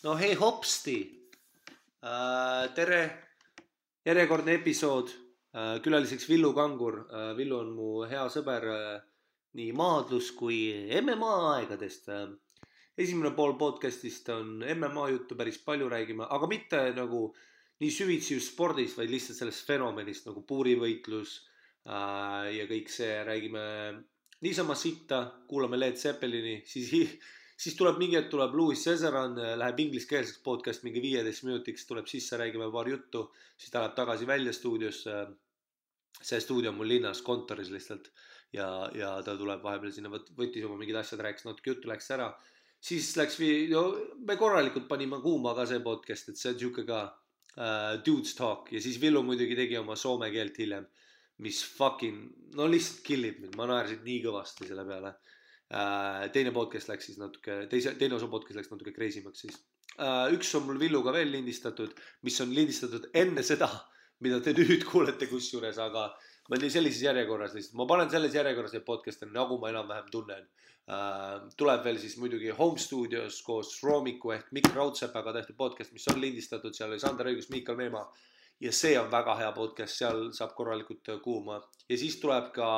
No hei hopsti, tere, järjekordne episood, külaliseks Villu Kangur. Villu on mu hea sõber nii maadlus kui MMA aegadest. Esimene pool podcastist on MMA juttu, päris palju räägime, aga mitte nagu nii süvitsi just spordis, vaid lihtsalt sellest fenomenist nagu puurivõitlus ja kõik see, räägime niisama sitta, kuulame Led Zeppelini, siis tuleb mingi hetk tuleb Louis Cesaran, läheb ingliskeelseks podcast mingi 15 minutiks, tuleb sisse, räägime paar juttu, siis ta läheb tagasi välja stuudiosse. See stuudio on mul linnas kontoris lihtsalt ja ta tuleb vahepeal sinna, võttis oma mingid asjad, rääkis natuke juttu, läks ära. Siis läks, me korralikult panime kuuma ka see podcast, et see on siuke ka dudes talk ja siis Villu muidugi tegi oma soome keelt hiljem, mis fucking, no lihtsalt killib mind, ma naersin nii kõvasti selle peale. Teine podcast läks siis natuke, teine osa podcast läks natuke crazymaks siis. Üks on mul Villuga veel lindistatud, mis on lindistatud enne seda, mida te nüüd kuulete kusjuures, aga ma olen sellises järjekorras lihtsalt. Ma panen selles järjekorras need podcast'e, nagu ma enam-vähem tunnen. Tuleb veel siis muidugi Home Studios koos Roomiku ehk Mikk Raudsepaga tehtud podcast, mis on lindistatud, seal oli Sander Õigus, Miikal Meemaa. Ja see on väga hea podcast, seal saab korralikult kuuma. Ja siis tuleb ka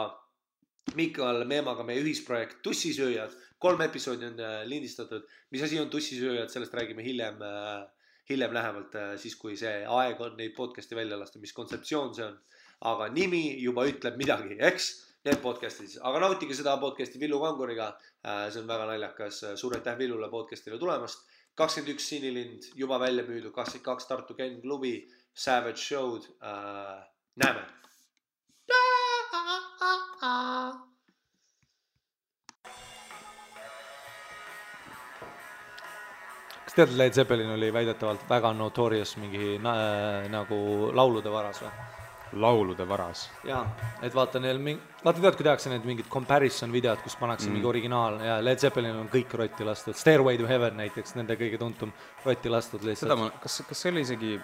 Miikal Meemaga meie ühisprojekt Tussisööjad, 3 episoodi on lindistatud. Mis asi on Tussisööjad, sellest räägime hiljem lähemalt, siis kui see aeg on neid podcasti välja lasta, mis kontseptsioon see on. Aga nimi juba ütleb midagi, eks? Need podcastid, aga nautige seda podcasti Villu Kanguriga, see on väga naljakas. Suur aitäh Villule podcastile tulemast. 21 Sinilind juba välja müüdud, 22 Tartu Ken klubi, Savage Show'd, näeme. Kas tead, Led Zeppelin oli väidetavalt väga notorious mingi nagu laulude varas või? Laulude varas? Jaa, et vaata neil vaata tead, kui tehakse need mingid comparison videod, kus pannakse mingi originaal ja Led Zeppelin on kõik rotti lastud. Stairway to Heaven näiteks, nende kõige tuntum rotti lastud lihtsalt. Seda kas see oli isegi,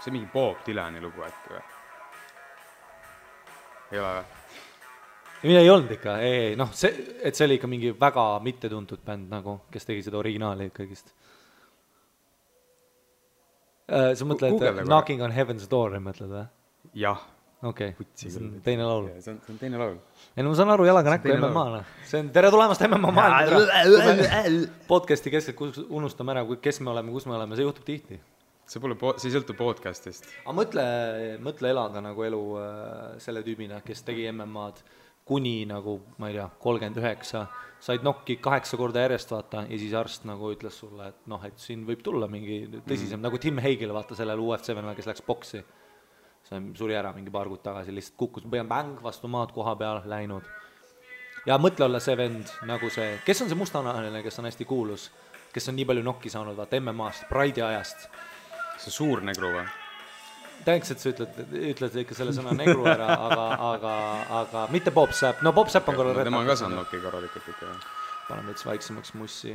see mingi Bob Dylani lugu äkki või? Ei ole või? Mina ei olnud ikka, ei, noh, et see oli ikka mingi väga mittetuntud bänd nagu, kes tegi seda originaali kõigist. Sa mõtled Knocking on Heaven's Door, mõtled või? Jah. Okei, see on teine laul. See on teine laul. Ei, no ma saan aru jalaga näkku MMA-le. See on tere tulemast MMA maailma. Podcasti keskelt unustame ära, kes me oleme, kus me oleme, see juhtub tihti. See ei sõltu podcastist. Aga mõtle elada nagu elu selle tüübina, kes tegi MMA-d kuni nagu, ma ei tea, 39, said nokki 8 korda järjest vaata ja siis arst nagu ütles sulle, et noh, et siin võib tulla mingi tõsisem, nagu Tim Hagel vaata sellel UFC-venel, kes läks boksi. See suri ära mingi paar kuud tagasi, lihtsalt kukkus bäng vastu maad koha peal läinud. Ja mõtle olla see vend nagu see, kes on see mustanahaline, kes on hästi kuulus, kes on nii palju nokki saanud vaata MMA-st, Pride'i ajast. See suur negru või? Tänks, et sa ütled ikka selle sõna negru ära, aga mitte Bob Sapp. No Bob Sapp on korral retnak. Tema on ka saanud nokki korralikult ikka. Panen veits vaiksemaks mussi,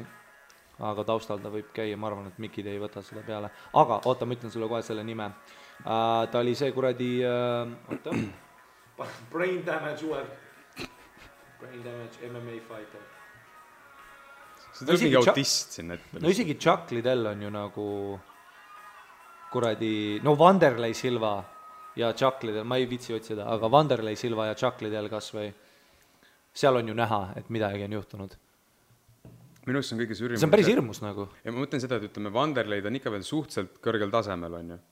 aga taustal ta võib käia, ma arvan, et Mikid ei võta seda peale. Aga oota, ma ütlen sulle kohe selle nime. Ta oli see kuradi, Brain Damage UF. Brain Damage MMA fighter. See tuleb mingi autist siin ette. No isegi Chuck Liddell on ju nagu kuradi, no Wanderlei Silva ja Chuck Liddell, ma ei vitsi otsida, aga Wanderlei Silva ja Chuck Liddell kas või, seal on ju näha, et midagi on juhtunud. Minu arust on kõige sürrimus. See on päris hirmus nagu. Ja ma mõtlen seda, et ütleme, Wanderleid on ikka veel suhteliselt kõrgel tasemel, on ju.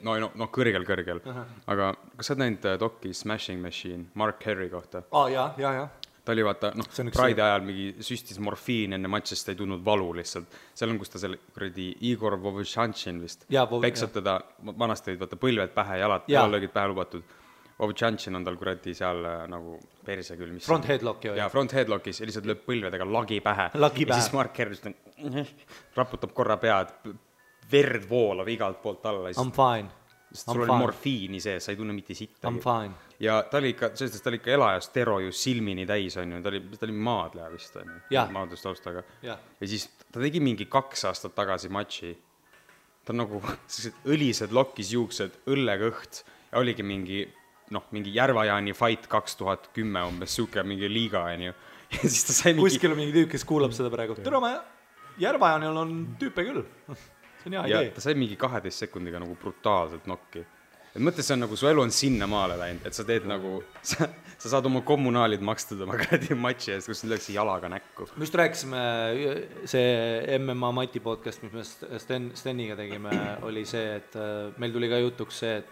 No kõrgel. Aga kas sa oled näinud doki Smashing Machine Mark Henry kohta? Jaa. Ta oli vaata, Pride ajal mingi süstis morfiin enne matšist, ta ei tundnud valu lihtsalt. Seal on, kus ta selle kuradi Igor Vovchanchin vist peksab teda, vanasti olid vaata põlved pähe, jalad löögid pähe lubatud. Vovchanchin on tal kuradi seal nagu perse küll. Front headlock ju. Ja front headlockis ja lihtsalt lööb põlvedega lagi pähe. Ja siis Mark Henry raputab korra pead, verd voolav igalt poolt alla. I'm fine. Sul oli morfiini sees, sa ei tunne mitte sitta. I'm fine. Ja ta oli ikka elajas tero ju silmini täis, on ju. Ta oli maadleja vist, on ju. Maadlustaustaga. Ja siis ta tegi mingi 2 aastat tagasi matši. Ta on nagu õlised lokis juuksed, õllegõht ja oligi mingi Järvajaani fight 2010 umbes suke mingi liiga, on ju. Ja siis ta sai mingi... Kuskil on mingi tüüp, kes kuulab seda praegu. Tere, ma Järvajanil on tüüpe küll. See on hea idee. Ja ta sai mingi 12 sekundiga nagu brutaalselt nokki. Et mõttes see on nagu, su elu on sinna maale läinud, et sa teed nagu, sa saad oma kommunaalid makstud oma käedi matši eest, kus lööksi jalaga näkku. Me just rääkisime, see MMA Mati podcast, mis me Steniga tegime, oli see, et meil tuli ka jutuks see,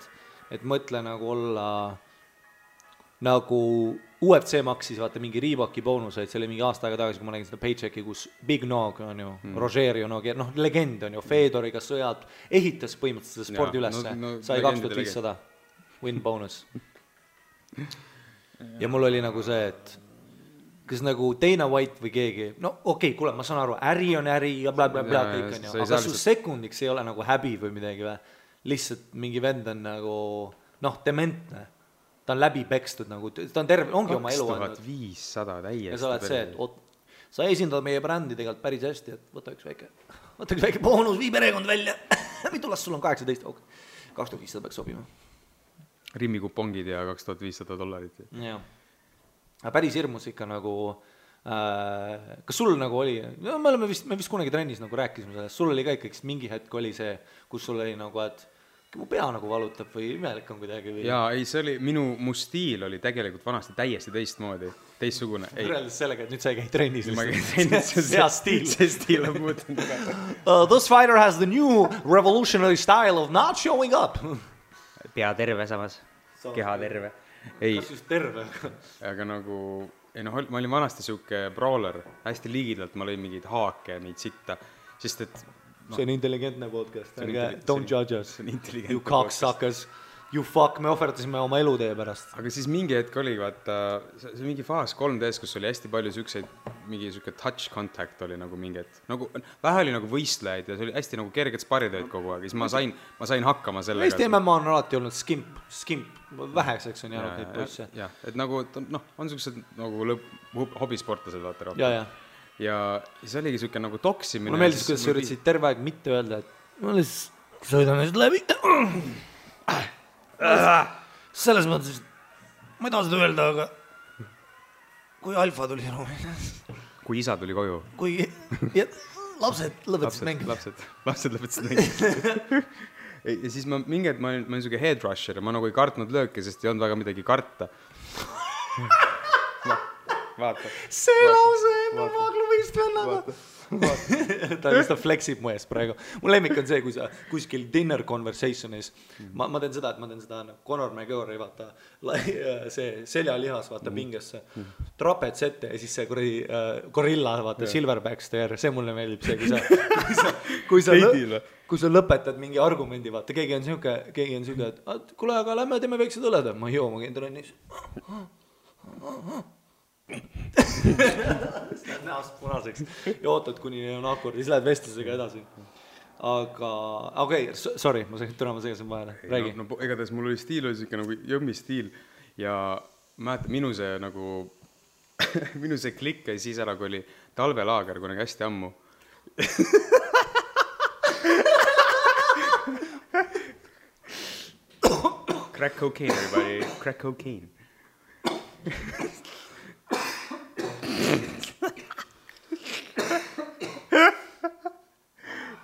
et mõtle nagu olla nagu UFC maksis, vaata mingi Reeboki boonuseid, see oli mingi aasta aega tagasi, kui ma nägin seda Paychecki, kus Big Nog on ju, Rogerio Nogi, noh, legend on ju, Fedoriga sõjad, ehitas põhimõtteliselt seda spordi ülesse, sai 2500 win bonus. Ja mul oli nagu see, et kas nagu Dana White või keegi, no okei, kuule, ma saan aru, äri on äri ja blablabla kõik on ju, aga su sekundiks ei ole nagu häbi või midagi või, lihtsalt mingi vend on nagu, noh, dementne. Ta on läbi pekstud nagu, ta on terve, ongi oma elu 2500 täiesti. Ja sa oled see, et sa esindad meie brändi tegelikult päris hästi, et võta üks väike boonus, vii perekond välja. Mitu last sul on 18? Okay. 2500 peaks sobima. Rimmikupongid ja $2500. Jah. Päris hirmus ikka nagu, kas sul nagu oli, no, me vist kunagi trennis nagu rääkisime sellest, sul oli ka ikkagi mingi hetk oli see, kus sul oli nagu, et mu pea nagu valutab või imelik on kuidagi või... Jaa, ei, see oli, mu stiil oli tegelikult vanasti täiesti teistsugune. Võrreldes sellega, et nüüd sa ei käi trennis. Ma käi trennis, see stiil on muutunud. This fighter has the new revolutionary style of not showing up. Pea terve samas, keha terve. Ei, kas just terve? Aga nagu, ei noh, ma olin vanasti siuke brawler, hästi liigidalt ma lõin mingeid haake, neid sitta, sest et see on intelligentne podcast, don't judge us, you cocksuckers, you fuck, me ohverdasime oma elu teie pärast. Aga siis mingi hetk oli, vaata, see mingi faas 3Ds, kus oli hästi palju mingi siuke touch contact oli nagu mingi, et nagu, vähe oli nagu võistlejaid ja see oli hästi nagu kerged sparitööd kogu aeg, siis ma sain hakkama sellega. Eesti MMA on alati olnud skimp, väheseks on jäänud neid poisse. Jah, et nagu, noh, on siuksed nagu hobisportlased, vaata rohkem. Ja siis oligi siuke nagu toksimine. Mulle meeldis, kuidas sa üritasid terve aeg mitte öelda, et ma lihtsalt sõidan nüüd läbi. Selles mõttes, ma ei taha seda öelda, aga kui alfa tuli ruumi. Kui isa tuli koju. Kui lapsed lõpetasid mängida. Lapsed lõpetasid mängida. Ja siis mingi hetk ma olin siuke head rusher ja ma nagu ei kartnud lööke, sest ei olnud väga midagi karta. Vaata. See lause MMA klubist vennaga. Ta lihtsalt flexib mu ees praegu. Mu lemmik on see, kui sa kuskil dinner conversationis, ma teen seda, Conor McGregor, vaata, see seljalihas, vaata, pingesse, trapets ette ja siis see gorilla, vaata, silverback stare, see mulle meeldib see, kui sa lõpetad mingi argumendi, vaata, keegi on siuke, et kuule, aga lähme teeme väiksed õled, ma joo, ma käin trennis. Näost punaseks ja ootad, kuni on akord ja siis lähed vestlusega edasi. Aga, okei, sorry, ma segasin vahele. Räägi. No, igatahes mul oli stiil, oli siuke nagu jõmmi stiil ja mäletan, minu see klikk ja siis ära, kui oli talvelaager kunagi hästi ammu. Crack cocaine, everybody. Crack cocaine.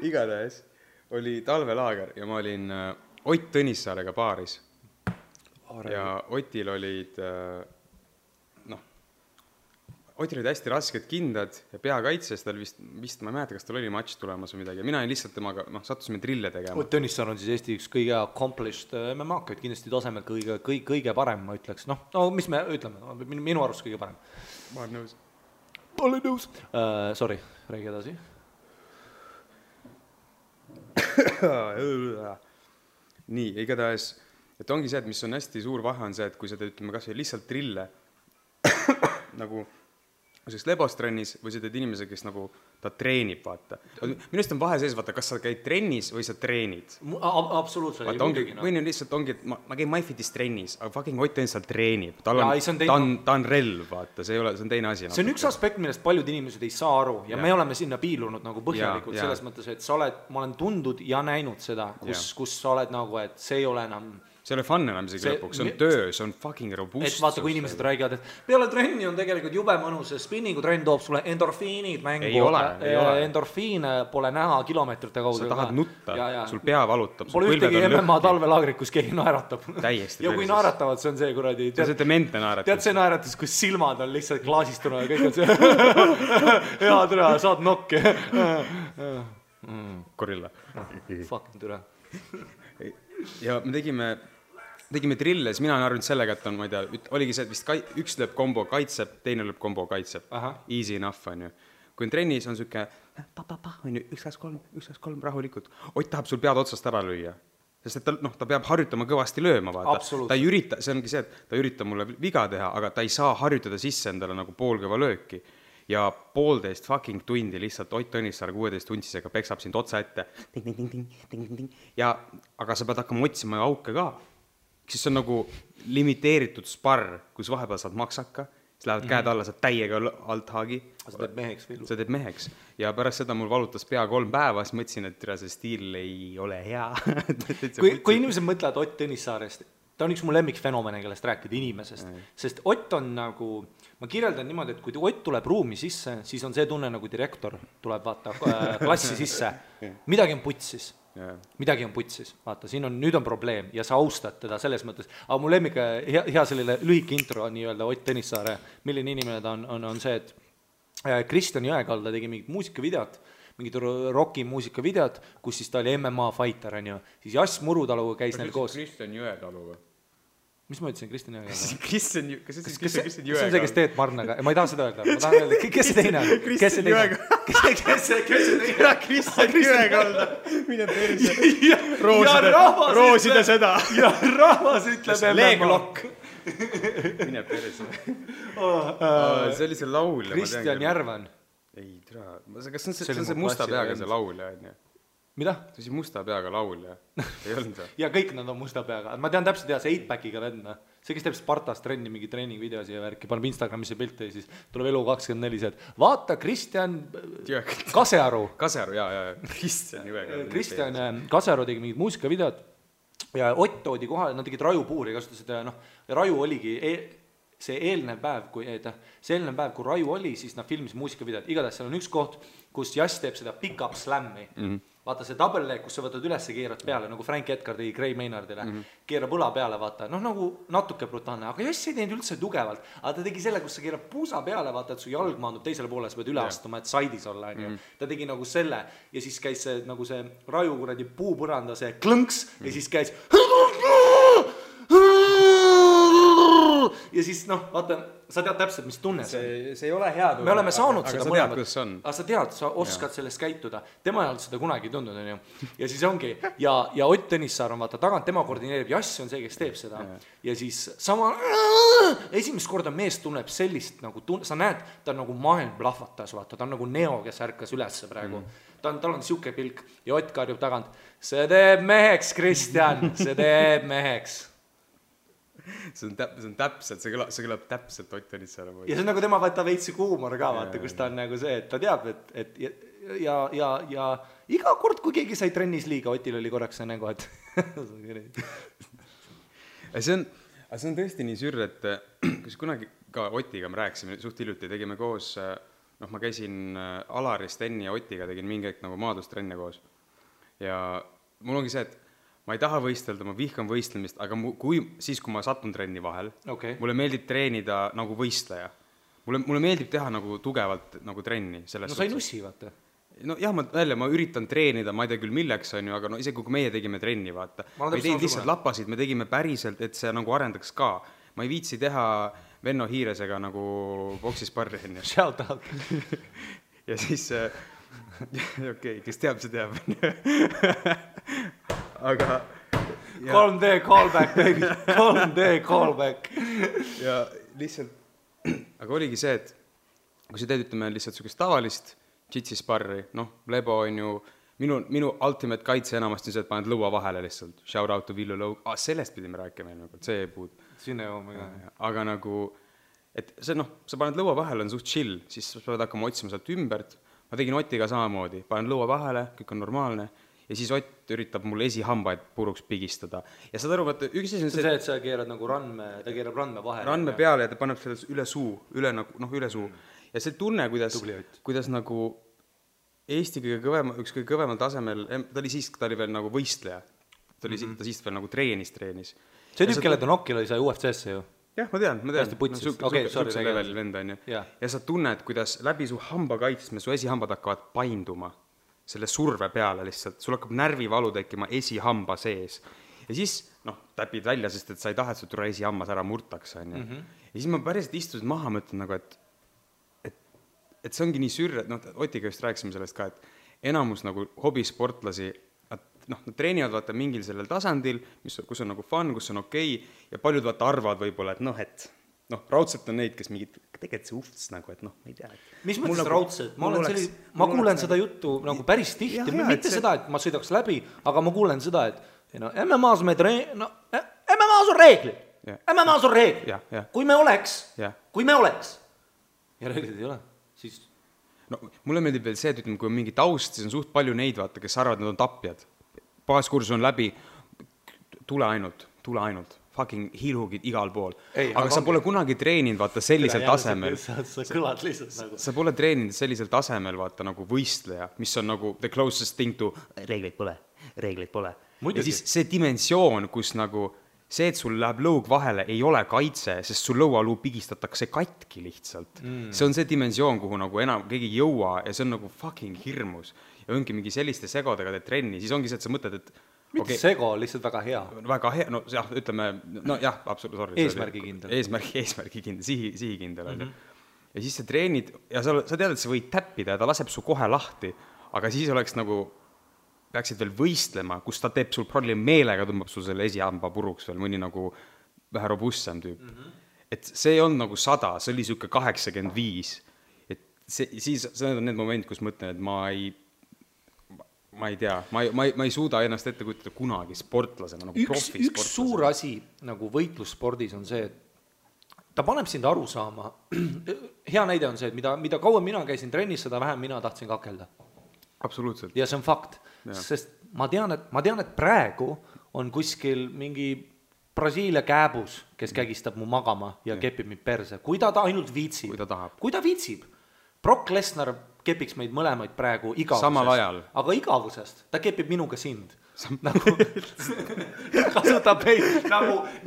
Igatahes oli talvelaager ja ma olin Ott Tõnissaarega baaris. Ja Otil olid Otil olid hästi rasked kindad ja peakaitses, tal vist ma ei mäleta, kas tal oli matš tulemas või midagi. Mina olin lihtsalt temaga, sattusime drille tegema. Ott Tõnissaar on siis Eesti üks kõige accomplished MMA-kaid, kindlasti tasemel kõige parem, ma ütleks. No, mis me ütleme, minu arust kõige parem. Ma olen nõus. Sorry, räägi edasi. Nii, igatahes, et ongi see, et mis on hästi suur vahe on see, et kui sa teed, ütleme, kas või lihtsalt drille nagu selliseks lebostrennis või sa teed inimese, kes nagu ta treenib, vaata. Minust on vahe sees, vaata, kas sa käid trennis või sa treenid. Absoluutselt. Või nüüd lihtsalt ongi, et ma käin MyFitis trennis, aga fucking Ott Tõnissaar treenib. Ta on relv, vaata, see on teine asi. See on üks aspekt, millest paljud inimesed ei saa aru ja me oleme sinna piilunud nagu põhjalikult selles mõttes, et ma olen tundnud ja näinud seda, kus sa oled nagu, et see ei ole enam see ei ole fun enam isegi lõpuks, see on töö, see on fucking robustsus. Et vaata, kui inimesed räägivad, et peale trenni on tegelikult jube mõnus, spinningu trenn toob sulle endorfiinid mängu. Ei ole. Endorfiine pole näha kilomeetrite kaudu. Sa tahad nutta, sul pea valutab. Pole ühtegi MMA talvelaagrit, kus keegi naeratab. Täiesti. Ja kui naeratavad, see on see kuradi. See demente naeratus. Tead see naeratus, kus silmad on lihtsalt klaasistuna ja kõik on see hea türa, saad nokki. Gorilla. Fucking türa. Ja me tegime trille, siis mina olen arvinud sellega, et on, ma ei tea, oligi see, et vist üks lööb kombo kaitseb, teine lööb kombo kaitseb. Easy enough, on ju. Kui on trennis, on süke, on ju, 1-2-3, rahulikult. Ott tahab sul pead otsast ära lüüa. Sest et ta peab harjutama kõvasti lööma, vaata. Ta ei ürita, see ongi see, et ta ürita mulle viga teha, aga ta ei saa harjutada sisse endale nagu poolkõva lööki. Ja 1,5 fucking tundi lihtsalt Ott Tõnissaar 16 tuntisega peksab sind otsa ette. Ja, aga sa pead hakkama otsima auke ka. Siis on nagu limiteeritud sparr, kus vahepeal saad maksaka, siis lähevad käed alla, saad täiega alt haagi. Sa teed meheks või? Sa teed meheks. Ja pärast seda mul valutas pea 3 päeva, siis mõtlesin, et see stiil ei ole hea. Kui inimesed mõtlevad Ott Tõnissaarest, ta on üks mu lemmikfenomene, kellest rääkida inimesest. Sest Ott on nagu, ma kirjeldan niimoodi, et kui Ott tuleb ruumi sisse, siis on see tunne nagu direktor tuleb vaata klassi sisse. Midagi on putsis. Midagi on putsis. Vaata, siin on, nüüd on probleem ja sa austad teda selles mõttes. Aga mu lemmik, hea selline lühike intro nii-öelda Ott Tõnissaare, milline inimene ta on see, et Kristjan Jõekalda tegi mingit muusikavideot, mingid rocki muusikavideot, kus siis ta oli MMA fighter, on ju. Siis Jass Murutaluga käis neil koos. Kristjan Jõetalu või? Mis ma ütlesin, Kristjan Jõekalda? Kristjan Jõekalda. See on see, kes teed Marnaga. Ma ei taha seda öelda. Ma tahan öelda, kes see teine on? Kristjan Jõekalda. Kes see teine? Kristjan Jõekalda. Mine perse. Roosida seda. Ja rahvas ütleb MMA. Leeglokk. Mine perse. See oli see laul. Kristjan Järvan. Ei, tere. Kas see on see musta peaga see laulja, on ju? Mida? See oli musta peaga laulja. Ei olnud see? Ja kõik nad on musta peaga. Ma tean täpselt see 8-packiga vendna. See, kes teeb Spartas trenni, mingi treeningvideosi ja värki, paneb Instagramisse pilte ja siis tuleb Elu24, et vaata Kristjan Kasearu. Kasearu, jaa. Kristjan Kasearu tegi mingid muusikavideod ja Ott toodi kohale, nad tegid rajupuuri, kasutasid, raju oligi see eelnev päev, kui raju oli, siis nad filmis muusikavideod. Igatahes seal on üks koht, kus Jass teeb seda pick-up slammi. Vaata see double leg, kus sa võtad üles ja keerad peale, nagu Frank Edgar tegi Gray Maynardile. Keerab õla peale, vaata. Nagu natuke brutaalne, aga Jass ei teinud üldse tugevalt. Aga ta tegi selle, kus sa keerab puusa peale, vaata, et su jalg maandub teisele poole, sa pead üle astuma, et saidis olla. Ta tegi nagu selle ja siis käis see, nagu see raju kuradi puupõranda, see klõnks ja siis käis ja siis vaata, sa tead täpselt, mis tunne see ei ole hea tunne. Me oleme saanud seda mõlemad. Aga sa tead, sa oskad sellest käituda. Tema ei olnud seda kunagi tundnud, on ju. Ja siis ongi, ja Ott Tõnissaar on vaata tagant, tema koordineerib, Jass on see, kes teeb seda. Ja siis sama, esimest korda mees tunneb sellist, nagu sa näed, ta on nagu maailm plahvatas, vaata, ta on nagu Neo, kes ärkas ülesse praegu. Tal on siuke pilk ja Ott karjub tagant, see teeb meheks, Kristjan, see teeb meheks. See on täpselt, see kõlab täpselt Ott Tõnissaare moodi. Ja see on nagu tema võtta veitsi huumor ka, vaata, kus ta on nagu see, et ta teab, et ja iga kord, kui keegi sai trennis liiga, Otil oli korraks see nägu, et see on tõesti nii sür, et kus kunagi ka Otiga me rääkisime, suht hiljuti tegime koos, ma käisin Alari, Steni ja Otiga, tegin mingi aeg nagu maadustrenne koos. Ja mul ongi see, et ma ei taha võistelda, ma vihkan võistlemist, aga kui ma satun trenni vahel, mulle meeldib treenida nagu võistleja. Mulle meeldib teha nagu tugevalt nagu trenni. No sa ei nussi, vaata. No jah, ma üritan treenida, ma ei tea küll milleks on ju, aga isegi kui meie tegime trenni, vaata. Ma ei teinud lihtsalt lappasid, me tegime päriselt, et see nagu arendaks ka. Ma ei viitsi teha Venno Hiiresega nagu boksisparri. Shout out. Ja siis, kes teab, see teab. Aga 3D callback, baby, 3D callback. Ja lihtsalt, aga oligi see, et kui sa teed, ütleme, lihtsalt sukest tavalist jitsisparri, lebo on ju, minu ultimate kaitse enamasti on see, et paned lõua vahele lihtsalt, shout out to Villu Lõug, sellest pidime rääkima, see puud. Sinne jooma, aga nagu, et see, sa paned lõua vahele, on suht chill, siis sa pead hakkama otsima sealt ümbert, ma tegin Otiga samamoodi, panen lõua vahele, kõik on normaalne, ja siis Ott üritab mul esihambaid puruks pigistada. Ja saad aru, vaata, üks asi on see, et sa keerad nagu ta keerab randme vahele. Randme peale ja ta paneb selle üle suu, üle suu. Ja see tunne, kuidas nagu Eesti üks kõige kõvemal tasemel, ta oli veel nagu võistleja. Ta siis veel nagu treenis. See tüüp, kelle ta nokil oli, sai UFC-sse ju. Jah, ma tean. Hästi putsis. Sukse level vend on ju. Ja sa tunned, kuidas läbi su hamba kaitsme su esihambad hakkavad painduma selle surve peale lihtsalt. Sul hakkab närvivalu tekkima esihamba sees. Ja siis, täpid välja, sest et sa ei taha, et su tule esihammas ära murtaks. On ju. Ja siis ma päriselt istusin maha, mõtlen nagu, et see ongi nii sürre, Otiga just rääkisime sellest ka, et enamus nagu hobisportlasi, nad treenivad vaata mingil sellel tasandil, kus on nagu fun, kus on okei, ja paljud vaata arvavad võib-olla, et raudselt on neid, kes mingid, tegelikult see ufts nagu, et ma ei tea. Mis mõttes raudselt? Ma kuulen seda juttu nagu päris tihti, mitte seda, et ma sõidaks läbi, aga ma kuulen seda, et MMA-s on reeglid. MMA-s on reeglid. Kui me oleks, ja reeglid ei ole, siis... Mulle meeldib veel see, et ütleme, kui on mingi taust, siis on suht palju neid, vaata, kes arvavad, nad on tapjad. Baaskursus on läbi, tule ainult, fucking hiilhugid igal pool. Aga sa pole kunagi treeninud, vaata, sellisel tasemel. Sa kõlad lihtsalt nagu. Sa pole treeninud sellisel tasemel, vaata, nagu võistleja, mis on nagu the closest thing to reegleid pole. Ja siis see dimensioon, kus nagu see, et sul läheb lõug vahele, ei ole kaitse, sest sul lõualuu pigistatakse katki lihtsalt. See on see dimensioon, kuhu nagu enam keegi jõua ja see on nagu fucking hirmus. Ja ongi mingi selliste segodega teed trenni, siis ongi see, et sa mõtled, et mitte sego, lihtsalt väga hea. Väga hea, ütleme, absoluutselt. Eesmärgikindel. Eesmärgikindel, sihikindel. Ja siis sa treenid ja sa tead, et sa võid täppida ja ta laseb su kohe lahti, aga siis oleks nagu peaksid veel võistlema, kus ta teeb sul probleem meelega, tõmbab sul selle esihamba puruks veel mõni nagu vähe robustsem tüüp. Et see on nagu 100, see oli siuke 85. Et siis on need moment, kus mõtlen, et ma ei tea, ma ei suuda ennast ette kujutada kunagi sportlasena, nagu profisportlasena. Üks suur asi nagu võitlusspordis on see, et ta paneb sind aru saama. Hea näide on see, et mida kauem mina käisin trennis, seda vähem mina tahtsin kakelda. Absoluutselt. Ja see on fakt, sest ma tean, et praegu on kuskil mingi Brasiilia kääbus, kes kägistab mu magama ja kepib mind perse. Kui ta ainult viitsib. Kui ta viitsib. Brock Lesnar kepiks meid mõlemaid praegu igavusest. Samal ajal. Aga igavusest. Ta kepib minuga sind. Kasutab meid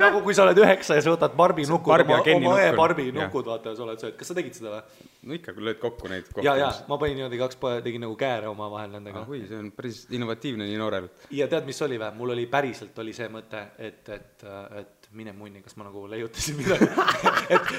nagu kui sa oled 9 ja sa võtad Barbi nukud, oma Barbi nukud, vaata, sa oled sööd. Kas sa tegid seda või? No ikka, kui lööd kokku neid kohta. Ja, ma panin niimoodi 2 tegin nagu kääre oma vahel nendega. Kui, see on päris innovatiivne nii noorel. Ja tead, mis oli või? Mul oli päriselt see mõte, et mine munni, kas ma nagu leiutasin midagi,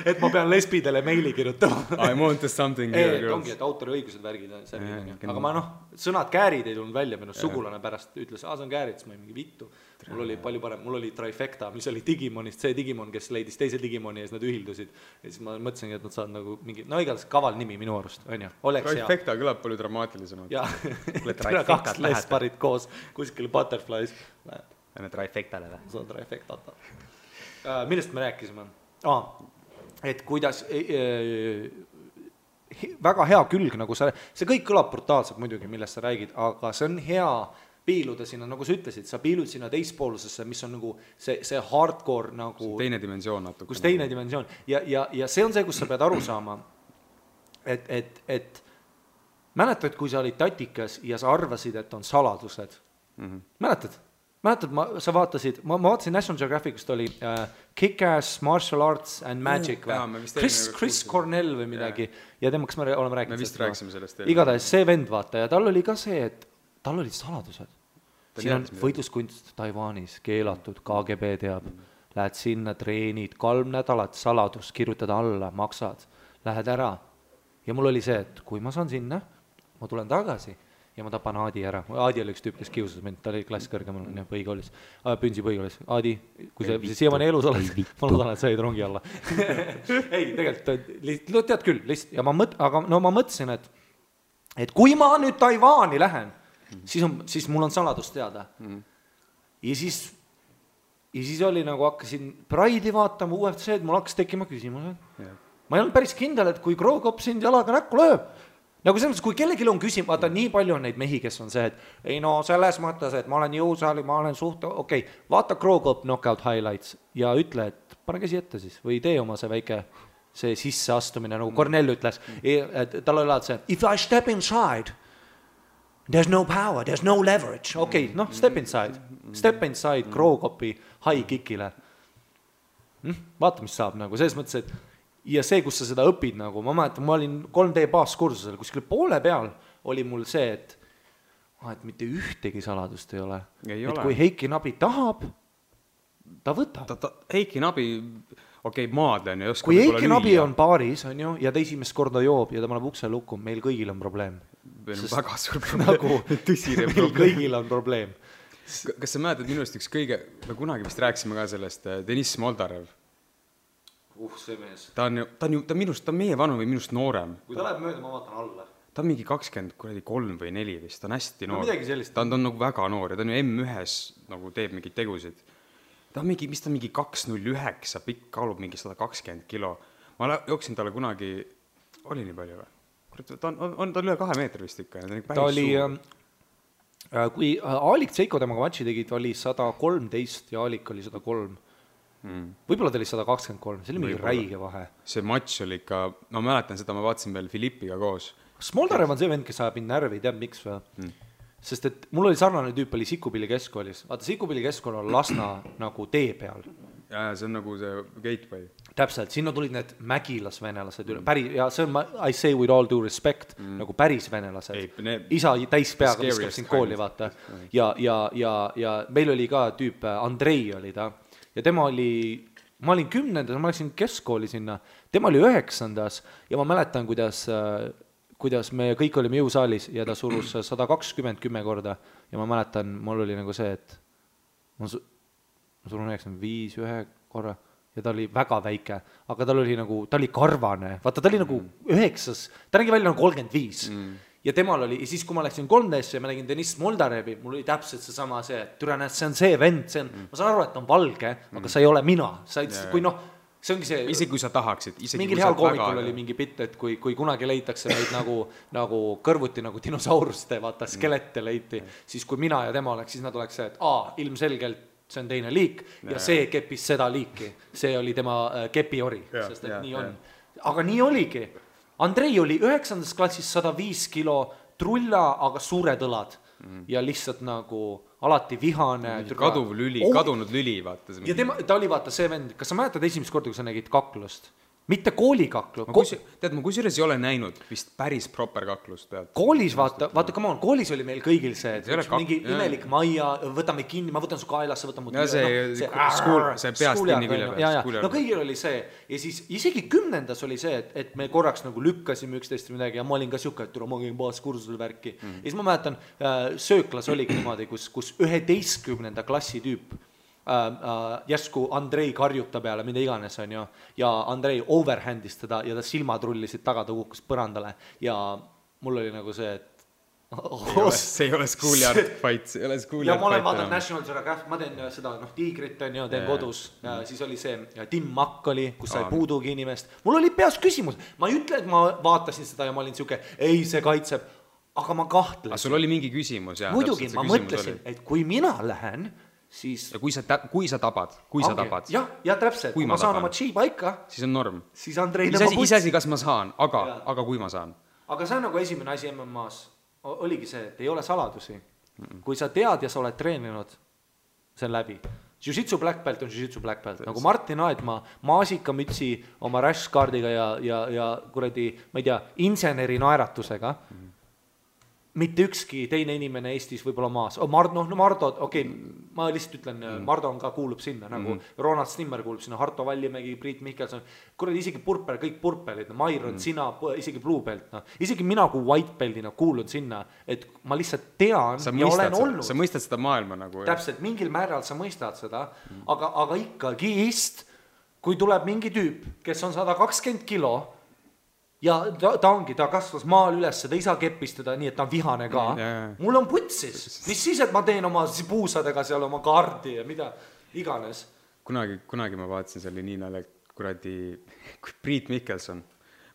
et ma pean lesbidele meili kirjutama. I want something here, girls. Ongi, et autoriõigused värgid on see. Aga ma sõnad käärid ei tulnud välja, minu sugulane pärast ütles, see on käärid, siis ma ei mingi vittu. Mul oli palju parem, mul oli Trifecta, mis oli Digimonist, see Digimon, kes leidis teise Digimoni ja siis nad ühildusid. Ja siis ma mõtlesingi, et nad saavad nagu mingi, igatahes kaval nimi minu arust, on ju. Trifecta kõlab palju dramaatilisemalt. Jah, 2 lesparid koos kuskil Butterflies. Lähme Trifectale või? See on Trifectata. Millest me rääkisime? Et kuidas väga hea külg, nagu see kõik kõlab brutaalselt muidugi, millest sa räägid, aga see on hea piiluda sinna, nagu sa ütlesid, sa piilud sinna teispoolsesse, mis on nagu see hardcore nagu... Teine dimensioon natuke. Kus teine dimensioon. Ja see on see, kus sa pead aru saama, et mäletad, kui sa olid tatikas ja sa arvasid, et on saladused. Mäletad, sa vaatasid, ma vaatasin National Geographicust oli Kick-Ass, Martial Arts and Magic Chris Cornell või midagi ja temaks me oleme rääkinud. Me vist rääkisime sellest. Igatahes see vend vaata ja tal oli ka see, et tal olid saladused. Siin on võitluskunst Taiwanis keelatud, KGB teab. Lähed sinna, treenid, 3 nädalat saladus, kirjutad alla, maksad, lähed ära. Ja mul oli see, et kui ma saan sinna, ma tulen tagasi ja ma tapan Aadi ära. Aadi oli üks tüüp, kes kiusas mind, ta oli klass kõrgemal põhikoolis, Pünsi põhikoolis. Aadi, kui sa siiamaani elus oled, ma loodan, et sa jäid rongi alla. Ei, tegelikult, tead küll, lihtsalt, ja ma mõtlesin, et kui ma nüüd Taiwaani lähen, siis mul on saladus teada. Ja siis oli nagu hakkasin Pride'i vaatama, UFC-d, mul hakkas tekkima küsimused. Ma ei olnud päris kindel, et kui Krogop sind jalaga näkku lööb, nagu selles mõttes, kui kellelgi on küsimus, vaata nii palju on neid mehi, kes on see, et ei no selles mõttes, et ma olen jõusaali, ma olen okei, vaata Krogop knockout highlights ja ütle, et pane käsi ette siis või tee oma see väike see sisseastumine, nagu Cornell ütles, et tal oli see, if I step inside, there's no power, there's no leverage, okei, noh, step inside Krogopi high kickile. Vaata, mis saab nagu, selles mõttes, et ja see, kus sa seda õpid nagu, ma mäletan, ma olin 3D baaskursusel, kuskil poole peal oli mul see, et mitte ühtegi saladust ei ole. Et kui Heiki Nabi tahab, ta võtab. Heiki Nabi, maadlen ja oskab kui Heiki Nabi on baaris, on ju, ja ta esimest korda joob ja ta paneb ukse lukku, meil kõigil on probleem. Meil on väga suur probleem. Nagu, tõsine meil probleem. Kõigil on probleem. Kas sa mäletad minust üks kõige, me kunagi vist rääksime ka sellest, Deniss Moldarev. See mees. Ta on meie vanu või minust noorem. Kui ta läheb mööda, ma vaatan alla. Ta on mingi 23 või 4 vist, ta on hästi noor. Ta on nagu väga noor ja ta on ju M1-s nagu teeb mingid tegusid. Ta on mingi, mis ta mingi 209, pikk kaalub mingi 120 kilo. Ma jooksin talle kunagi, oli nii palju või? Ta on üle 2 meetri vist ikka. Ta oli, kui Aalik Tseiko temaga matši tegid, oli 113 ja Aalik oli 103. Võib-olla ta oli 123, see oli mingi räige vahe. See matš oli ikka, ma mäletan seda, ma vaatasin veel Filippiga koos. Smoldarev on see vend, kes ajab mind närvi, teab miks või? Sest et mul oli sarnane tüüp, oli Sikupilli keskkoolis. Vaata, Sikupilli keskkool on Lasna nagu tee peal. Ja see on nagu see gateway. Täpselt, sinna tulid need mägilasvenelased üle, ja see on, I say with all due respect, nagu päris venelased. Isa täis peaga viskab sind kooli, vaata. Ja meil oli ka tüüp, Andrei oli ta. Ja tema oli, ma olin 10. ma läksin keskkooli sinna, tema oli 9. ja ma mäletan, kuidas me kõik olime jõusaalis ja ta surus 120 10 korda ja ma mäletan, mul oli nagu see, et ma surun 95 ühe korra ja ta oli väga väike, aga ta oli karvane, vaata ta oli nagu 9, ta nägi välja nagu 35 ja temal oli, ja siis kui ma läksin 3D-sse ja ma nägin Deniss Moldarevi, mul oli täpselt see sama see, et türa näed, see on see vend, ma saan aru, et ta on valge, aga sa ei ole mina, kui noh, see ongi see isegi kui sa tahaksid mingil heal koomikul oli mingi bitt, et kui kunagi leitakse meid nagu kõrvuti nagu dinosauruste, vaata skelette leiti, siis kui mina ja tema oleks, siis nad oleks see, et ilmselgelt see on teine liik ja see keppis seda liiki, see oli tema kepiori, sest et nii on, aga nii oligi. Andrei oli 9. klassis 105 kilo trulla, aga suured õlad ja lihtsalt nagu alati vihane. Kadunud lüli, vaata. Ja ta oli vaata see vend, kas sa mäletad esimest korda, kui sa nägid kaklust? Mitte koolikaklu. Tead, ma kusjuures ei ole näinud vist päris proper kaklust. Koolis, vaata, come on, koolis oli meil kõigil see, et mingi imelik maia, võtame kinni, ma võtan su kaelasse, võtan mu see peast kinni külje. No kõigil oli see, ja siis isegi 10. oli see, et me korraks nagu lükkasime üksteist midagi ja ma olin ka siuke, et ma käin baaskursusel värki. Ja siis ma mäletan, sööklas oligi niimoodi, kus 11. klassi tüüp järsku Andrei karjuta peale, mida iganes on ju, ja Andrei overhandis teda ja ta silmad rullisid taga, ta kukkus põrandale ja mul oli nagu see, et see ei ole schoolyard fight, see ei ole schoolyard fight. Ja ma olen vaadanud National Geographic, ma teen seda, tiigrit on ju, teen kodus ja siis oli see Tim Mack oli, kus sai puudugi inimest. Mul oli peas küsimus, ma ei ütle, et ma vaatasin seda ja ma olin siuke, ei see kaitseb, aga ma kahtlesin. Aga sul oli mingi küsimus, jah? Muidugi, ma mõtlesin, et kui mina lähen siis ja kui sa tabad ja täpselt, kui ma saan oma chi paika, siis on norm, siis Andrei iseasi kas ma saan, aga kui ma saan, aga see on nagu esimene asi MMA-s oligi see, et ei ole saladusi, kui sa tead ja sa oled treeninud, see on läbi. Jiu-jitsu black belt on jiu-jitsu black belt, nagu Martin Aedma maasikamütsi oma rashguardiga ja kuradi, ma ei tea, inseneri naeratusega mitte ükski teine inimene Eestis võib-olla maas. Mardo, okei, ma lihtsalt ütlen, Mardo on ka kuulub sinna, nagu Ronald Stimmer kuulub sinna, Harto Vallimägi, Priit Mihkelson, kuradi isegi purper, kõik purpelid, Mairon, sina, isegi blue belt, isegi mina kui white beltina kuulun sinna, et ma lihtsalt tean ja olen olnud. Sa mõistad seda maailma nagu. Täpselt, mingil määral sa mõistad seda, aga ikkagi kui tuleb mingi tüüp, kes on 120 kilo, ja ta kasvas maal üles, ta ei saa keppistada nii, et ta on vihane ka. Mul on putsis. Mis siis, et ma teen oma puusadega seal oma kaardi ja mida iganes. Kunagi ma vaatasin, see oli nii nalja, kuradi Priit Mihkelson.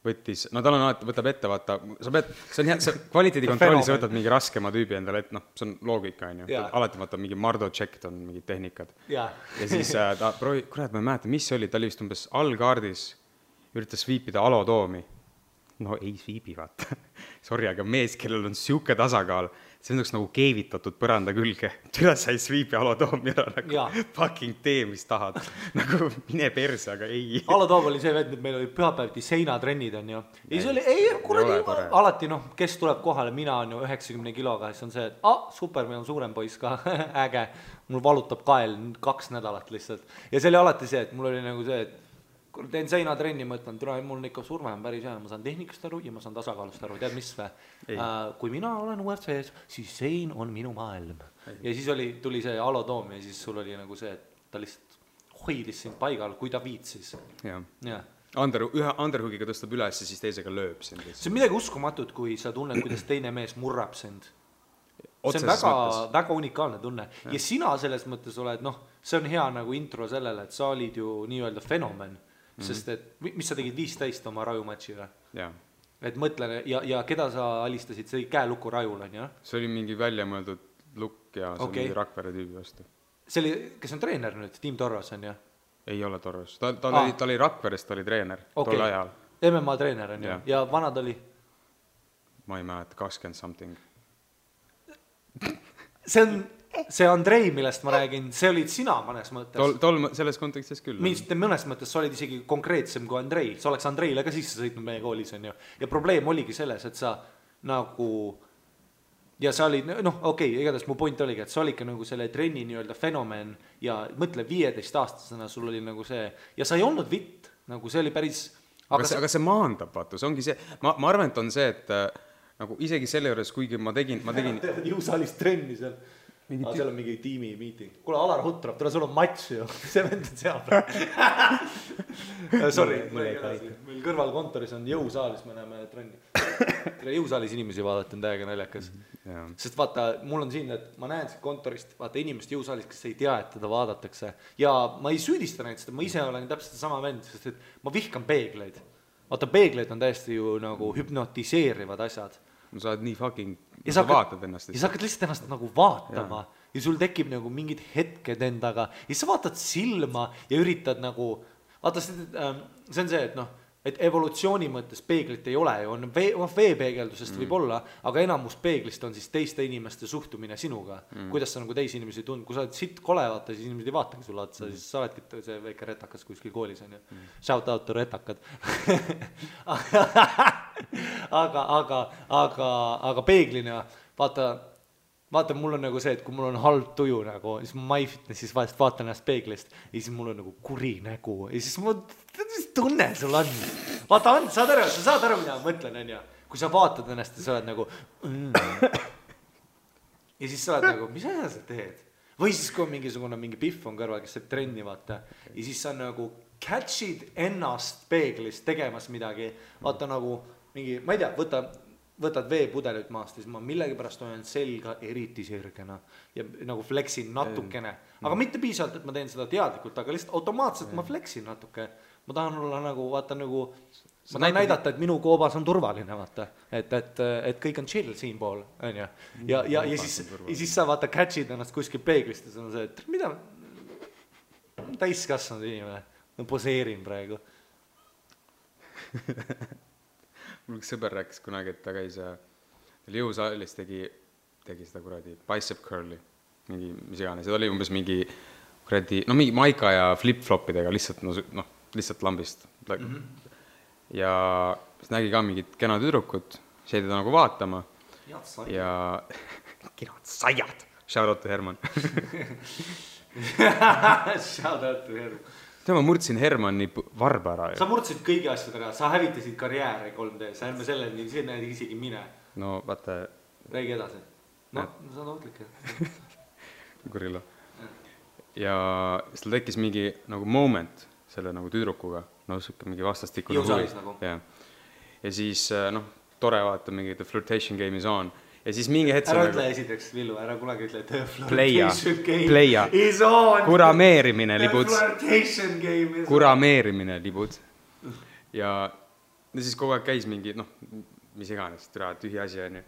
võttis, no tal on alati, võtab ette, vaata, sa pead, see on hea, see kvaliteedikontrolli, sa võtad mingi raskema tüübi endale, et noh, see on loogika, on ju. Alati vaata mingi Mardo checked on mingid tehnikad. Ja siis ta kurat, ma ei mäleta, mis oli, ta oli vist umbes allkaardis, üritas sweepida alotoomi. No ei sweepi, vaata. Sorry, aga mees, kellel on siuke tasakaal, see on nagu keevitatud põranda külge. Türa sai sweepi alotoomi ära, nagu fucking tee, mis tahad. Nagu mine perse, aga ei. Alotoom oli see vend, et meil oli pühapäevti seinatrennid, on ju. Ja see oli, kuradi, alati, noh, kes tuleb kohale, mina on ju 90 kiloga, siis on see, et super, meil on suurem poiss ka, äge. Mul valutab kael 2 nädalat lihtsalt. Ja see oli alati see, et mul oli nagu see, et kui teen seinatrenni, mõtlen, mul on ikka surve on päris hea, ma saan tehnikast aru ja ma saan tasakaalust aru, tead mis või? Kui mina olen UFC-s, siis sein on minu maailm. Ja siis tuli see alotoom ja siis sul oli nagu see, et ta lihtsalt hoidis sind paigal, kui ta viitsis. Ja. Ühe underhoogiga tõstab üles ja siis teisega lööb sind. See on midagi uskumatut, kui sa tunned, kuidas teine mees murrab sind. See on väga unikaalne tunne. Ja sina selles mõttes oled, see on hea nagu intro sellele, et sa olid ju nii-öelda fenomen. Sest et, mis sa tegid 15 oma rajumatšiga? Jaa. Et mõtlen, ja keda sa alistasid, see oli käelukku rajul, on ju? See oli mingi väljamõeldud lukk ja see oli mingi Rakvere tüübi vastu. See oli, kes on treener nüüd, Tiim Torros, on ju? Ei ole Torros, ta oli Rakverest, ta oli treener tol ajal. MMA treener, on ju? Ja vanad oli? Ma ei mäleta, 20 something. See Andrei, millest ma räägin, see olid sina mõnes mõttes. Selles kontekstis küll. Mõnes mõttes sa olid isegi konkreetsem kui Andrei. Sa oleks Andreile ka sisse sõitnud meie koolis, on ju. Ja probleem oligi selles, et sa nagu... Ja sa olid, igatahes mu point oligi, et sa olid ka nagu selle trenni nii-öelda fenomen ja mõtle 15-aastasena sul oli nagu see... Ja sa ei olnud vitt, nagu see oli päris... Aga see maandab, vaata, see ongi see... Ma arvan, et on see, et nagu isegi selle juures, kuigi ma tegin... Jõusaalis trenni seal. Seal on mingi tiimi meeting. Kuule, Alar Hutrab, sul on matš ju. See vend on seal. Sorry, meil kõrval kontoris on jõusaalis, me näeme trenni. Jõusaalis inimesi vaadata on täiega naljakas. Sest vaata, mul on siin, et ma näen siit kontorist, vaata inimest jõusaalis, kes ei tea, et teda vaadatakse. Ja ma ei süüdista näid seda, ma ise olen täpselt sama vend, sest et ma vihkan peegleid. Vaata, peegleid on täiesti ju nagu hüpnotiseerivad asjad. No sa oled nii fucking, sa vaatad ennast. Ja sa hakkad lihtsalt ennast nagu vaatama ja sul tekib nagu mingid hetked endaga ja sa vaatad silma ja üritad nagu, vaata see on see, et evolutsiooni mõttes peeglit ei ole ju, on veepeegeldusest võib olla, aga enamus peeglist on siis teiste inimeste suhtumine sinuga, kuidas sa nagu teisi inimesi tund, kui sa oled sitt kole vaata, siis inimesed ei vaatagi sulle otsa, siis sa oledki see väike retakas kuskil koolis on ju, shout out to retakad aga peeglina vaata mul on nagu see, et kui mul on halb tuju nagu, siis ma MyFitnessis vahest vaatan ennast peeglist ja siis mul on nagu kuri nägu ja siis mis tunne sul on? Vaata, saad aru, mida ma mõtlen, on ju? Kui sa vaatad ennast ja sa oled nagu ja siis sa oled nagu, mis asja sa teed? Või siis kui on mingi pihv on kõrval, kes saab trenni vaata ja siis sa nagu catchid ennast peeglist tegemas midagi, vaata nagu mingi, ma ei tea, võtad veepudelit maast ja siis ma millegipärast olen selga eriti sirgena ja nagu flexin natukene, aga mitte piisavalt, et ma teen seda teadlikult, aga lihtsalt automaatselt ma flexin natuke, ma tahan olla nagu, vaata nagu ma tahan näidata, et minu koobas on turvaline, vaata, et kõik on chill siin pool, on ju, ja siis sa vaata catchid ennast kuskil peeglist ja see on see, et mida täiskasvanud inimene, ma poseerin praegu mul üks sõber rääkis kunagi, et ta käis jõusaalis tegi seda kuradi bicep curli, mingi mis iganes, ja ta oli umbes mingi kuradi, mingi maika ja flip-flopidega lihtsalt lambist. Ja siis nägi ka mingit kena tüdrukut, see jäi teda nagu vaatama ja kenad saiad, shout out to Herman shout out to Herman. Ma murdsin Hermanni varba ära. Sa murdsid kõigi asjadega, sa hävitasid karjääri 3D, sa ärme selleni, see näed isegi mine. No vaata. Räägi edasi. No, sa on ootlik. Kurilo. Ja siis tal tekkis mingi nagu moment selle nagu tüdrukuga, mingi vastastikune huvi. Jõusaalis nagu. Ja siis, tore vaata mingi the flirtation game is on. Ja siis mingi hetk... Ära ütle esiteks, Villu, ära kunagi ütle, et flirtation game is on. Kurameerimine libud. Flirtation game is on. Kurameerimine libud. Ja ja siis kogu aeg käis mingi, noh, mis iganes, tühi asi on ju.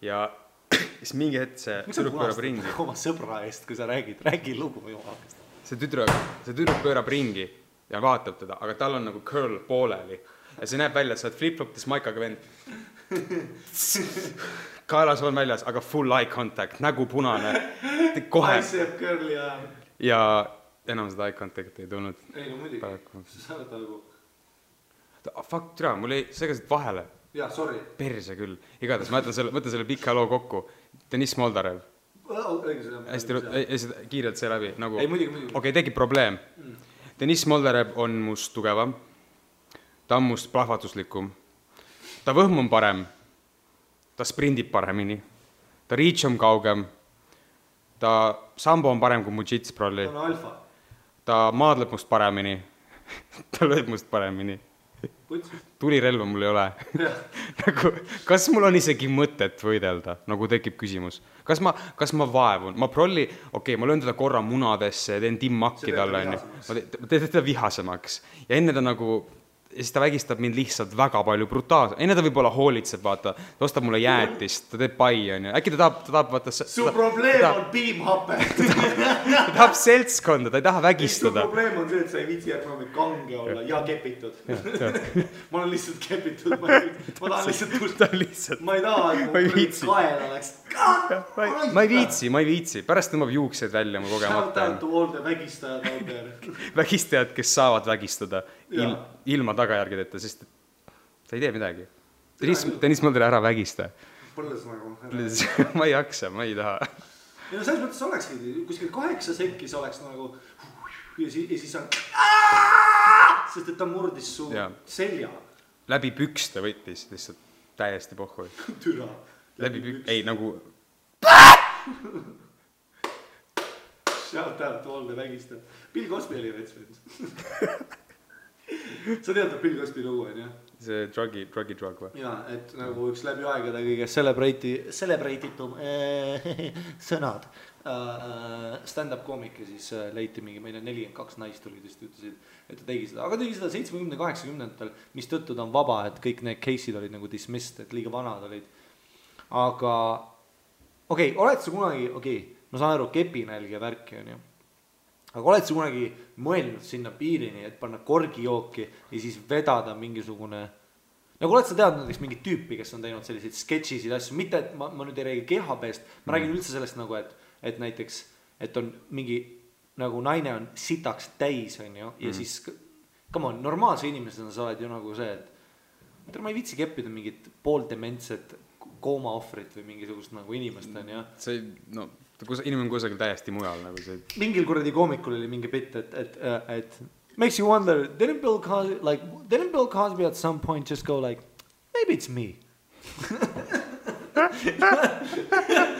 Ja siis mingi hetk see tüdruk pöörab ringi. Oma sõbra eest, kui sa räägi lugu jumalast. See tüdruk pöörab ringi ja vaatab teda, aga tal on nagu curl pooleli. Ja see näeb välja, et sa oled flip-flopides maikaga vend. Kaelas on väljas, aga full eye contact, nägu punane. Kohe. Bicep curli ja... Ja enam seda eye contact ei tulnud. Ei, no muidugi. Sa oled nagu... Fuck, türa, mul ei segasid vahele. Jaa, sorry. Perse küll. Igatahes, ma mõtlen selle pika loo kokku. Deniss Moldarev. Hästi kiirelt see läbi. Nagu... Ei, muidugi. Okei, tekib probleem. Deniss Moldarev on must tugevam. Ta on must plahvatuslikum. Ta võhm on parem. Ta sprindib paremini. Ta reach on kaugem. Ta sambo on parem kui mu jits prolli. Ta on alfa. Ta maadleb must paremini. Ta lööb must paremini. Tulirelva mul ei ole. Nagu, kas mul on isegi mõtet võidelda? Nagu tekib küsimus. Kas ma vaevun? Ma prolli, ma löön teda korra munadesse ja teen timmakki talle. Ma teen teda vihasemaks. Ja enne ta nagu... Ja siis ta vägistab mind lihtsalt väga palju brutaalselt. Enne ta võib-olla hoolitseb, vaata. Ta ostab mulle jäätist, ta teeb pai, on ju. Äkki ta tahab vaata... Su probleem on piimhape. Ta tahab seltskonda, ta ei taha vägistada. Su probleem on see, et sa ei viitsi järgmine kange olla ja kepitud. Ma olen lihtsalt kepitud. Ma tahan lihtsalt... Ma ei taha, et mu kael oleks... Ma ei viitsi. Pärast tõmbab juuksed välja mu kogemata. Shout out to all the vägistajad out there. Vägistajad, kes saavad vägistada ilma tagajärgedeta, sest sa ei tee midagi. Deniss Moldarev ära vägista. Põlles nagu. Ma ei jaksa, ma ei taha. Ja no selles mõttes olekski, kuskil 8 sekkis oleks nagu ja siis on sest et ta murdis su selja. Läbi pükste võttis lihtsalt täiesti pohhui. Türa. Läbi pükste. Ei, nagu... Shout out to all the vägistajad. Bill Cosby oli vets vend. Sa tead, Bill Cosby lugu on, jah? See drug või? Jaa, et nagu üks läbi aegade kõige celebrate'itum sõnad. Stand-up koomik ja siis leiti mingi, meil on 42 naist tulid just ütlesid, et ta tegi seda. Aga tegi seda 70-80-ndatel, mis tõttu ta on vaba, et kõik need case'id olid nagu dismissed, et liiga vanad olid. Aga, oled sa kunagi, ma saan aru, kepinälg ja värki on ju. Aga oled sa kunagi mõelnud sinna piirini, et panna korgijooki ja siis vedada mingisugune... Nagu oled sa teadnud näiteks mingit tüüpi, kes on teinud selliseid sketšisid asju, mitte et ma nüüd ei räägi kehapeest, ma räägin üldse sellest nagu, et näiteks, et on mingi, nagu naine on sitaks täis, on ju, ja siis, come on, normaalse inimesena sa oled ju nagu see, et ma ei viitsi keppida mingit pooldementset koomaohvrit või mingisugust nagu inimest, on ju. See, no... Inimene kusagil täiesti mujal nagu see. Mingil kuradi koomikul oli mingi bitt, et makes you wonder, didn't Bill Cosby at some point just go like, maybe it's me.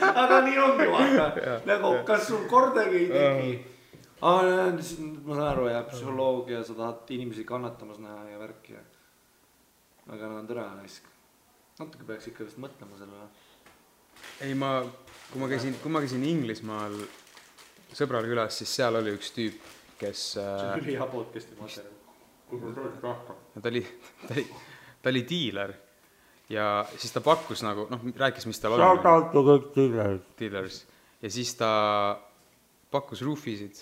Aga nii ongi vaata. Nagu, kas sul kordagi ei teki? Ma saan aru, ja psühholoogia, sa tahad inimesi kannatamas näha ja värki. Aga nad on tõra naisk. Natuke peaks ikka vist mõtlema selle. Ei, kui ma käisin Inglismaal sõbral külas, siis seal oli üks tüüp, kes... See oli hea podcasti materjal. Ta oli diiler ja siis ta pakkus nagu, rääkis, mis tal Shout out to kõik dealers. Ja siis ta pakkus roofisid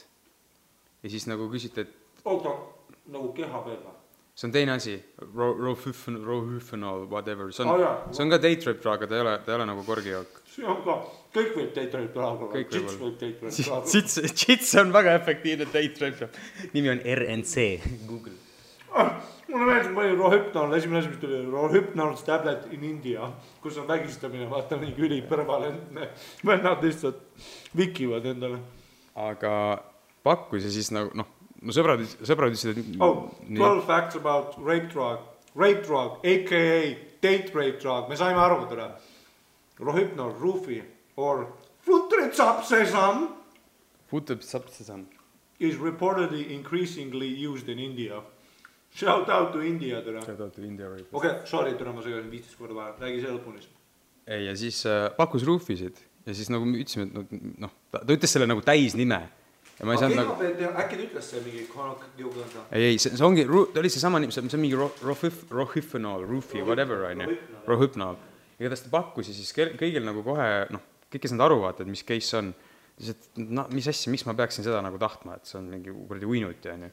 ja siis nagu küsiti, et... Oota, nagu keha peale. See on teine asi, rohüfenol, whatever. See on ka date rape drug, ta ei ole nagu korgijook. See on ka, kõik võib date rape drug, jits võib date rape drug. Jits on väga efektiivne date rape drug. Nimi on RNC, Google. Mulle meeldib palju rohüpnol, esimene asi, mis tuli rohüpnol tablet in India, kus on vägistamine, vaata mingi ülipõrvalentne. Vennad lihtsalt vikivad endale. Aga pakkus ja siis nagu, mu sõbrad ütlesid, et... 12 facts about rape drug, a.k.a. date rape drug, me saime aru teda. Rohypnol, Rufi, or Futritsapsesam is reportedly increasingly used in India. Shout out to India teda. Shout out to India rape. Sorry, teda ma segasin 15 korda vaja, räägi see lõpunis. Ei, ja siis pakkus Rufisid ja siis nagu me ütlesime, et ta ütles selle nagu täisnime. ja ma ei saanud nagu äkki ta ütles see mingi konokkiuga ei, see ongi, ta oli seesama nimi, see on mingi rohypnol, whatever, on ju, rohypnol. Igatahes ta pakkus ja siis kõigil nagu kohe, kõik kes nad aru vaatavad, mis case on, siis et mis asja, miks ma peaksin seda nagu tahtma, et see on mingi kuradi uinuti, on ju.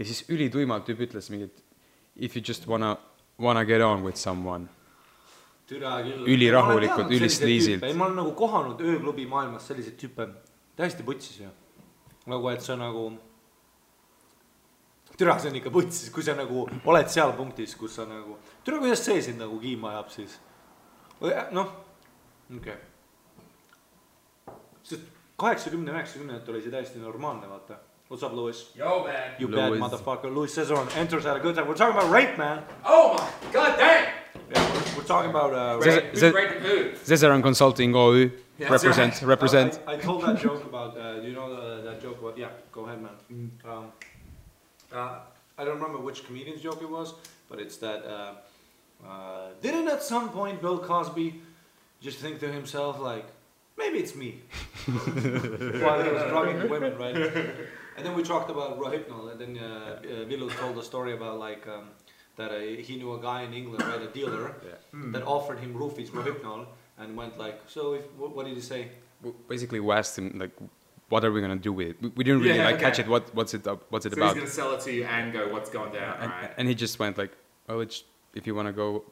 Ja siis ülituimalt tüüp ütles mingit if you just wanna get on with someone. Ülirahulikult, ülistiisilt. Ma olen nagu kohanud ööklubi maailmas selliseid tüüpe täiesti putsis ju. Nagu, et see nagu türa, see on ikka putsis, kui sa nagu oled seal punktis, kus sa nagu türa, kuidas see sind nagu kiima ajab siis okei. Sest 80-90 oli see täiesti normaalne, vaata. What's up, Louis? Yo, man. You bad motherfucker. Louis Cesaron enters at a good time. We're talking about rape, man. Oh my god damn. Yeah, we're talking about who's raping who? Cesaron Consulting OÜ. Represent. I told that joke about, do you know that joke about, yeah, go ahead, man. I don't remember which comedian's joke it was, but it's that, didn't at some point Bill Cosby just think to himself, like, maybe it's me. While he was drugging women, right? And then we talked about Rohypnol, and then Villu told a story about, like, that he knew a guy in England, right, a dealer, that offered him roofies, Rohypnol, and went like, so what did he say? Basically, we asked him, like, what are we going to do with it? We didn't really catch it, what's it about. So he's going to sell it to you and go, what's going down, right? And he just went like, oh, it's, if you want to go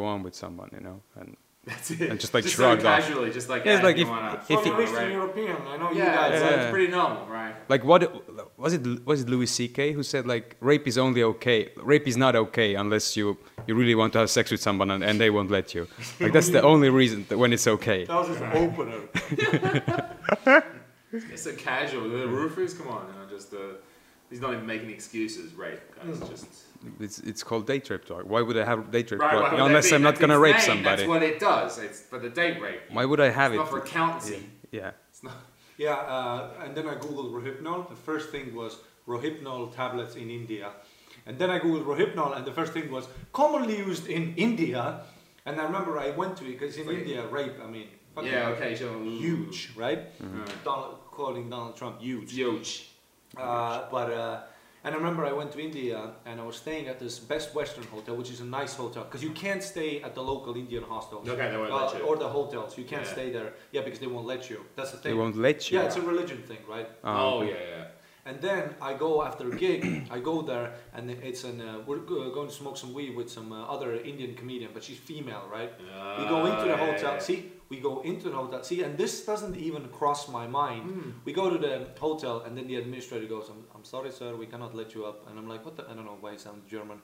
on with someone, you know, and that's it. And just like just shrugged so casually, just like, like if from Eastern European, I know you guys. It's pretty normal, right? Like what was it Louis C.K. who said like rape is not okay unless you really want to have sex with someone and they won't let you. Like that's the only reason that when it's okay. That was his opener. It's so casual. The roofers, come on, just he's not even making excuses, right? Guys, just it's called date rape talk. Why would I have date rape? Right, unless I'm not gonna rape somebody. That's what it does. It's for the date rape. Why would I have it's not for accountancy. Yeah. It's not. Yeah, and then I googled Rohypnol. The first thing was Rohypnol tablets in India, and then I googled Rohypnol, and the first thing was commonly used in India. And I remember I went to it because in India, rape, I mean, huge, right? Mm-hmm. Calling Donald Trump huge. And I remember I went to India and I was staying at this Best Western hotel, which is a nice hotel, because you can't stay at the local Indian hostels. Okay, they won't let you. Or the hotels. You can't stay there. Yeah, because they won't let you. That's the thing. They won't let you? Yeah, it's a religion thing, right? Oh, yeah. And then I go after a gig, I go there, and it's we're going to smoke some weed with some other Indian comedian, but she's female, right? We go into the hotel, see, and this doesn't even cross my mind. We go to the hotel, and then the administrator goes, I'm sorry, sir, we cannot let you up. And I'm like, what the, I don't know why it sounds German.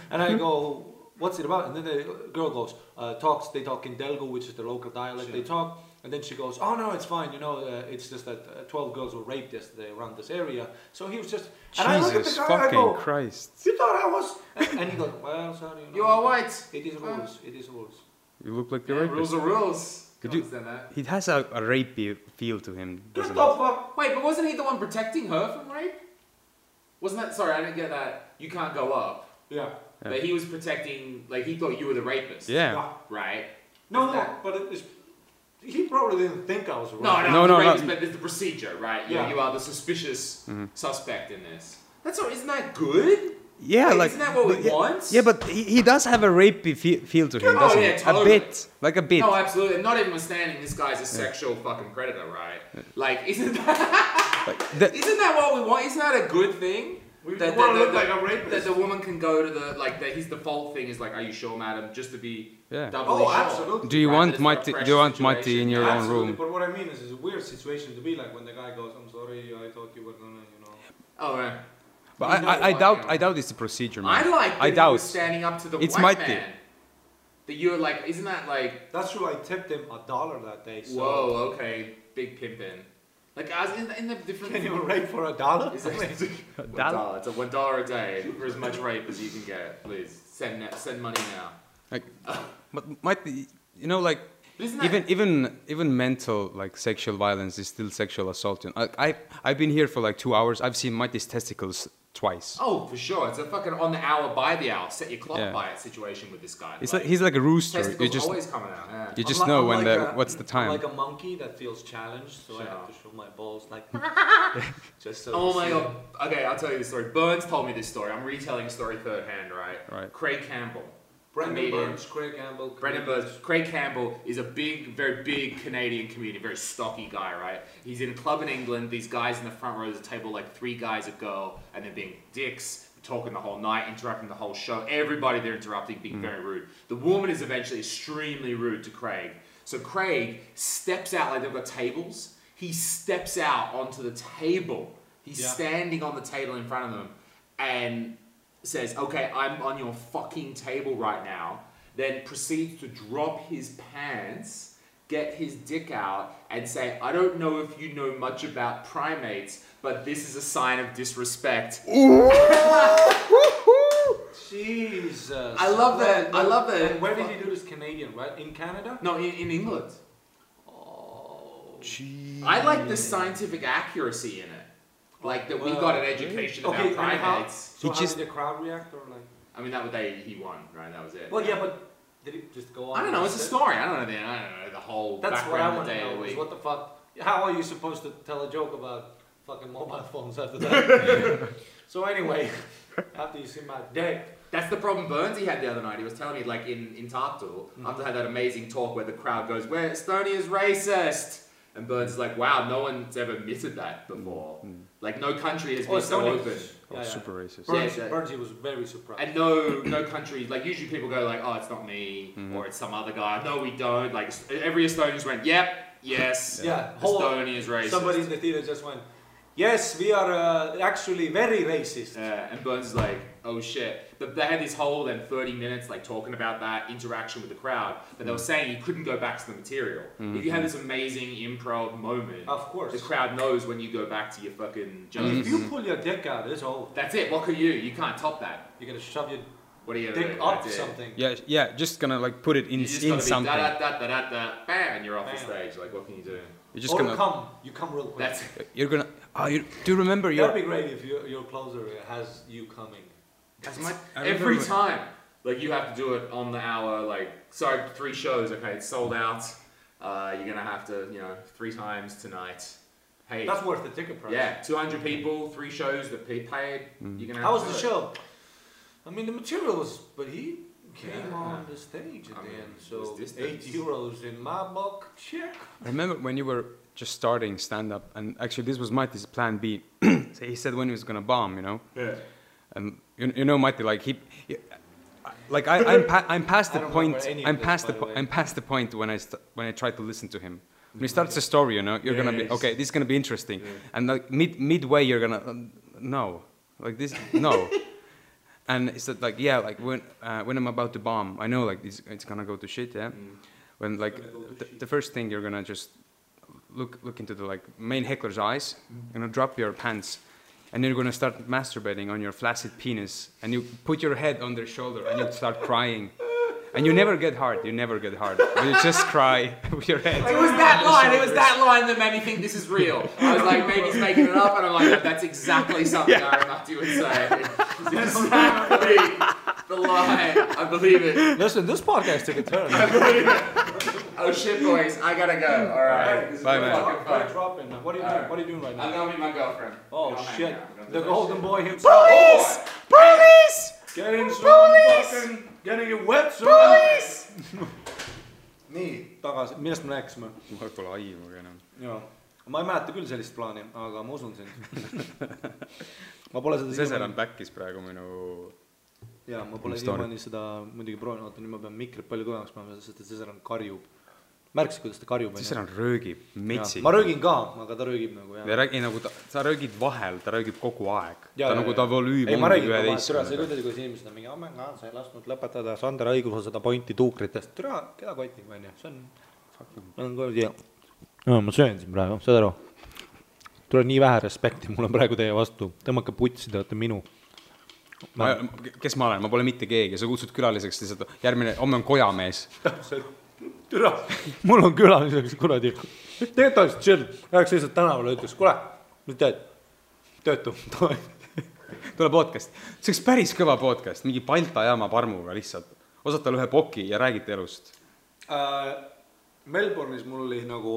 And I go, what's it about? And then the girl goes, they talk in Delgo, which is the local dialect, sure. They talk. And then she goes, oh no, it's fine, it's just that 12 girls were raped yesterday around this area. So he was just... And I look at the guy, fucking I go, Christ. You thought I was... And he goes, well, sorry. You are white. It is rules. You look like the rapist. Rules are rules. He has a rapey feel to him, doesn't Get the fuck... Wait, but wasn't he the one protecting her from rape? Wasn't that... Sorry, I didn't get that. You can't go up. Yeah. But he was protecting... Like, he thought you were the rapist. Yeah. Right? No, but it is... He probably didn't think I was a rapist. No, rapist, but there's the procedure, right? Yeah. You are the suspicious suspect in this. Isn't that good? Yeah, like isn't that what we want? Yeah, but he does have a rapey feel to him, doesn't he? Totally. A bit. No, absolutely. Not even withstanding, this guy's a sexual fucking predator, right? Like, isn't that... isn't that what we want? Isn't that a good thing? That the woman can go to the, like, his default thing is like, are you sure, madam? Just to be doubly sure. Absolutely. Do you want Matti in your own room? But what I mean is, it's a weird situation to be like when the guy goes, I'm sorry, I thought you were gonna, Oh, right. But I doubt it's a procedure, man. I doubt. He was standing up to the white man. That you're like, isn't that like... That's true, I tipped him $1 that day, so... Whoa, okay. Big pimpin'. Like, as in the different... Can you rape for $1? Is it $1? It's a $1 a day for as much rape as you can get. Please, send money now. Like, but might be, like... Even mental like sexual violence is still sexual assault. I've been here for like 2 hours. I've seen Mati's testicles twice. Oh, for sure. It's a fucking on the hour by the hour, set your clock by it situation with this guy. He's like a rooster. Testicles you just always coming out. Yeah. You just know when what's the time. I'm like a monkey that feels challenged, so I have to show my balls like. Just so. Oh my god. Okay, I'll tell you the story. Burns told me this story. I'm retelling a story third hand, right? Right. Craig Campbell. Brendan Burns, Craig Campbell. Brendan Burns. Craig Campbell is a very big Canadian comedian, very stocky guy, right? He's in a club in England. These guys in the front row of the table, like 3 guys, a girl, and they're being dicks, talking the whole night, interrupting the whole show. Everybody they're interrupting, being very rude. The woman is eventually extremely rude to Craig. So Craig steps out, like they've got tables. He steps out onto the table. He's standing on the table in front of them, and says, okay, I'm on your fucking table right now, then proceeds to drop his pants, get his dick out, and say, I don't know if you know much about primates, but this is a sign of disrespect. Jesus. I love that. I love that. And where did he do this? Canadian, right? In Canada? No, in England. Oh, Jeez. I like the scientific accuracy in it. Like that we got an education about primates. So how did the crowd react, or like? I mean, he won, right? That was it. Well, yeah, but did he just go on? I don't know. It's a story. I don't know the whole background of the day of the week. What the fuck? How are you supposed to tell a joke about fucking mobile phones after that? So anyway, after you see my dick. That's the problem Burns he had the other night. He was telling me, like, in Tarktool, after I had that amazing talk where the crowd goes, "Where Estonia's racist," and Burns is like, "Wow, no one's ever admitted that before. Like, no country has been so open." Super racist. Burns, he was very surprised. And no country, like, usually people go like, "Oh, it's not me," or "It's some other guy." No, we don't. Like, every Estonian just went, "Yep, yes, Estonia is racist." Somebody in the theater just went, "Yes, we are actually very racist." And Burns is like, "Oh shit." They had this whole 30 minutes like talking about that interaction with the crowd, but they were saying you couldn't go back to the material. If you have this amazing improv moment, of course, the crowd knows when you go back to your fucking jokes. If you pull your dick out, it's over. That's it. What can you? You can't top that. You're gonna shove your dick up something. Yeah, just gonna like put it in something. Bam, and you're off the stage. Like, what can you do? You're just gonna you come real quick. That's it. You're gonna. Do you remember your? That'd be great if your closer has you coming. Every time, like you have to do it on the hour. Like, sorry, 3 shows. Okay, it's sold out. You're gonna have to, 3 times tonight. Hey, that's worth the ticket price. Yeah, 200 people, 3 shows that paid. You're gonna. How was the show? I mean, the material was, but he came on the stage at the end. So €8 in my book. Check. I remember when you were just starting stand up, and actually this was Mati's plan B. So he said when he was gonna bomb, Yeah. And Mati, like I'm past the point. I'm past the point when I try to listen to him. When he starts a story, you're gonna be okay. This is gonna be interesting, and like midway you're gonna no, like this no. And it's like when I'm about to bomb, I know like it's gonna go to shit, yeah. When like the first thing you're gonna just look into the like main heckler's eyes, drop your pants. And you're gonna start masturbating on your flaccid penis, and you put your head on their shoulder, and you start crying, and you never get hard. You just cry with your head. It was that line. It was that line that made me think this is real. I was like, maybe he's making it up, and I'm like, that's exactly something Aaron Mati would say. It's exactly the line. I believe it. Listen, this podcast took a turn. I believe it. Oh shit, boys! I gotta go. All right. Bye, man. What are you doing right now? I'm gonna meet my girlfriend. Oh shit! The golden boy himself. Police! Getting some fucking, getting it wet. Police! Nii, tagasi, millest me rääkisime? Mul pole aimugi enam. Jaa, ma ei mäleta küll sellist plaani, aga ma usun sind. Ma pole seda Seseran backis praegu minu. Jaa, ma pole siiamaani seda muidugi proovinud, oota, nüüd ma pean mikrit palju kõvemaks panema, sest et Seseran karjub. Märksid, kuidas ta karjub? Seseran röögib metsi. Ma röögin ka, aga ta röögib nagu. Ja räägi nagu sa röögid vahel, ta röögib kogu aeg. Ta nagu ta volüüm on 11. See ei kuidas, kuidas inimesed on mingi, sa ei lasknud lõpetada Sander õigusel seda pointi tuukritest. Türa, keda kotib, on ju? See on... Ma söön siin praegu, saad aru? Tule nii vähe respekti, mul on praegu teie vastu. Tõmmake putsi, te olete minu. Kes ma olen? Ma pole mitte keegi. Sa kutsud külaliseks lihtsalt järgmine, homme on kojamees. türa, mul on külaliseks kuradi. Tegelikult oleks chill, läheks lihtsalt tänavale ja ütleks, kuule, mis teed? Töötu. Tule podcast. See oleks päris kõva podcast, mingi Balta jaama parmuga lihtsalt. Osata ühe poki ja räägite elust. Melbourne'is mul oli nagu,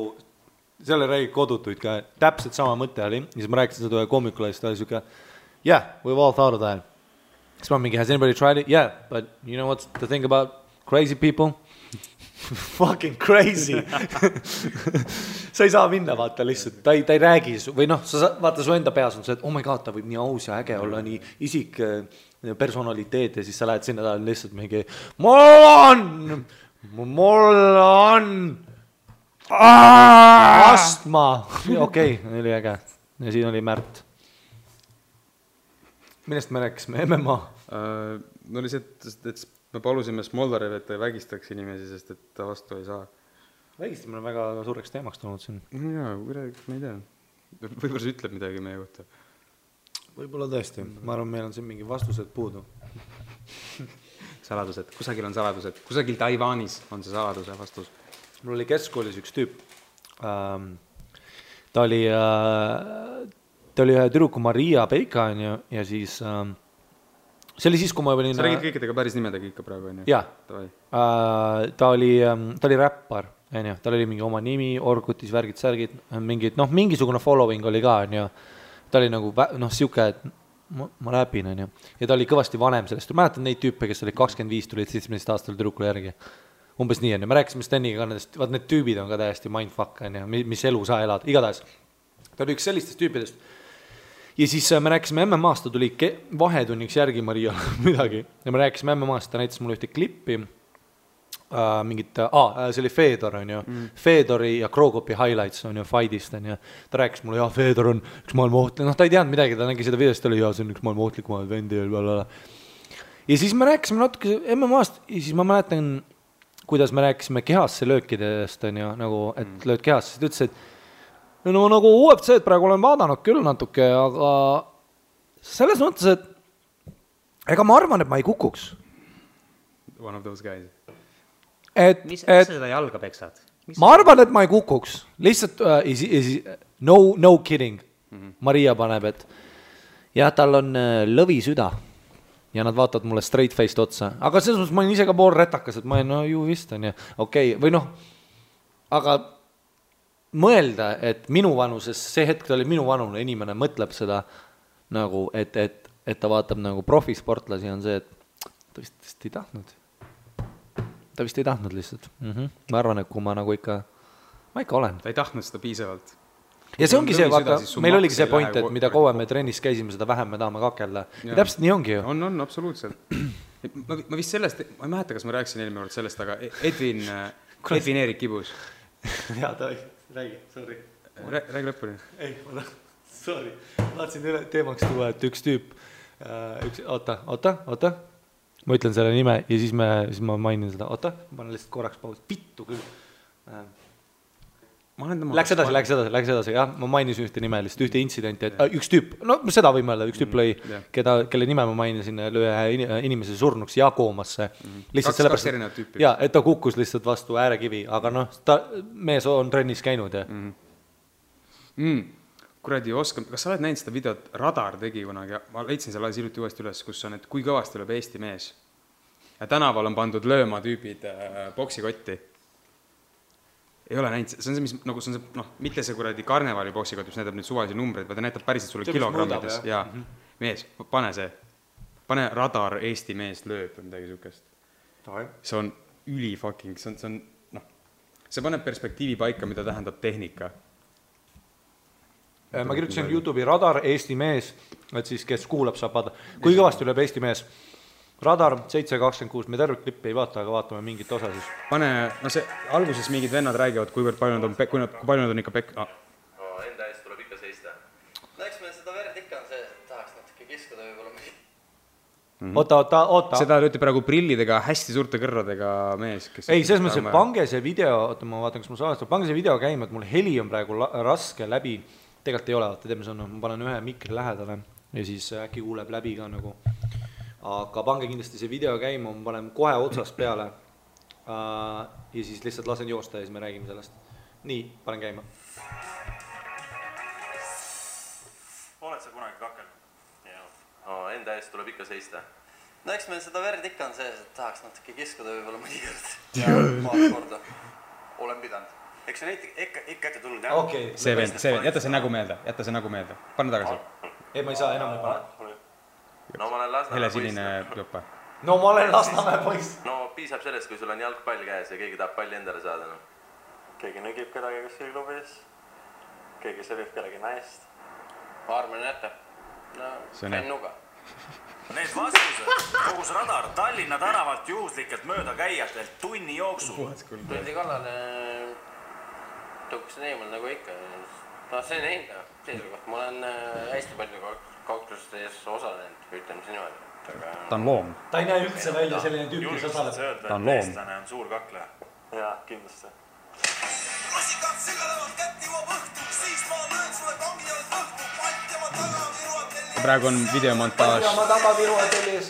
selle räägid kodutuid ka, täpselt sama mõte oli. Ja siis ma rääkisin seda ühe koomikule, siis ta oli siuke, yeah, we've all thought of that. Siis ma mingi, has anybody tried it? Yeah, but you know what's the thing about crazy people? Fucking crazy. Sa ei saa minna, vaata lihtsalt, ta ei räägi, või noh, vaata su enda peas on see, et oh my god, ta võib nii aus ja äge olla, nii isik personaliteet ja siis sa lähed sinna talle lihtsalt mingi mul on astma. Okei, oli äge. Ja siin oli Märt. Millest me rääkisime? MMA? No oli see, et me palusime Smoldarev, et ta ei vägistaks inimesi, sest et ta vastu ei saa. Vägistamine on väga suureks teemaks tulnud siin. Jaa, ma ei tea. Võib-olla see ütleb midagi meie kohta. Võib-olla tõesti. Ma arvan, meil on siin mingi vastused puudu. Saladused. Kusagil on saladused. Kusagil Taiwanis on see saladuse vastus. Mul oli keskkoolis üks tüüp. Ta oli ühe tüdruku Maria Peika ja siis see oli siis, kui ma olin... Sa räägid kõikidega päris nimedega ikka praegu, on ju? Jaa. Ta oli räppar, on ju. Tal oli mingi oma nimi, Orgutis, värgid, särgid, mingid, noh, mingisugune following oli ka, on ju. Ta oli nagu, noh, siuke, et ma räpin, on ju. Ja ta oli kõvasti vanem sellest. Mäletan neid tüüpe, kes oli 25, tulid 17 aastal tüdrukule järgi. Umbes nii, on ju. Me rääkisime Steniga ka nendest, vaat need tüübid on ka täiesti mindfuck, on ju, mis elu sa elad. Igatahes. Ta oli üks sellistest tüüpidest. Ja siis me rääkisime MMA-st, ta tuli vahetunniks järgi Maria midagi. Ja me rääkisime MMA-st, ta näitas mulle ühte klippi, see oli Fedor, on ju. Fedori ja Krogopi highlights on ju fightist, on ju. Ta rääkis mulle, Fedor on üks maailma ohtlik, noh, ta ei teadnud midagi, ta nägi seda videost, ta oli, see on üks maailma ohtlikumaid vendi ja siis me rääkisime natuke MMA-st ja siis ma mäletan, kuidas me rääkisime kehasse löökidest, on ju, nagu, et lööd kehasse, siis ta ütles, et no nagu UFC-d praegu olen vaadanud küll natuke, aga selles mõttes, et ega ma arvan, et ma ei kukuks. One of those guys. Mis seda jalga peksad? Ma arvan, et ma ei kukuks. Lihtsalt, no kidding. Maria paneb, et jah, tal on lõvisüda ja nad vaatavad mulle straight faced otsa. Aga selles mõttes ma olen ise ka pool retakas, et ma olen, no ju vist on ja okei, või noh, aga mõelda, et minu vanuses, see hetk ta oli minu vanune inimene, mõtleb seda nagu, et ta vaatab nagu profisportlasi on see, et ta vist ei tahtnud. Ta vist ei tahtnud lihtsalt. Ma arvan, et kui ma nagu ikka olen. Ta ei tahtnud seda piisavalt. Ja see ongi see, vaata, meil oligi see point, et mida kauem me trennis käisime, seda vähem me tahame kakelda. Ja täpselt nii ongi ju. On, absoluutselt. Ma vist sellest, ma ei mäleta, kas ma rääkisin eelmine kord sellest, aga Edvin Eerik Kibus. Jaa, ta räägi, sorry. Räägi lõpuni. Ei, sorry. Tahtsin teemaks tuua, et üks tüüp, oota. Ma ütlen selle nime ja siis ma mainin seda. Oota, ma panen lihtsalt korraks paus. Pittu küll. Läks edasi, jah. Ma mainisin ühte nime, lihtsalt ühte intsidenti, et üks tüüp, no seda võime öelda, üks tüüp lõi, kelle nime ma mainisin, lõi inimese surnuks ja koomasse. Kaks erinevat tüüpi. Jaa, et ta kukkus lihtsalt vastu äärekivi, aga noh, mees on trennis käinud ja kuradi oskam, kas sa oled näinud seda videot, Radar tegi kunagi, ma leidsin selle hiljuti uuesti üles, kus on, et kui kõvasti lööb Eesti mees ja tänaval on pandud lööma tüübid boksikotti. Ei ole näinud, see on see, mis nagu see on see, noh, mitte see kuradi karnevali boksikott, mis näitab nüüd suvalisi numbreid, vaid ta näitab päriselt sulle kilogrammides ja mees, pane Radar Eesti mees lööb või midagi sukest. See on üli fucking, see on, noh, see paneb perspektiivi paika, mida tähendab tehnika. Ma kirjutasin YouTube'i Radar Eesti mees, et siis kes kuulab saab vaadata. Kui kõvasti lööb Eesti mees? Radar 726, me tervet klippi ei vaata, aga vaatame mingit osa siis. Pane, no see alguses mingid vennad räägivad, kui palju nad on ikka Enda eest tuleb ikka seista. No eks meil seda verd ikka on see, tahaks natuke kiskuda võib-olla. Oota. Seda lööti praegu prillidega, hästi suurte kõrradega mees. Ei, selles mõttes, et pange see video, oota, ma vaatan, kas ma saan, pange see video käima, et mul heli on praegu raske läbi. Tegelikult ei ole, teeme see, ma panen ühe mikri lähedale ja siis äkki kuuleb läbi ka nagu. Aga pange kindlasti see video käima, ma panen kohe otsast peale. ja siis lihtsalt lasen joosta ja siis me räägime sellest. Nii, panen käima. Oled sa kunagi kakelnud? No, enda eest tuleb ikka seista. No eks meil seda verd ikka on sees, et tahaks natuke kiskuda võib-olla mõnikord. Paar korda. Olen pidanud. Eks see ikka ette tulnud, jah? Okay. See vend, jäta see nägu meelde. Pane tagasi. Ei, ma ei saa, enam ei pane. No ma olen Lasnamäe Helesinine jopa. No ma olen Lasnamäe poiss. No piisab sellest, kui sul on jalgpall käes ja keegi tahab palli endale saada. No. Keegi nõgib kedagi kuskil klubis. Keegi sõbib kellegi naist. Armen jätta. No, fennuga. Need vastused, kogus radar Tallinna tänavalt juhuslikelt mööda käijatelt tunni jooksul. Tuldi kallale tõuksin eemal nagu ikka. No see on enda seisukoht. Ma olen hästi palju kauklustes osalenud, ütleme siin niimoodi. Ta on loom. Ta ei näe üldse välja selline tüüp, kes osaleb. Ta on loom. Eestlane on suur kakleja. Jaa, kindlasti. Rosikad segalevad kätt jõuab õhtu, siis ma löön sulle kangi jalg õhtu, pant ja ma taga viruad telli. Praegu on videomontaž.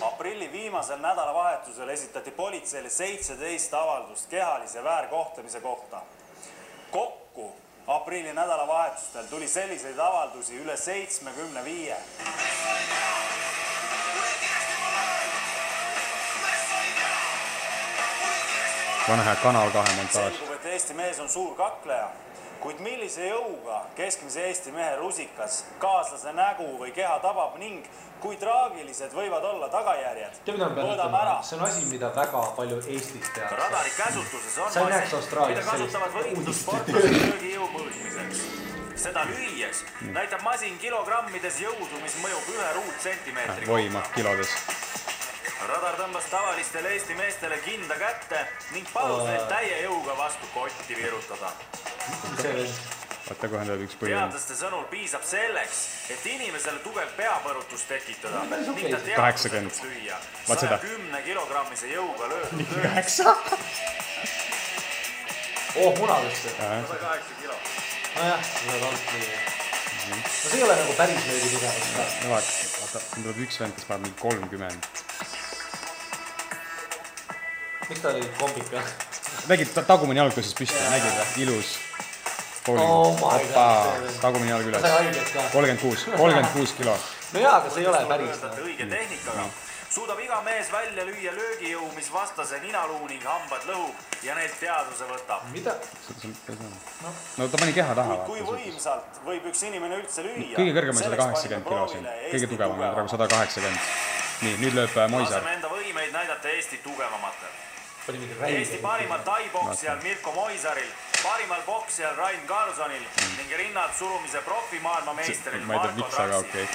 Aprilli viimasel nädalavahetusel esitati politseile 17 avaldust kehalise väärkohtlemise kohta. Kokku aprilli nädalavahetustel tuli selliseid avaldusi üle 75. Pane hea Kanal 2 montaaž. Selgub, et Eesti mees on suur kakleja, kuid millise jõuga keskmise Eesti mehe rusikas kaaslase nägu või keha tabab ning kui traagilised võivad olla tagajärjed. Mõõdame ära. See on asi, mida väga palju Eestis tehakse. Radari käsutuses on mida kasutavad võitlussportlased löögijõu mõõtmiseks. Seda lüües näitab masin kilogrammides jõudu, mis mõjub 1 ruutsentimeetri Voima kilodes. Radar tõmbas tavalistele Eesti meestele kinda kätte ning palus neid täie jõuga vastu kotti virutada. Vaata, kohe tuleb üks põhjus. Teadlaste sõnul piisab selleks, et inimesele tugev peapõrutus tekitada ning ta 80. lüüa 110 kilogrammise jõuga löödud. 9? Munadesse. 108 kilo. Nojah, see on alt nii. No see ei ole nagu päris löögi tugevus. Vaata, siin tuleb üks vend, kes paneb mingi 30. Miks ta oli kombika? Nägid tagumine jalg tõusis püsti, nägid või? Ilus. Oh my God. Tagumine jalg üles. 36 kilo. No jaa, aga see ei ole päris. Õige tehnikaga suudab iga mees välja lüüa löögijõu, mis vastase ninaluu ning hambad lõhub ja neilt teadvuse võtab. Mida? No ta pani keha taha. Kui võimsalt võib üks inimene üldse lüüa? Kõige kõrgem on 180 kilo siin. Kõige tugevam on praegu 180. Nii, nüüd lööb Moisar. Laseme enda võimeid näidata Eesti tugevamatel. Eesti parimal tai-poksijal Mirko Moisaril, parimal poksijal Rain Karlssonil ning rinnad surumise profimaailma meisteril Marko Trapsil.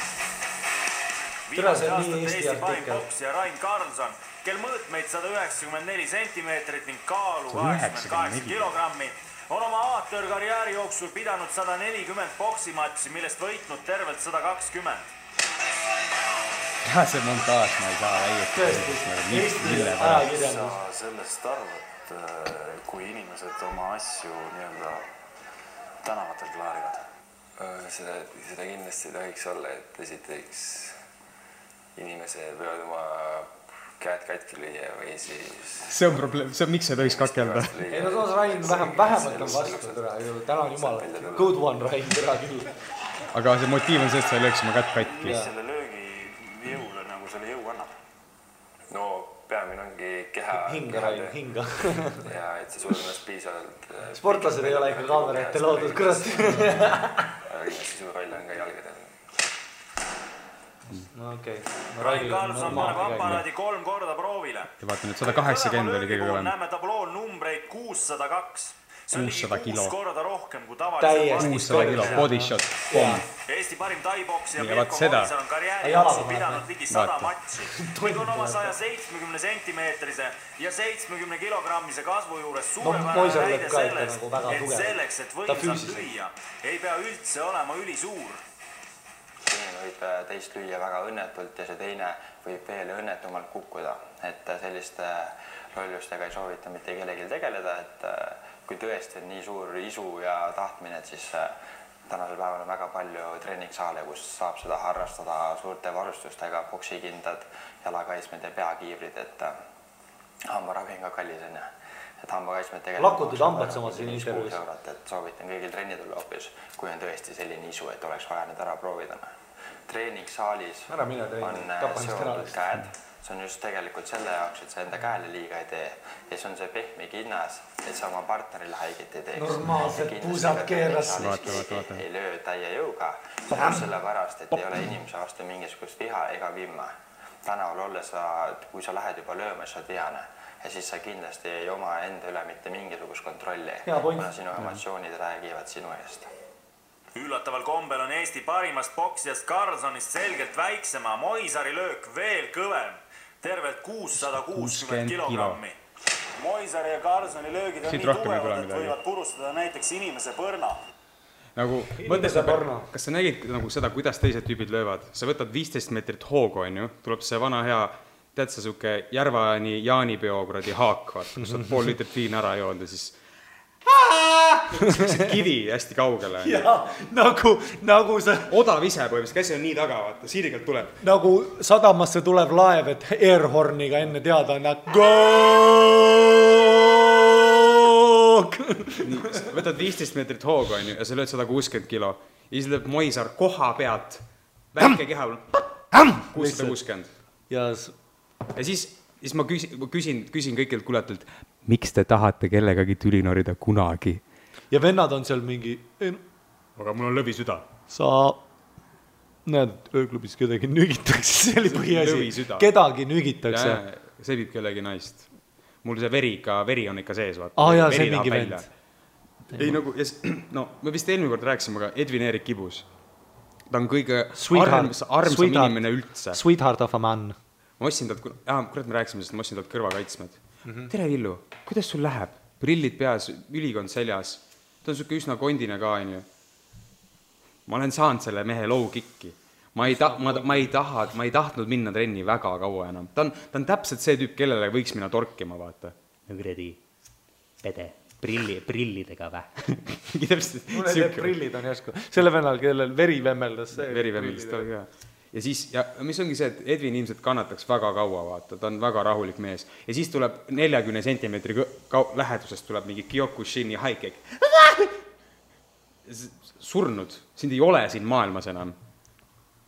Viimaste aastate Eesti parim poksija Rain Karlsson, kel mõõtmeid 194 centimeetrit ning kaalu 88 kilogrammi, on oma amatöörkarjääri jooksul pidanud 140 poksimatši, millest võitnud tervelt 120. See montaaž, ma ei saa väieta. Sa sellest arvad, kui inimesed oma asju nii-öelda tänavatel klaarivad? Seda kindlasti tohiks olla, et esiteks inimesed võivad oma käed katki lüüa või siis... See on probleem, miks see tohiks kakelda? Ei no toos Rain vähemalt on vastu, täna on jumal. Good one, Rain, tere küll. Aga see motiiv on see, et sa ei lööks oma kätt katki. Mis selle löögi jõule nagu selle jõu annab? No peamine ongi keha... Hinga, Rain, hinga. Ja et see sul ennast piisavalt... Sportlased ei ole ikka kaamera ette loodud, kurat. Aga kindlasti suur roll on ka jalgadel. No okei. Rain Karlsson paneb aparaadi 3 korda proovile. Ja vaata nüüd 180 oli kõige kõvem. Näeme tablool numbreid 602. See on 600 kilo. 6 korda rohkem kui tavaliselt. 600 kilo, body shot, pomm. Eesti parim tai-poksija Ja Mirko Moisar on karjääri jooksul pidanud ligi 100 matši. Ning on oma 170 centimeetrise ja 70 kilogrammise kasvu juures suurepärane näide sellest, et selleks, et võimsalt lüüa, ei pea üldse olema ülisuur. Inimene võib teist lüüa väga õnnetult ja see teine võib veel õnnetumalt kukkuda. Et selliste lollustega ei soovita mitte kellelgi tegeleda, et kui tõesti on nii suur isu ja tahtmine, et siis tänasel päeval on väga palju treeningsaale, kus saab seda harrastada suurte varustustega, poksikindad, jalakaitsmed ja peakiivrid, et hambaravi on ka kallis. et hambakaitsmed lakutud hambad samas siin intervjuus. Et soovitan kõigil trenni tulla hoopis, kui on tõesti selline isu, et oleks vaja need ära proovida. Treeningsaalis on seotud käed, see on just tegelikult selle jaoks, et sa enda käele liiga ei tee ja see on see pehme kinnas, et sa oma partnerile haiget ei teeks. Normaalsed puusad keeras. Ei löö täie jõuga, sellepärast, et ei ole inimese vastu mingisugust viha ega vimma. Tänaval olles, kui sa lähed juba lööma, siis sa oled vihane ja siis sa kindlasti ei oma enda üle mitte mingisugust kontrolli, kuna sinu emotsioonid räägivad sinu eest. Üllataval kombel on Eesti parimast boksijast Carlsonist selgelt väiksema, Moisari löök veel kõvem, tervelt 660 kilogrammi. Moisari ja Carlsoni löögid on nii tugevad, et võivad purustada näiteks inimese põrna. Nagu, kas sa nägid nagu seda, kuidas teised tüübid löövad? Sa võtad 15 meetrit hoogu, on ju, tuleb see vana hea, tead sa suke Järvani Jaanipeo kuradi haak, kus on pool litrit viin ära joonud ja siis kivi hästi kaugele. Ja, nagu see... Odav ise põhimõtteliselt, käsi on nii taga, vaata, siirigalt tuleb. Nagu sadamasse tuleb laev, et airhorniga enne teada on go! Võtad 15 meetrit hoogu, on ju, ja sa lööd 160 kilo. Ja siis lööb Moisar koha pealt, väike keha, 660. Ja siis ma küsin kõikilt kuuletult, miks te tahate kellegagi tüli norida kunagi? Ja vennad on seal mingi... Aga mul on lõvisüda. Sa näed, ööklubis kedagi nügitakse, see oli põhiasi. Kedagi nügitakse. See viib kellegi naist. Mul see veri on ikka sees, vaata. Jaa, see mingi vend. Ei, nagu, no, me vist eelmine kord rääksime, aga Edwin Erik Kibus. Ta on kõige armsam inimene üldse. Sweetheart of a man. Ma ossin talt, kurat me rääksime, sest ma ossin talt kõrvakaitsmed. Tere Villu, kuidas sul läheb? Prillid peas, ülikond seljas. Ta on suke üsna kondine ka, on ju. Ma olen saanud selle mehe low kicki. Ma ei tahtnud minna trenni väga kaua enam. Ta on täpselt see tüüp, kellele võiks minna torkima, vaata. Nõgredi, pede, prillidega vä. Mul need prillid on järsku. Selle vennal, kellel veri vemmeldas. Veri vemmeldas, ta oli ka. Ja siis, ja mis ongi see, et Edwin ilmselt kannataks väga kaua, vaata, ta on väga rahulik mees. Ja siis tuleb 40 sentimeetri lähedusest tuleb mingi Kyokushini haikek. Surnud, sind ei ole siin maailmas enam.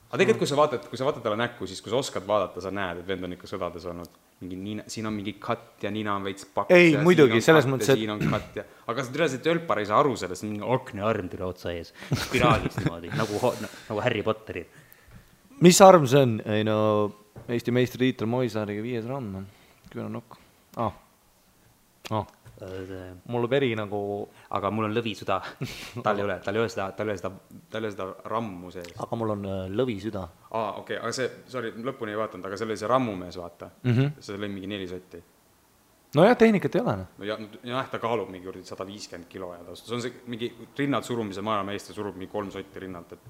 Aga tegelikult, kui sa vaatad talle näkku, siis kui sa oskad vaadata, sa näed, et vend on ikka sõdades olnud. Siin on mingi katt ja nina on veits paks. Ei, muidugi, selles mõttes, et... Siin on katt ja... Aga sa tõenäoliselt tölpar ei saa aru sellest, mingi aknearm tule otsa ees. Spiraalis niimoodi, nagu Harry Potteri. Mis arm see on? Ei no, Eesti meistritiitel Moisariga 5 raund. Küll on nokk. Mul on veri nagu... Aga mul on lõvisüda. Tal ei ole seda rammu sees. Aga mul on lõvisüda. Okei, aga see, sorry, lõpuni ei vaatanud, aga see oli see rammumees, vaata. See oli mingi 4 sotti. No jah, tehnikat ei ole. No ta kaalub mingi 150 kilo ja see on see mingi rinnad surumise maailmameistri surub mingi 3 sotti rinnalt, et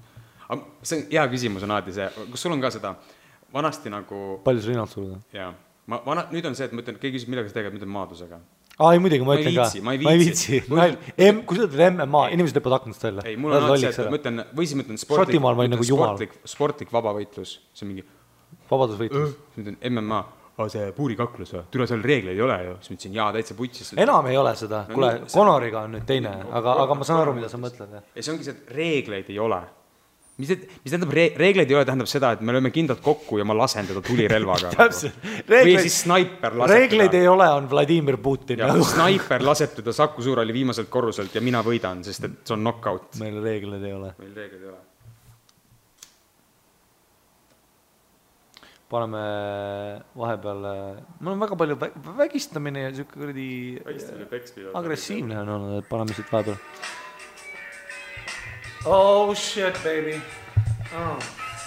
see on hea küsimus on alati see, kas sul on ka seda vanasti nagu... Palju sa rinnalt suruda? Jaa. Nüüd on see, et ma ütlen, keegi küsib, millega sa teged, ma ütlen maadlusega. Ei muidugi, ma ütlen ka. Ma ei viitsi. Kui sa ütled MMA, inimesed lõpvad aknast välja. Ei, mul on alati see, et ma ütlen, või siis ma ütlen sportlik vabavõitlus. See on mingi... Vabadusvõitlus. Ma ütlen MMA. See puurikaklus või? Tule seal reegleid ei ole ju. Siis ma ütlesin, jaa, täitsa putsis. Enam ei ole seda. Kuule, Conoriga on nüüd teine, aga ma saan aru, mida sa mõtled. Ja see ongi see, et reegleid ei ole. Mis tähendab reegleid ei ole, tähendab seda, et me lööme kindlalt kokku ja ma lasen teda tulirelvaga. Või siis snaiper laseb reegleid ei ole, on Vladimir Putin. Snaiper laseb teda Saku Suurhalli viimaselt korruselt ja mina võidan, sest et see on knockout. Meil reegleid ei ole. Paneme vahepeal, mul on väga palju vägistamine ja siuke kuradi agressiivne on olnud, et paneme siit vahepeal. Oh shit, baby.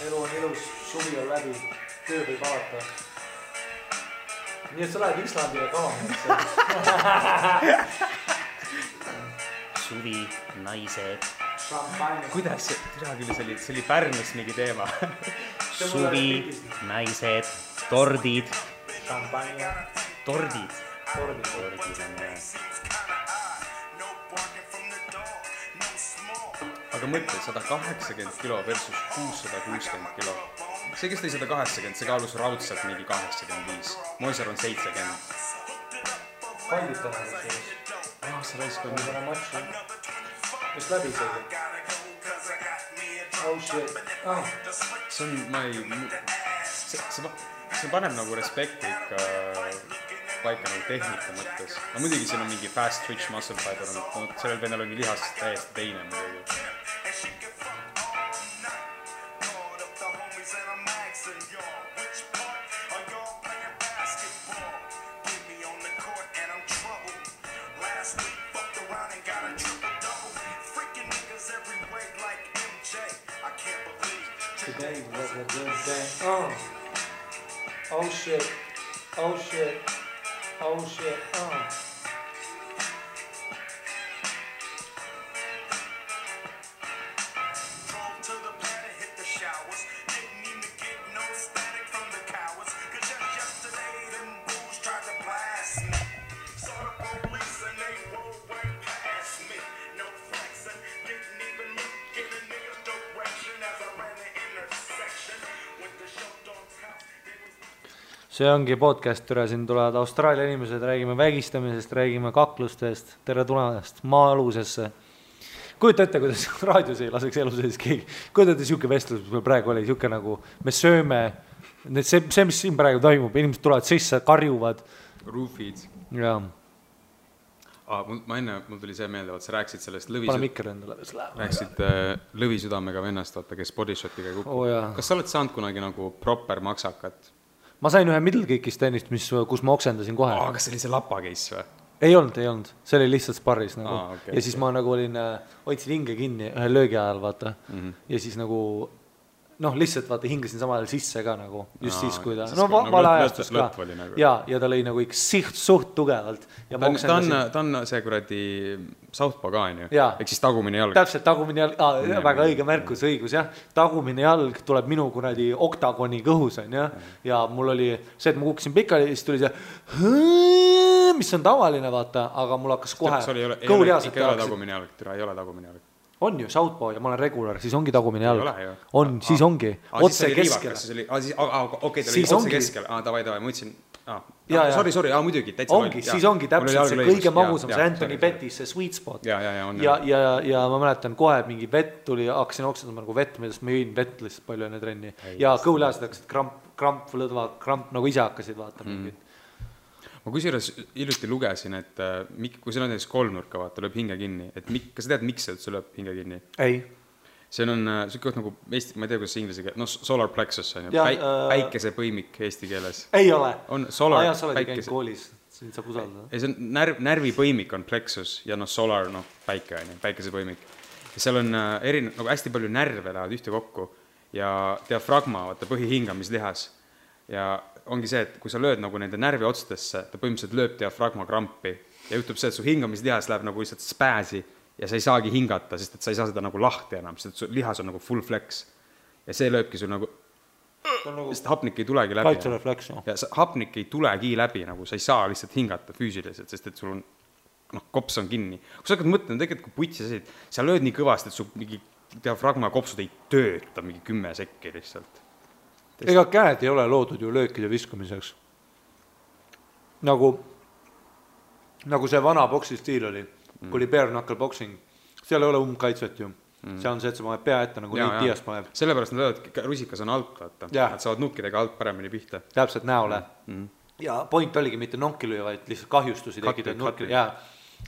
Elu on ilus, suvi on läbi, töö võib alata. Nii et sa lähed Islandile kavama. Suvi, naised. Kuidas see oli Pärnus mingi teema? Suvi, naised, tordid. Tordid on aga mõtle, 180 kilo versus 660 kilo. See, kes tõi 180, see kaalus raudselt mingi 85. Moisar on 70. Findid täna sellest. See raisk on täna matši. Mis läbi see? Oh shit. See on, see paneb nagu respekti ikka paika nagu tehnika mõttes. No muidugi siin on mingi fast twitch muscle fiber, sellel venel ongi lihas täiesti teine muidugi. Today was a good day. Oh shit. Oh shit. Oh shit. See ongi podcast, türa siin tulevad Austraalia inimesed, räägime vägistamisest, räägime kaklustest, tere tulemast maa-alusesse. Kujuta ette, kuidas raadios ei laseks elu sees keegi. Kujuta ette siuke vestlus, mis meil praegu oli, siuke nagu me sööme, see, mis siin praegu toimub, inimesed tulevad sisse, karjuvad. Roofid. Jaa. Ma enne, mul tuli see meelde, sa rääksid sellest Pane mikker endale. Rääksid lõvisüdamega vennast, vaata, kes bodyshotiga kukub. Kas sa oled saanud kunagi nagu proper maksakat? Ma sain ühe middle kick'ist tennist, kus ma oksendasin kohe. Kas see oli see lapa case või? Ei olnud. See oli lihtsalt sparris nagu. Ja siis ma nagu olin, hoidsin hinge kinni ühe löögi ajal, vaata. Ja siis nagu, lihtsalt vaata, hingasin samal ajal sisse ka nagu, just siis, kui ta, vale ajastus ka. Ja ta lõi nagu ikka suht tugevalt. Ta on see kuradi Southpaw ka, on ju? Ehk siis tagumine jalg. Täpselt, tagumine jalg, väga õige märkus, õigus, jah. Tagumine jalg tuleb minu kuradi oktagoni kõhus, on ju. Ja mul oli see, et ma kukkusin pikali, siis tuli see, mis on tavaline, vaata, aga mul hakkas kohe kõhulihased ikka ei ole tagumine jalg, ei ole tagumine jalg. On ju, Southpaw ja ma olen regular, siis ongi tagumine jalg. On, siis ongi. Otse keskel. Okei, ta oli otse keskel. Davai, ma ütlesin. Sorry, muidugi. Ongi, siis ongi täpselt see kõige magusam, see Anthony Pettis, see sweet spot. Ja ma mäletan kohe, mingi vett tuli, hakkasin oksendama nagu vett, millest ma jõin vett lihtsalt palju enne trenni. Ja kõhulihased hakkasid kramp, lõdva, kramp nagu ise hakkasid vaata mingid. Ma kusjuures hiljuti lugesin, et kui see on näiteks kolmnurka, vaata, lööb hinge kinni, et kas sa tead, miks see üldse lööb hinge kinni? Ei. See on siuke nagu, ma ei tea, kuidas see inglise keel, solar plexus on ju, päikesepõimik eesti keeles. Ei ole. On solar, sa oled käinud koolis, siin saab usaldada. See on närvipõimik on plexus ja solar, päike on ju, päikesepõimik. Ja seal on nagu hästi palju närve lähevad ühte kokku ja diafragma, vaata, põhihingamislihas. Ja ongi see, et kui sa lööd nagu nende närvi otstesse, ta põhimõtteliselt lööb diafragma krampi ja juhtub see, et su hingamislihas läheb nagu lihtsalt spääsi ja sa ei saagi hingata, sest et sa ei saa seda nagu lahti enam, sest et su lihas on nagu full flex ja see lööbki sul nagu sest hapnik ei tulegi läbi. Kaitserefleks, no. Ja hapnik ei tulegi läbi, nagu sa ei saa lihtsalt hingata füüsiliselt, sest et sul on, kops on kinni. Kui sa hakkad mõtlema, tegelikult kui putsi sa said, sa lööd nii kõvasti, et su mingi diafragma kopsud ei tööta mingi 10 sekki lihtsalt. Ega käed ei ole loodud ju löökide viskamiseks. Nagu see vana boksi stiil oli, kui oli bare knuckle boxing, seal ei ole kaitset ju. See on see, et sa paned pea ette, nagu neid Dias paneb. Sellepärast nad löövad, rusikas on alt, vaata. Nad saavad nukkidega alt paremini pihta. Täpselt näole. Ja point oligi mitte nonki lüüa, vaid lihtsalt kahjustusi tekida.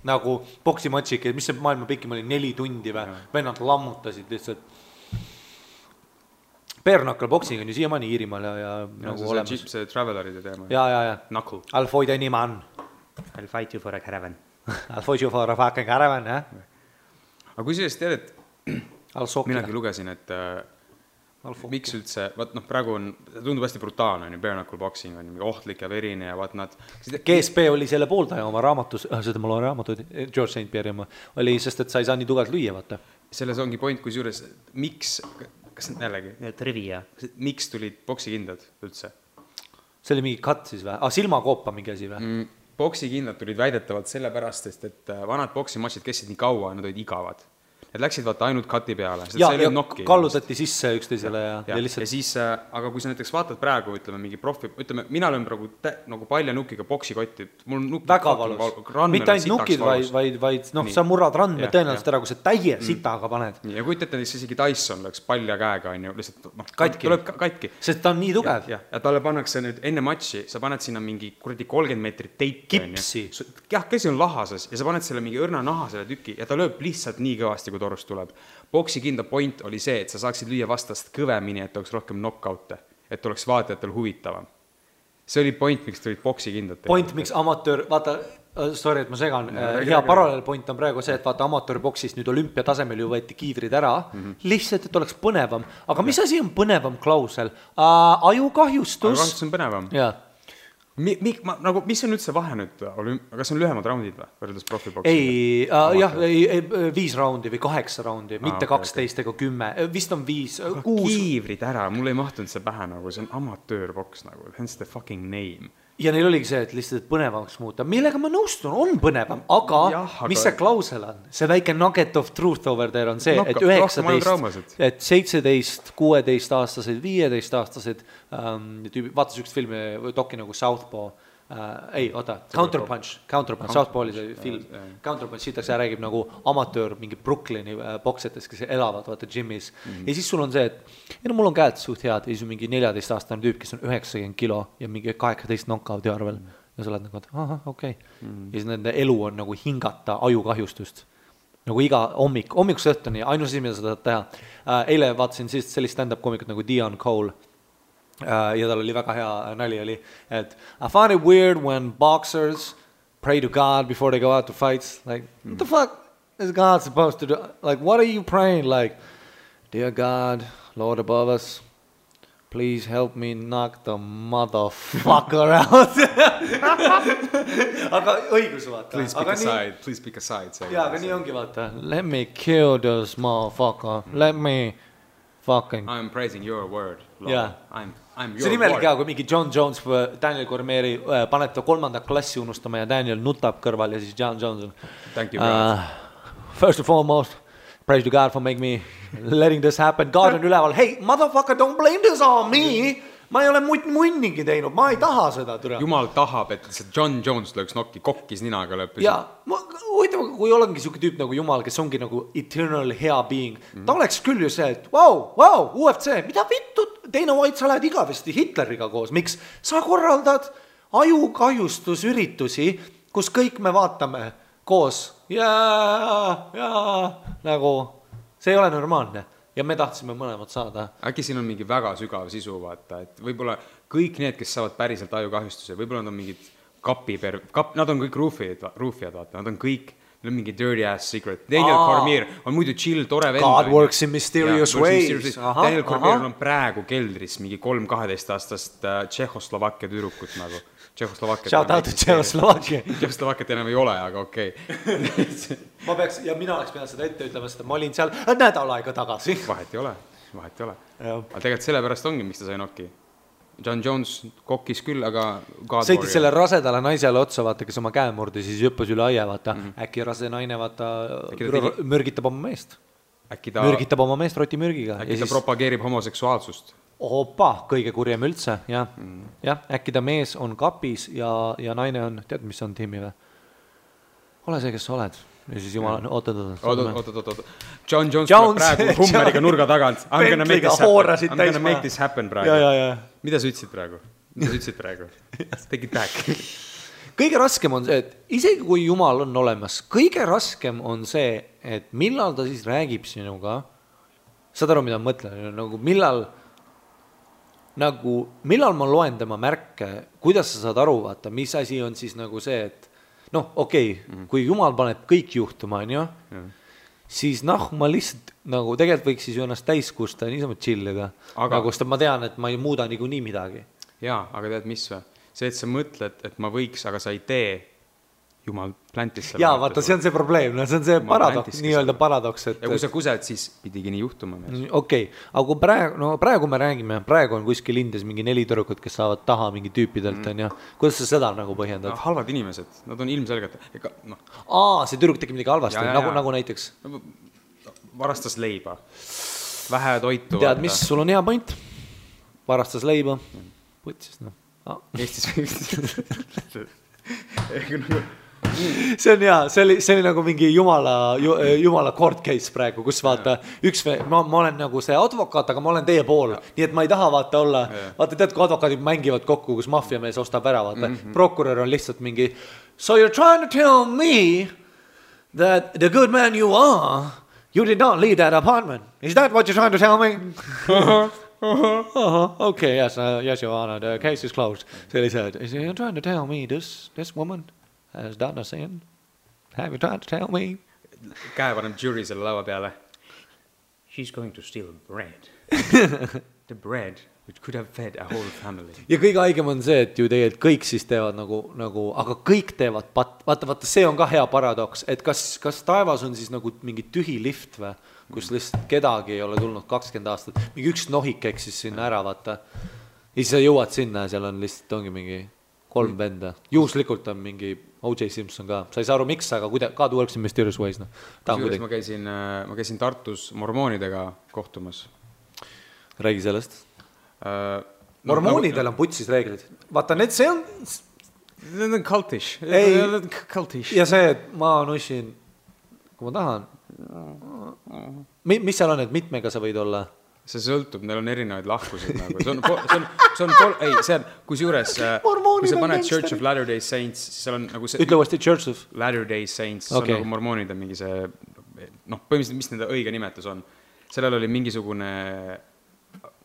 Nagu boksimatšik, mis see maailma pikim oli 4 tundi või? Vennad lammutasid lihtsalt. Bare knuckle boxing on ju siiamaani Iirimaal ja nagu olemas. See traveleride teema. Ja. Knuckle. I'll fight any man. I'll fight you for a caravan. I'll fight you for a fucking caravan, jah. Aga kui sellest tead, et minagi lugesin, et miks üldse, praegu on, tundub hästi brutaalne, bare knuckle boxing on ohtlik ja verine ja vaat nad... GSP oli selle pooldaja oma raamatus, seda mul on raamatud, George St. Pierre oli, sest et sa ei saa nii tugevalt lüüa, vaata. Selles ongi point, kui juures, miks, kas jällegi, trivia, miks tulid boksikindad üldse? See oli mingi cut siis või? Silmakoopa mingi asi või? Boksikindad tulid väidetavalt sellepärast, et vanad boksimatšid kestsid nii kaua ja nad olid igavad. et läksid vaata ainult kati peale. Ja kallutati sisse üksteisele ja lihtsalt... Ja siis, aga kui sa näiteks vaatad praegu, ütleme, mingi profi, ütleme, mina löön praegu nagu paljanukiga boksikotti, mul on nukid... Väga valus. Mitte ainult nukid, vaid sa murrad randme tõenäoliselt ära, kui sa täie sitaga paned. Ja kui ütlete, siis isegi Tyson läks palja käega, on ju, lihtsalt tuleb katki. Sest ta on nii tugev. Ja talle pannakse nüüd enne matši, sa paned sinna mingi 30 meetrit teipi. Kipsi. Jah, käsi on lahases ja sa paned selle mingi õrna naha selle tüki ja ta lööb lihtsalt nii kõvasti, kui torust tuleb. Boksi kinda point oli see, et sa saaksid lüüa vastast kõvemini, et oleks rohkem knockoute, et oleks vaatajatel huvitavam. See oli point, miks tulid boksi kindad. Point, miks amatöör, vaata, sorry, et ma segan, hea paralleelpoint on praegu see, et vaata amatöörboksist nüüd olümpia tasemel ju võeti kiivrid ära, lihtsalt, et oleks põnevam. Aga mis asi on põnevam klausel? Ajukahjustus. Ajukahjustus on põnevam. Jah. Mis on üldse vahe nüüd, kas on lühemad raundid või, võrreldes profiboksiga? Ei, 5 raundi või 8 raundi, mitte 12 ega 10, vist on 5, 6. Kiivrid ära, mul ei mahtunud see pähe nagu, see on amatöörboks nagu, hence the fucking name. Ja neil oligi see, et lihtsalt põnevamaks muuta. Millega ma nõustun, on põnevam, aga mis see klausel on? See väike nugget of truth over there on see, et 19, et 17, 16 aastased, 15 aastased, vaatas üks filmi, doki nagu Southpaw, Counterpunch, Southpaw oli see film, Counterpunch, siitaks ja räägib nagu amatöör mingi Brooklyni boksetes, kes elavad, vaata, gymis. Ja siis sul on see, et mul on käed suht head, ja siis on mingi 14-aastane tüüp, kes on 90 kilo ja mingi 18 knockouti arvel. Ja sa oled nagu, et okei. Ja siis nende elu on nagu hingata ajukahjustust. Nagu iga hommikuks õhtuni, ainus asi, mida sa tahad teha. Eile vaatasin sellist stand-up komikut nagu Dion Cole. Ja tal oli väga hea nali oli, et I find it weird when boxers pray to God before they go out to fights. Like, what the fuck is God supposed to do? Like, what are you praying? Like, dear God, Lord above us, please help me knock the motherfucker out. Aga õigus vaata. Please pick a side. Ja, aga nii ongi vaata. Let me kill this motherfucker. Let me fucking... I'm praising your word, Lord. Yeah. I'm your see nimelik hea, kui mingi John Jones või Daniel Cormieri paneb ta 3. klassi unustama ja Daniel nutab kõrval ja siis John Jones on Thank you, God. First and foremost, praise to God for making me letting this happen. God on üleval, hey, motherfucker, don't blame this on me. Ma ei ole munnigi teinud, ma ei taha seda. Jumal tahab, et see John Jones lööks nokki, kokkis ninaga lõpus. Ja, kui olengi siuke tüüp nagu Jumal, kes ongi nagu eternal hea being, ta oleks küll ju see, et wow, UFC, mida vittu, Teine White, sa lähed igavesti Hitleriga koos, miks sa korraldad ajukahjustusüritusi, kus kõik me vaatame koos ja nagu see ei ole normaalne. Ja me tahtsime mõlemad saada. Äkki siin on mingi väga sügav sisu, vaata, et võib-olla kõik need, kes saavad päriselt ajukahjustuse, võib-olla nad on mingid nad on kõik ruufijad, vaata, nad on kõik, neil on mingi dirty ass secret. Daniel Cormier on muidu chill, tore vend. God works in mysterious ways. Daniel Cormier on praegu keldris mingi 3-12-aastast Tšehhoslovakkia tüdrukut nagu. Shout out to Tšehhoslovakkia. Tšehhoslovakkiat enam ei ole, aga okei. Mina oleks pidanud seda ette ütlema, sest ma olin seal nädal aega tagasi. Vahet ei ole. Aga tegelikult sellepärast ongi, miks ta sai nokki. John Jones kokkis küll, aga sõitis selle rasedale naisele otsa, vaata, kes oma käe murdi, siis jõppus üle aia, vaata. Äkki rase naine, vaata, mürgitab oma meest. Mürgitab oma meest rotimürgiga. Äkki ta propageerib homoseksuaalsust. Opa, kõige kurjem üldse, jah. Äkki ta mees on kapis ja naine on, tead, mis on tiimi või? Ole see, kes sa oled. Ja siis jumal, oot. John Jones tuleb praegu Hummeriga nurga tagant. I'm gonna make this happen praegu. Mida sa ütlesid praegu? Take it back. Kõige raskem on see, et isegi kui Jumal on olemas, kõige raskem on see, et millal ta siis räägib sinuga, saad aru, mida ma mõtlen, millal ma loen tema märke, kuidas sa saad aru, vaata, mis asi on siis nagu see, et kui Jumal paneb kõik juhtuma, siis ma lihtsalt nagu tegelikult võiks siis ju ennast täiskusta ja niisama chillida. Nagu sest ma tean, et ma ei muuda nii midagi. Jaa, aga tead mis või? See, et sa mõtled, et ma võiks, aga sa ei tee, Jumal plantis selle. Jaa, vaata, see on see probleem, see on see paradoks, nii-öelda paradoks. Ja kui sa kused, siis pidigi nii juhtuma. Okei, aga kui praegu me räägime, praegu on kuskil Indias mingi 4 tüdrukut, kes saavad taha mingi tüüpidelt, kuidas sa seda nagu põhjendad? Halvad inimesed, nad on ilmselgelt. See tüdruk tegi midagi halvasti, nagu näiteks? varastas leiba. Vähe toitu. Tead, mis sul on hea point? Varastas leiba. Putsis, noh. Eestis see on hea, see oli nagu mingi jumala court case praegu, kus vaata ma olen nagu see advokaat, aga ma olen teie pool, nii et ma ei taha vaata olla, vaata tead, kui advokaadid mängivad kokku, kus maffiamees ostab ära, vaata, prokurör on lihtsalt mingi, so you're trying to tell me that the good man you are, you did not leave that apartment, is that what you're trying to tell me? Okay, yes, your honor, the case is closed. Sellised, you're trying to tell me this woman has done a sin? Have you tried to tell me? Käe paneb jury selle laua peale. She's going to steal bread. The bread which could have fed a whole family. Ja kõige haigem on see, et ju tegelikult kõik siis teevad nagu aga kõik teevad, vaata, see on ka hea paradoks, et kas taevas on siis nagu mingi tühi lift või, kus lihtsalt kedagi ei ole tulnud 20 aastat, mingi üks nohik eksis sinna ära, vaata. Ja siis sa jõuad sinna ja seal on lihtsalt ongi mingi 3 venda. Juhuslikult on mingi O.J. Simpson ka. Sa ei saa aru miks, aga God works in mysterious ways. No. Ma käisin Tartus mormoonidega kohtumas. Räägi sellest. Mormoonidel on putsis reeglid. Vaata, see on... Need on cultish. Ja see, et ma nussin, kui ma tahan. Mis seal on, et mitmega sa võid olla? See sõltub, neil on erinevaid lahkusid nagu. Kus juures, kui sa paned Church of Latter-day Saints, siis seal on nagu see... Ütle uuesti Church of Latter-day Saints, see on nagu mormoonid on mingi see, põhimõtteliselt, mis nende õige nimetus on. Sellel oli mingisugune,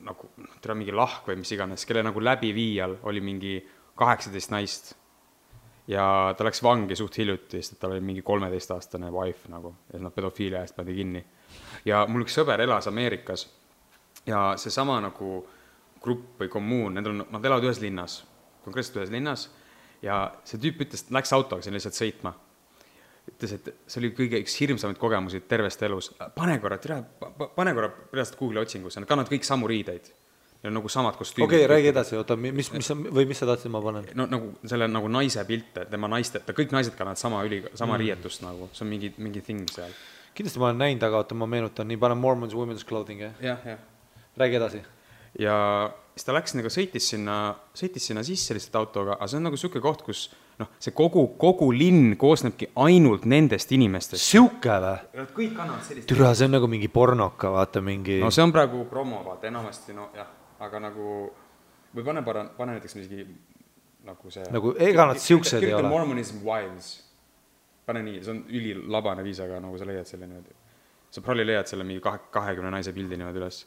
nagu, mingi lahk või mis iganes, kelle nagu läbiviijal oli mingi 18 naist. Ja ta läks vangi suht hiljuti, sest tal oli mingi 13-aastane wife nagu, ja nad pedofiilia eest pandi kinni. Ja mul üks sõber elas Ameerikas. Ja see sama nagu grupp või kommuun, nad elavad ühes linnas, konkreetselt ühes linnas, ja see tüüp ütles, et läks autoga siin lihtsalt sõitma. Ütles, et see oli kõige üks hirmsamaid kogemusi tervest elus. Pane korra pärast Google'i otsingusse, nad kannavad kõik samu riideid. Ja nagu samad kostüümid. Okei, räägi edasi, oota, mis sa tahtsid ma panen? No nagu selle nagu naise pilte, tema naiste, kõik naised kannavad sama riietust nagu, see on mingi thing seal. Kindlasti ma olen näinud, aga oota, ma meenutan, nii panen Mormons Women's Clothing, jah. Räägi edasi. Ja siis ta läks nagu sõitis sinna sisse lihtsalt autoga, aga see on nagu siuke koht, kus see kogu linn koosnebki ainult nendest inimestest. Siuke või? Kõik kannavad sellist. Türa, see on nagu mingi pornoka, vaata mingi... No see on praegu promo, vaata, enamasti, jah, aga nagu, või pane näiteks mingi nagu see... Nagu ega nad siuksed ei ole. Kirjuta Mormonism Wives. Pane nii, see on ülilabane viis, aga nagu sa leiad selle niimoodi. Sa probably leiad selle mingi 20 naise pildi niimoodi üles.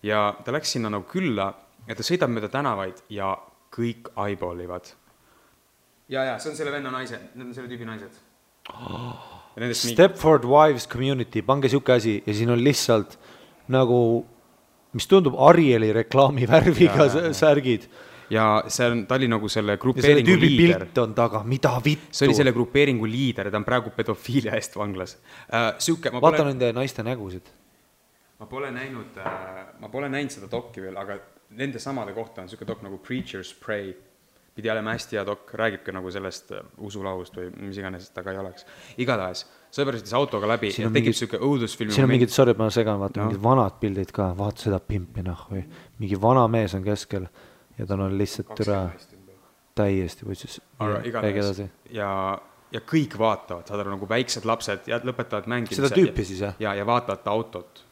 Ja ta läks sinna nagu külla, ja ta sõidab mööda tänavaid ja kõik eyeballivad. Ja, see on selle venna naised, need on selle tüübi naised. Stepford Wives Community, pange siuke asi ja siin on lihtsalt nagu, mis tundub Arieli reklaami värviga särgid. Ja ta oli nagu selle grupeeringu liider. Pilt on taga, mida vittu. See oli selle grupeeringu liider ja ta on praegu pedofiilia eest vanglas. Vaata nende naiste nägusid. Ma pole näinud seda dokki veel, aga nende samade kohta on siuke dok nagu Preacher's Pray. Pidi olema hästi hea dok, räägibki nagu sellest usulahust või mis iganes taga ei oleks. Igatahes, sõber sõitis autoga läbi ja tekib siuke õudusfilmi. Siin on mingid, sorry, ma segan, vaata mingid vanad pildid ka, vaata seda pimpi või mingi vana mees on keskel ja tal on lihtsalt türa täiesti võtsis. Ja kõik vaatavad, saad aru nagu väiksed lapsed ja lõpetavad mängida. Seda tüüpi siis, jah? Ja vaatavad ta autot.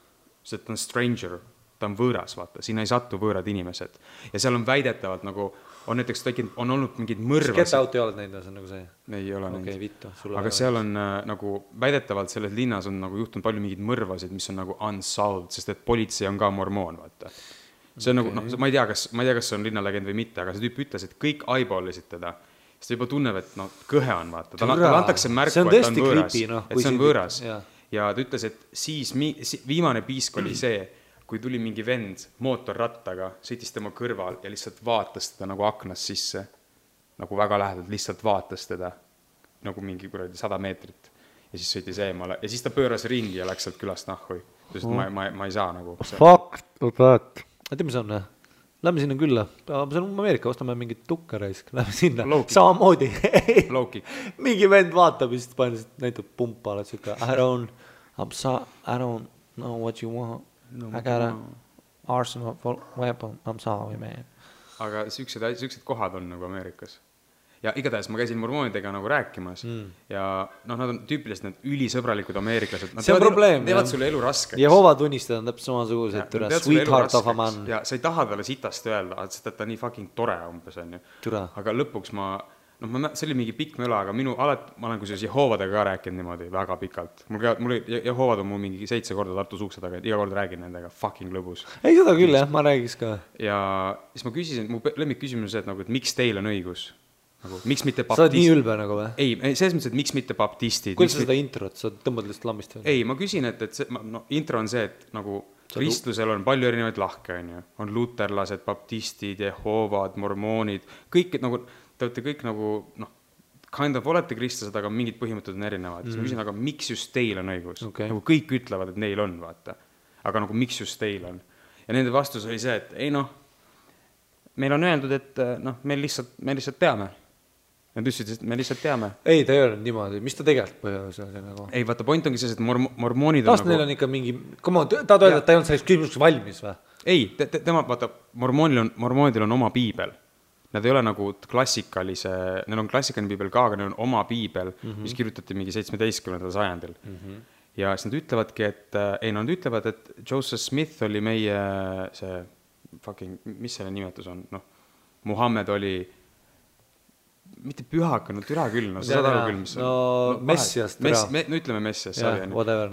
See ta on stranger, ta on võõras, vaata, sinna ei satu võõrad inimesed. Ja seal on väidetavalt nagu, on näiteks on olnud mingid mõrvasid. Get out ei oled näinud, see on nagu see? Ei ole näinud. Okei, vittu. Aga seal on nagu, väidetavalt selles linnas on nagu juhtunud palju mingid mõrvasid, mis on nagu unsolved, sest et politsei on ka mormoon, vaata. See on nagu, ma ei tea, kas see on linnalegend või mitte, aga see tüüp ütles, et kõik eyeballisid teda. Siis ta juba tunneb, et kõhe on, vaata. Talle antakse märku, et ta on võõras. Et see on võõras. Ja ta ütles, et siis viimane piisk oli see, kui tuli mingi vend mootorrattaga, sõitis tema kõrval ja lihtsalt vaatas teda nagu aknas sisse, nagu väga lähedalt, lihtsalt vaatas teda nagu mingi 100 meetrit ja siis sõitis eemale ja siis ta pööras ringi ja läks sealt külast nahhui. Ma ei saa nagu. Fuck that. Tead, mis on? Lähme sinna külla. See on Ameerika, ostame mingit tukkaraisk. Lähme sinna. Samamoodi. Mingi vend vaatab ja siis näitab pumpa. I don't No, what you want? I got an arsenal weapon. I'm sorry, man. Aga siuksed kohad on nagu Ameerikas. Ja igatahes ma käisin mormoonidega nagu rääkimas ja nad on tüüpiliselt need ülisõbralikud ameeriklased. Nad teevad sulle elu raskeks. Jehova tunnistajad on täpselt samasugused, sweetheart of a man. Ja sa ei taha talle sitast öelda, et ta nii fucking tore umbes on ju. Aga lõpuks see oli mingi pikk möla, aga ma olen kusjuures Jehovadega ka rääkinud niimoodi väga pikalt. Mul Jehovad on mul mingi 7 korda Tartu suukse taga, iga kord räägin nendega fucking lõbus. Ei, seda küll jah, ma räägis ka. Ja siis ma küsisin, mu lemmik küsimus on see, et miks teil on õigus? Miks mitte baptistid? Sa oled nii ülbe nagu või? Ei, selles mõttes, et miks mitte baptistid? Kuidas seda introt? Sa tõmbad lihtsalt lammist või? Ei, ma küsin, et intro on see, et nagu kristlusel on palju erinevaid lahke, on luterlased, baptistid, Jehovad, mormoonid, kõik nagu, te olete kõik nagu, kind of olete kristlased, aga mingid põhimõtted on erinevad. Siis ma küsin, aga miks just teil on õigus? Nagu kõik ütlevad, et neil on, vaata. Aga nagu miks just teil on? Ja nende vastus oli see, et ei meil on öeldud, et me lihtsalt teame. Nad ütlesid, et me lihtsalt teame. Ei, ta ei öelnud niimoodi. Mis ta tegelikult põhjus oli nagu? Ei, vaata, point ongi see, et mormoonid on nagu... neil on ikka mingi... ta öelda, et ta ei olnud selleks küsimuseks valmis või? Ei, vaata, mormoonidel on oma piibel. Nad ei ole nagu klassikalise... Neil on klassikaline piibel ka, aga neil on oma piibel, mis kirjutati mingi 17. sajandil. Ja siis nad ütlevadki, nad ütlevad, et Joseph Smith oli meie see fucking... Mis selle nimetus on? Muhammed oli... mitte pühaka, türa küll, sa saad aru küll, mis on... Messias, türa. Ütleme Messias,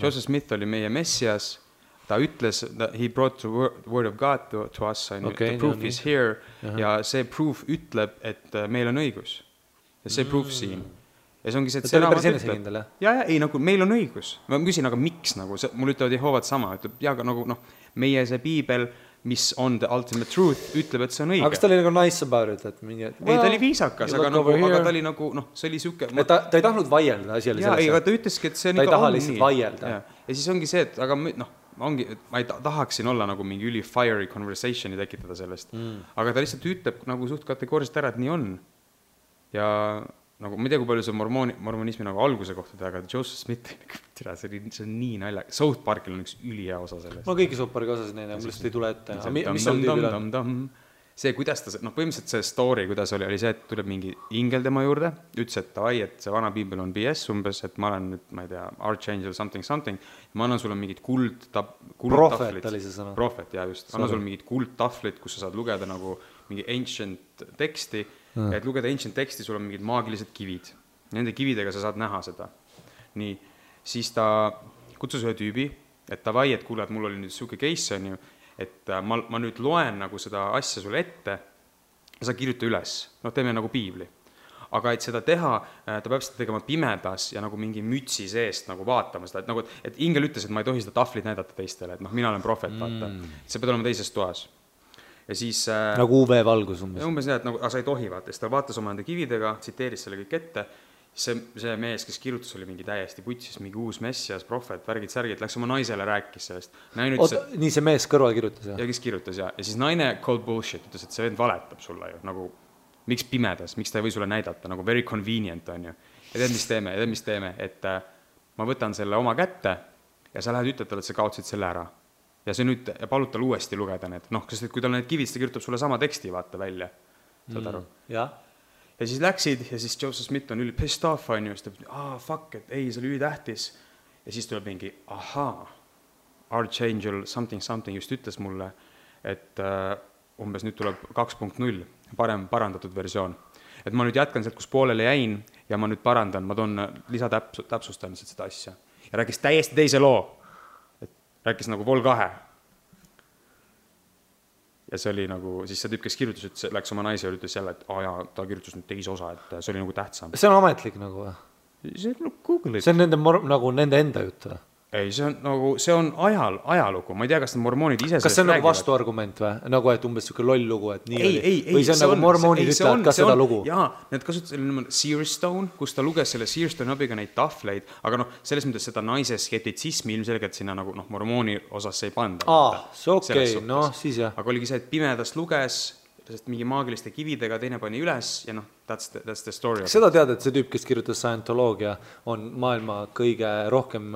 Joseph Smith oli meie Messias, ta ütles, he brought the word of God to us, the proof is here, ja see proof ütleb, et meil on õigus. Ja see proof siin. Ja see ongi see, et see raamat ütleb. Ei, nagu meil on õigus. Ma küsin, aga miks, nagu, mul ütlevad Jehovad sama, ütleb, ja nagu, meie see piibel, mis on the ultimate truth, ütleb, et see on õige. Aga kas ta oli nagu nice about it? Ei, ta oli viisakas, aga ta oli nagu, see oli süke... Ta ei tahtnud vaielda, asi oli sellesse. Aga ta ütleski, et see on ikka on nii. Ta ei taha lihtsalt vaielda. Ja siis ongi see, et aga ma ei tahaksin olla nagu mingi üli fiery conversationi tekitada sellest. Aga ta lihtsalt ütleb nagu suht kategooriliselt ära, et nii on. Ja nagu, ma ei tea, kui palju see mormonismi nagu alguse kohta teha, aga Joseph Smith, see on nii nalja. South Parkil on üks ülihea osa sellest. Ma kõiki South Parki osasid neile, mul lihtsalt ei tule ette. Mis seal tüübil on? See, kuidas ta, põhimõtteliselt see story, kuidas oli see, et tuleb mingi ingel tema juurde, ütles, et davai, et see vana piibel on BS umbes, et ma olen nüüd, ma ei tea, Archangel something, ma annan sulle mingid Prophet oli see sõna. Prophet, just. Annan sulle mingid kuldtahvlid, kus sa saad lugeda nagu mingi ancient teksti, et lugeda ancient teksti, sul on mingid maagilised kivid. Nende kividega sa saad näha seda. Nii, siis ta kutsus ühe tüübi, et davai, et kuule, et mul oli nüüd suke case on ju, et ma nüüd loen nagu seda asja sulle ette ja sa kirjuta üles. Teeme nagu piibli. Aga et seda teha, ta peab seda tegema pimedas ja nagu mingi mütsi seest nagu vaatama seda. Et, nagu, et ingel ütles, et ma ei tohi seda tahvlit näidata teistele, et mina olen profet, vaata. See peab olema teises toas. Ja siis, nagu UV-valgus umbes. Umbes nii, et nagu, sa ei tohi vaata. Siis ta vaatas oma enda kividega, tsiteeris selle kõik ette. See mees, kes kirjutas, oli mingi täiesti putsis, mingi uus messias, profet, värgid, läks oma naisele rääkis sellest. Nii see mees kõrval kirjutas, jah? Ja kes kirjutas, jah. Ja siis naine called bullshit, ütles, et see vend valetab sulle ju. Nagu, miks pimedas, miks ta ei või sulle näidata, nagu very convenient on ju. Ja tead, mis teeme, et ma võtan selle oma kätte ja sa lähed ütled talle, et sa kaotsid selle ära. Ja see nüüd, ja palud tal uuesti lugeda need, sest kui tal need kivid, ta kirjutab sulle sama teksti, vaata välja. Saad aru? Jah. Ja siis läksid ja siis Joseph Smith on üli pissed off, on ju, siis ta fuck, et ei, see oli ülitähtis. Ja siis tuleb mingi, Archangel something just ütles mulle, et umbes nüüd tuleb 2.0, parandatud versioon. Et ma nüüd jätkan sealt, kus poolele jäin ja ma nüüd parandan, ma toon lisatäpsustan seda asja. Ja rääkis täiesti teise loo, et rääkis nagu Vol 2. Ja see oli nagu, siis see tüüp, kes kirjutas, et läks oma naise ja ütles jälle, et ta kirjutas nüüd teise osa, et see oli nagu tähtsam. See on ametlik nagu või? See on Google. See on nende enda jutt või? Ei, see on ajalugu. Ma ei tea, kas need mormoonid ise... Kas see on nagu vastuargument või? Nagu, et umbes selline loll lugu, et nii oli? Või see on nagu mormoonid ütlevad ka seda lugu? Jaa, need kasutasid Searstone, kus ta luges selle Searstone abiga neid tahvleid, aga selles mõttes seda naise skeptitsismi ilmselgelt sinna nagu mormooni osas ei panda. See okei, siis jah. Aga oligi see, et pimedas luges, sest mingi maagiliste kividega, teine pani üles ja noh, that's the story. Seda tead, et see tüüp, kes kirjutas Scientoloogia, on maailma kõige rohkem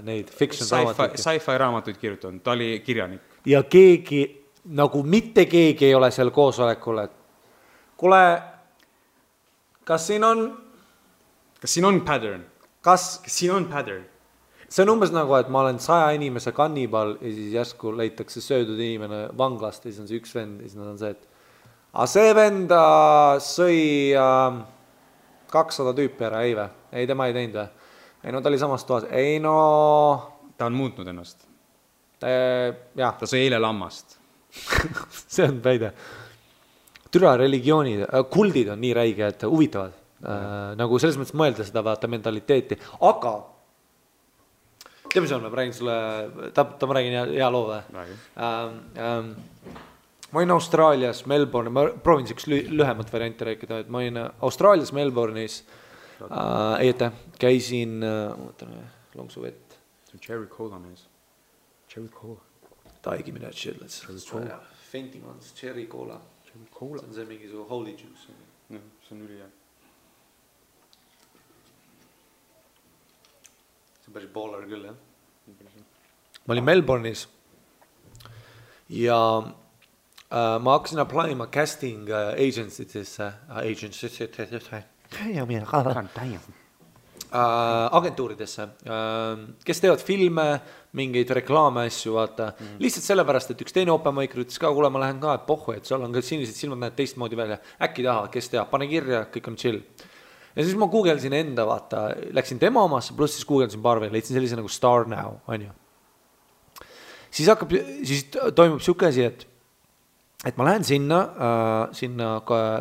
neid fiction raamatuid. Sci-fi raamatuid kirjutanud, ta oli kirjanik. Ja keegi, nagu mitte keegi ei ole seal koosolekul, et kuule, kas siin on pattern? Kas siin on pattern? See on umbes nagu, et ma olen 100 inimese kannibal ja siis järsku leitakse söödud inimene vanglast ja siis on see üks vend ja siis on see, et see vend sõi 200 tüüpi ära, ei või? Ei, tema ei teinud või? Ei, no ta oli samas toas. Ei, no... Ta on muutnud ennast. Jah. Ta sõi eile lammast. See on väide. Türa religioonid, kuldid on nii räige, et huvitavad. Nagu selles mõttes mõelda seda vaata mentaliteeti. Aga tead, mis on, ma räägin sulle, ma räägin hea loo või? Ma olin Austraalias, Melbourne, ma proovin üks lühemat varianti rääkida, et ma olin Austraalias, Melbourne'is, käisin, lonksu vett. Cherry cola mees. Cherry cola. Give me that shit, let's fainting on this cherry cola. See on see mingi su holy juice. See on üli hea. See on päris baller küll, jah. Ma olin Melbourne'is ja ma hakkasin applyma casting agency'desse, agentuuridesse, kes teevad filme, mingeid reklaame asju, vaata. Lihtsalt sellepärast, et üks teine open-maiker ütles ka, kuule, ma lähen ka, et pohhu, et seal on ka sinised silmad, näed teistmoodi välja. Äkki tahavad, kes teab, pane kirja, kõik on chill. Ja siis ma googlesin enda, vaata, läksin tema omasse, pluss siis googlesin paar veel, leidsin sellise nagu Star Now, on ju. Siis toimub siuke asi, et ma lähen sinna,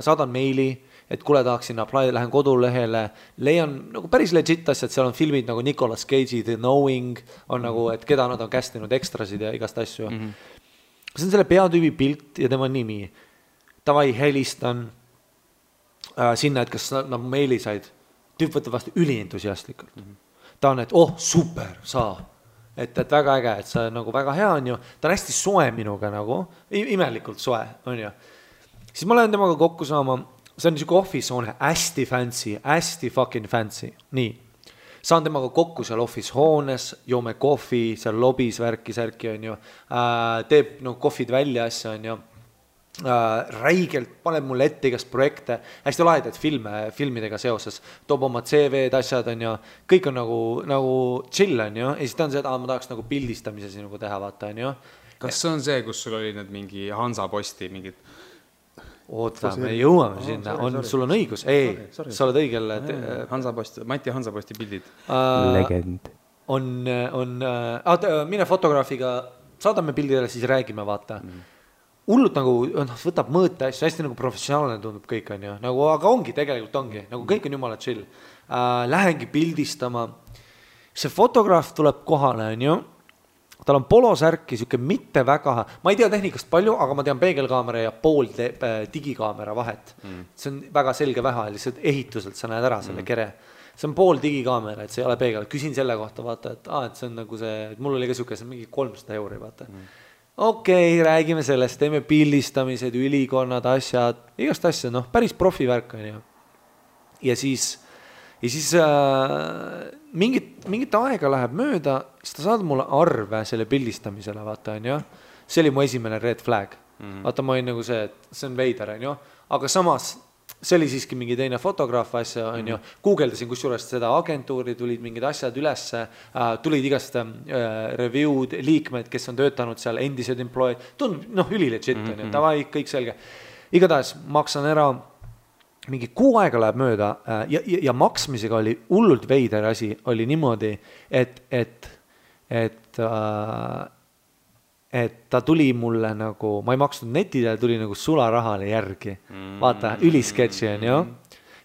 saadan meili, et kuule tahaksin apply, lähen kodulehele, leian nagu päris legit asjad, seal on filmid nagu Nicolas Cage'i The Knowing, on nagu, et keda nad on castinud ekstrasid ja igast asju. See on selle peatüübi pilt ja tema nimi. Tavai helistan sinna, et kas nad meili said. Tüüp võtab vastu ülientusiastlikult. Ta on, et super, saa. Et väga äge, et see nagu väga hea on ju. Ta on hästi soe minuga nagu, imelikult soe on ju. Siis ma lähen temaga kokku saama, see on niisugune office hoone, hästi fucking fancy. Nii, saan temaga kokku seal office hoones, joome kohvi, seal lobis särki on ju, teeb kohvid välja asja on ju. Räigelt paneb mulle ette igast projekte, hästi lahedaid filmidega seoses, toob oma CV-d asjad on ju, kõik on nagu chill on ju, ja siis ta on see, et ma tahaks nagu pildistamise sinuga teha, vaata on ju. Kas see on see, kus sul oli need mingi Hansaposti mingid? Oota, me jõuame sinna, sul on õigus, sa oled õigel. Mati Hansaposti pildid. Legend. Mine fotograafiga, saadame pildidele, siis räägime, vaata. Hullult nagu võtab mõõte asju, hästi nagu professionaalne tundub kõik on ju, nagu, aga ongi, tegelikult ongi, nagu kõik on jumala chill. Lähengi pildistama, see fotograaf tuleb kohale on ju, tal on polosärki, siuke mitte väga, ma ei tea tehnikast palju, aga ma tean peegelkaamera ja pool digikaamera vahet. See on väga selge vähe, lihtsalt ehituselt sa näed ära selle kere. See on pool digikaamera, et see ei ole peegel. Küsin selle kohta, vaata, et see on nagu see, et mul oli ka siuke, see on mingi 300 €, vaata. Okei, räägime sellest, teeme pildistamised, ülikonnad, asjad, igast asja, päris profivärk on ju. Ja siis mingit aega läheb mööda, siis ta saad mulle arve selle pildistamisele, vaata on ju. See oli mu esimene red flag. Vaata, ma olin nagu see, et see on veider on ju, aga samas see oli siiski mingi teine fotograaf asja on ju, guugeldasin kusjuures seda agentuuri, tulid mingid asjad ülesse, tulid igast review'd, liikmed, kes on töötanud seal, endised employed, tundub ülilegit on ju, tavai, kõik selge. Igatahes maksan ära, mingi 6 aega läheb mööda ja maksmisega oli hullult veider asi, oli niimoodi, et ta tuli mulle nagu, ma ei maksnud netile, tuli nagu sularahale järgi. Vaata, ülisketši on ju.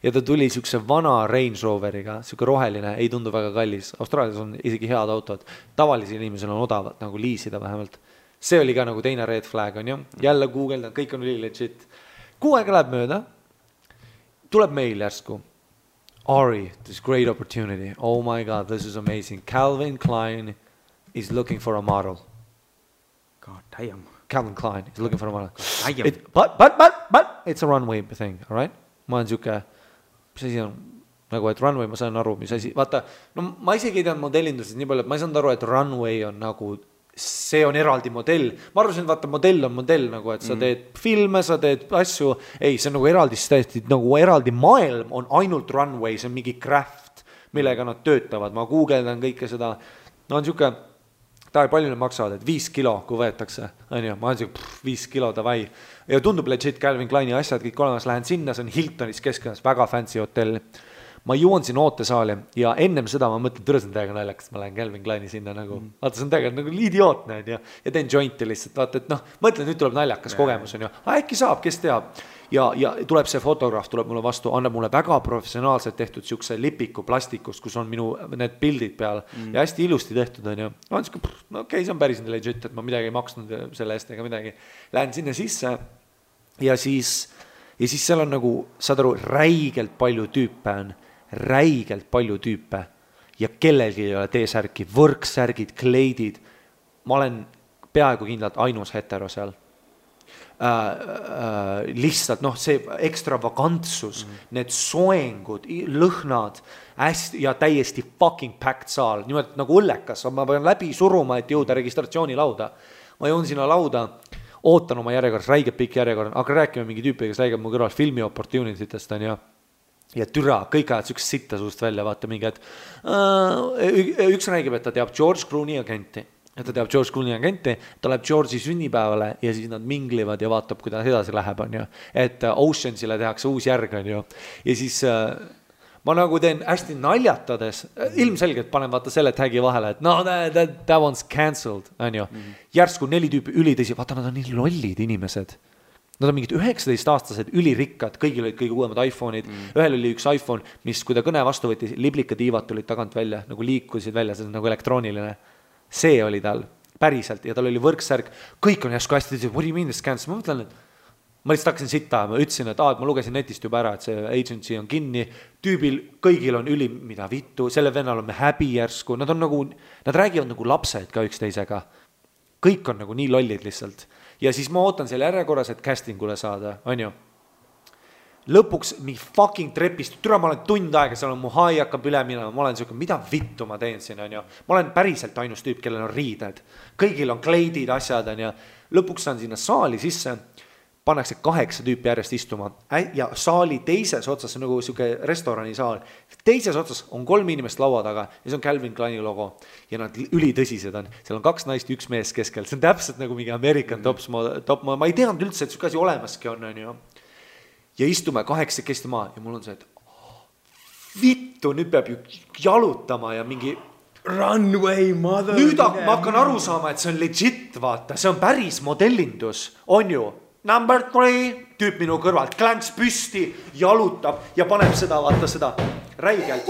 Ja ta tuli siukse vana Range Roveriga, siuke roheline, ei tundu väga kallis. Austraalias on isegi head autod. Tavalisi inimesel on odavat nagu liisida vähemalt. See oli ka nagu teine red flag on ju. Jälle Google, kõik on üli legit. 6 aega läheb mööda. Tuleb meil järsku. Ari, this great opportunity. Oh my God, this is amazing. Calvin Klein is looking for a model. damn. Calvin Klein is looking for a model. But it's a runway thing, all right? Ma olen siuke, mis asi on, nagu, et runway, ma saan aru, mis asi, vaata, no ma isegi ei teadnud modellindusest nii palju, et ma ei saanud aru, et runway on nagu, see on eraldi modell. Ma arvasin, et vaata, modell on modell, nagu, et sa teed filme, sa teed asju, ei, see on nagu eraldi, nagu eraldi maailm on ainult runway, see on mingi craft, millega nad töötavad, ma guugeldan kõike seda, no on siuke, palju need maksavad, et 5 kilo, kui võetakse, on ju, ma olen siuke 5 kilo, davai. Ja tundub legit Calvin Kleini asjad, kõik olemas, lähen sinna, see on Hiltonis keskkonnas, väga fancy hotell. Ma jõuan siin ootesaali ja ennem seda ma mõtlen, türa see on täiega naljakas, ma lähen Calvin Kleini sinna nagu, vaata see on täiega nagu idiootne, ja teen jointi lihtsalt, vaata, et noh, mõtlen, nüüd tuleb naljakas kogemus, on ju, äkki saab, kes teab. Ja tuleb see fotograaf, tuleb mulle vastu, annab mulle väga professionaalselt tehtud siukse lipiku plastikust, kus on minu need pildid peal ja hästi ilusti tehtud, on ju. No okei, see on päris legit, et ma midagi ei maksnud selle eest ega midagi. Lähen sinna sisse ja siis seal on nagu, saad aru, räigelt palju tüüpe ja kellelgi ei ole T-särki, võrksärgid, kleidid. Ma olen peaaegu kindlalt ainus hetero seal. Lihtsalt see ekstravagantsus, need soengud, lõhnad hästi ja täiesti fucking packed saal, nimelt nagu õllekas, ma pean läbi suruma, et jõuda registratsioonilauda. Ma jõun sinna lauda, ootan oma järjekorras, räigelt pikk järjekord, aga räägime mingi tüüpi, kes räägib mu kõrval filmi opportunititest on ja türa, kõik ajad sükest sitta suust välja, vaata mingi, et üks räägib, et ta teab George Clooney agenti. Et ta teab George Clooney agenti, ta läheb George'i sünnipäevale ja siis nad minglivad ja vaatab, kuidas edasi läheb, on ju. Et Oceansile tehakse uus järg, on ju. Ja siis ma nagu teen hästi naljatades, ilmselgelt panen vaata selle tagi vahele, et no that one's cancelled, on ju. Järsku 4 tüüpi ülitõsi, vaata nad on nii lollid inimesed. Nad on mingid 19-aastased ülirikkad, kõigil olid kõige uuemad iPhone'id. Ühel oli üks iPhone, mis kui ta kõne vastu võttis, liblikatiivad tulid tagant välja, nagu liikusid välja, see on nagu elektrooniline. See oli tal päriselt ja tal oli võrksärg, kõik on järsku hästi, what do you mean this cancel? Ma mõtlen, et ma lihtsalt hakkasin sitta, ma ütlesin, et ma lugesin netist juba ära, et see agency on kinni, tüübil kõigil on üli, mida vittu, selle vennal on me häbi järsku, nad räägivad nagu lapsed ka üksteisega, kõik on nagu nii lollid lihtsalt ja siis ma ootan selle järjekorras, et castingule saada, on ju. Lõpuks mingi fucking trepist, türa ma olen tund aega, seal on mu hai hakkab üle minema, ma olen siuke, mida vittu ma teen siin, on ju. Ma olen päriselt ainus tüüp, kellel on riided. Kõigil on kleidid, asjad, on ju. Lõpuks saan sinna saali sisse, pannakse 8 tüüpi järjest istuma ja saali teises otsas, see on nagu siuke restorani saal, teises otsas on 3 inimest laua taga ja see on Calvin Kleini logo ja nad ülitõsised on, seal on 2 naist, 1 mees keskel, see on täpselt nagu mingi American top, ma ei teadnud üldse, et siuke asi olemaski on ju. Ja istume 8 kesti maa ja mul on see, et vittu, nüüd peab ju jalutama ja mingi runway mother. Nüüd ma hakkan aru saama, et see on legit, vaata, see on päris modellindus, on ju. Number 3, tüüp minu kõrvalt, klänks püsti, jalutab ja paneb seda, vaata seda räigelt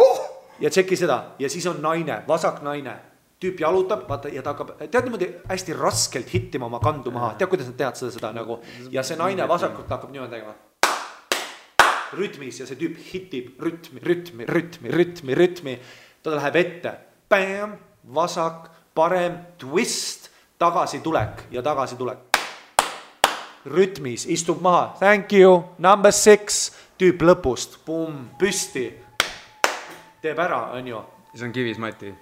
ja tšeki seda ja siis on naine, vasak naine. Tüüp jalutab, vaata, ja ta hakkab, tead niimoodi hästi raskelt hittima oma kandu maha, tead, kuidas nad tead seda nagu ja see naine vasakult hakkab niimoodi tegema rütmis ja see tüüp hitib rütmi, ta läheb ette, bam, vasak, parem, twist, tagasitulek ja tagasitulek. Rütmis, istub maha, thank you, number 6, tüüp lõpust, pum, püsti, teeb ära, on ju. See on kivis, Mati.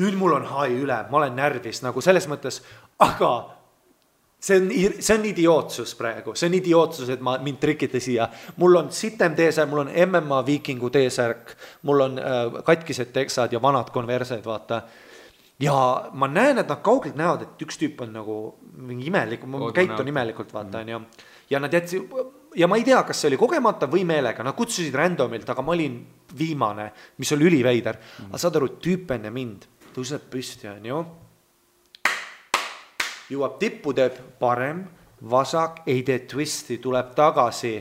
Nüüd mul on hai üle, ma olen närvis nagu selles mõttes, aga see on idiootsus praegu, see on idiootsus, et mind trikite siia. Mul on sitem T-särk, mul on MMA viikingu T-särk, mul on katkised teksad ja vanad konversed, vaata. Ja ma näen, et nad kaugelt näevad, et üks tüüp on nagu mingi imelik, käitun imelikult, vaata, ja nad jätsi, ja ma ei tea, kas see oli kogemata või meelega, nad kutsusid randomilt, aga ma olin viimane, mis oli üliveider. Aga saad aru, tüüp enne mind tõuseb püsti, on ju. Jõuab tippu, teeb parem, vasak, ei tee twisti, tuleb tagasi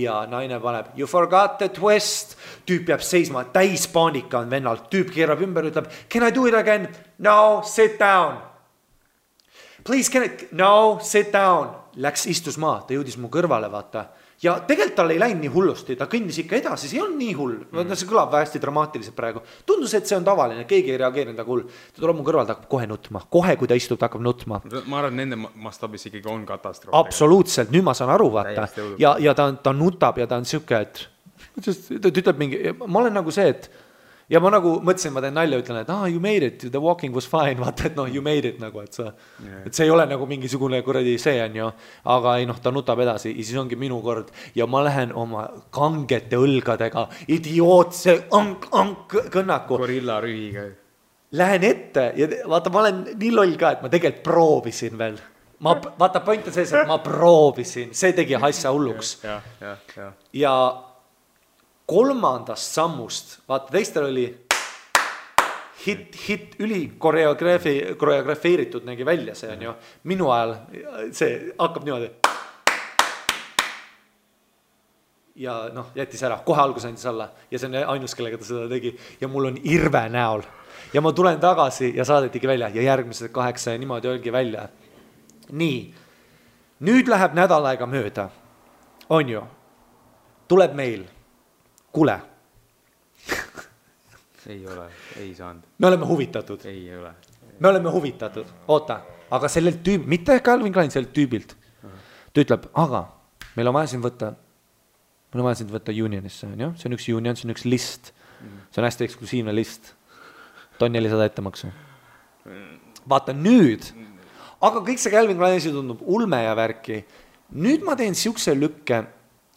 ja naine paneb, you forgot the twist, tüüp jääb seisma, täis paanika on vennalt, tüüp keerab ümber, ütleb, can I do it again? No, sit down. Please, no, sit down. Läks istus maa, ta jõudis mu kõrvale, vaata, ja tegelikult tal ei läinud nii hullusti, ta kõndis ikka edasi, see ei olnud nii hull, see kõlab hästi dramaatiliselt praegu. Tundus, et see on tavaline, keegi ei reageerinud aga hull. Ta tuleb mu kõrval, ta hakkab kohe nutma, kohe kui ta istub, ta hakkab nutma. Ma arvan, nende mastaabis ikkagi on katastroof. Absoluutselt, nüüd ma saan aru, vaata. Ja ta nutab ja ta on siuke, et ta ütleb mingi, ma olen nagu see, et ja ma nagu mõtlesin, ma teen nalja, ütlen, et you made it, the walking was fine, vaata, et you made it nagu, et see ei ole nagu mingisugune kuradi see on ju, aga ei ta nutab edasi ja siis ongi minu kord ja ma lähen oma kangete õlgadega, idiootse kõnnaku. Gorilla rühiga. Lähen ette ja vaata, ma olen nii loll ka, et ma tegelikult proovisin veel. Vaata, point on sees, et ma proovisin, see tegi asja hulluks. Ja kolmandast sammust, vaata teistel oli hit üli koreografeeritud nägi välja see on ju, minu ajal see hakkab niimoodi ja jättis ära, kohe algus andis alla ja see on ainus, kellega ta seda tegi ja mul on irve näol ja ma tulen tagasi ja saadetigi välja ja järgmised 8 ja niimoodi olgi välja. Nii, nüüd läheb nädal aega mööda, on ju, tuleb meil Kule. Ei ole, ei saanud. Me oleme huvitatud. Ei ole. Me oleme huvitatud. Oota, aga sellelt tüüb, mitte Calvin Klein, sellelt tüübilt. Ta ütleb, aga meil on vaja siin võtta unionisse. See on üks union, see on üks list. See on hästi eksklusiivne list. Ta on 400 ettemaksu. Vaata nüüd. Aga kõik see Calvin Klein tundub ulme ja värki. Nüüd ma teen siukse lükke,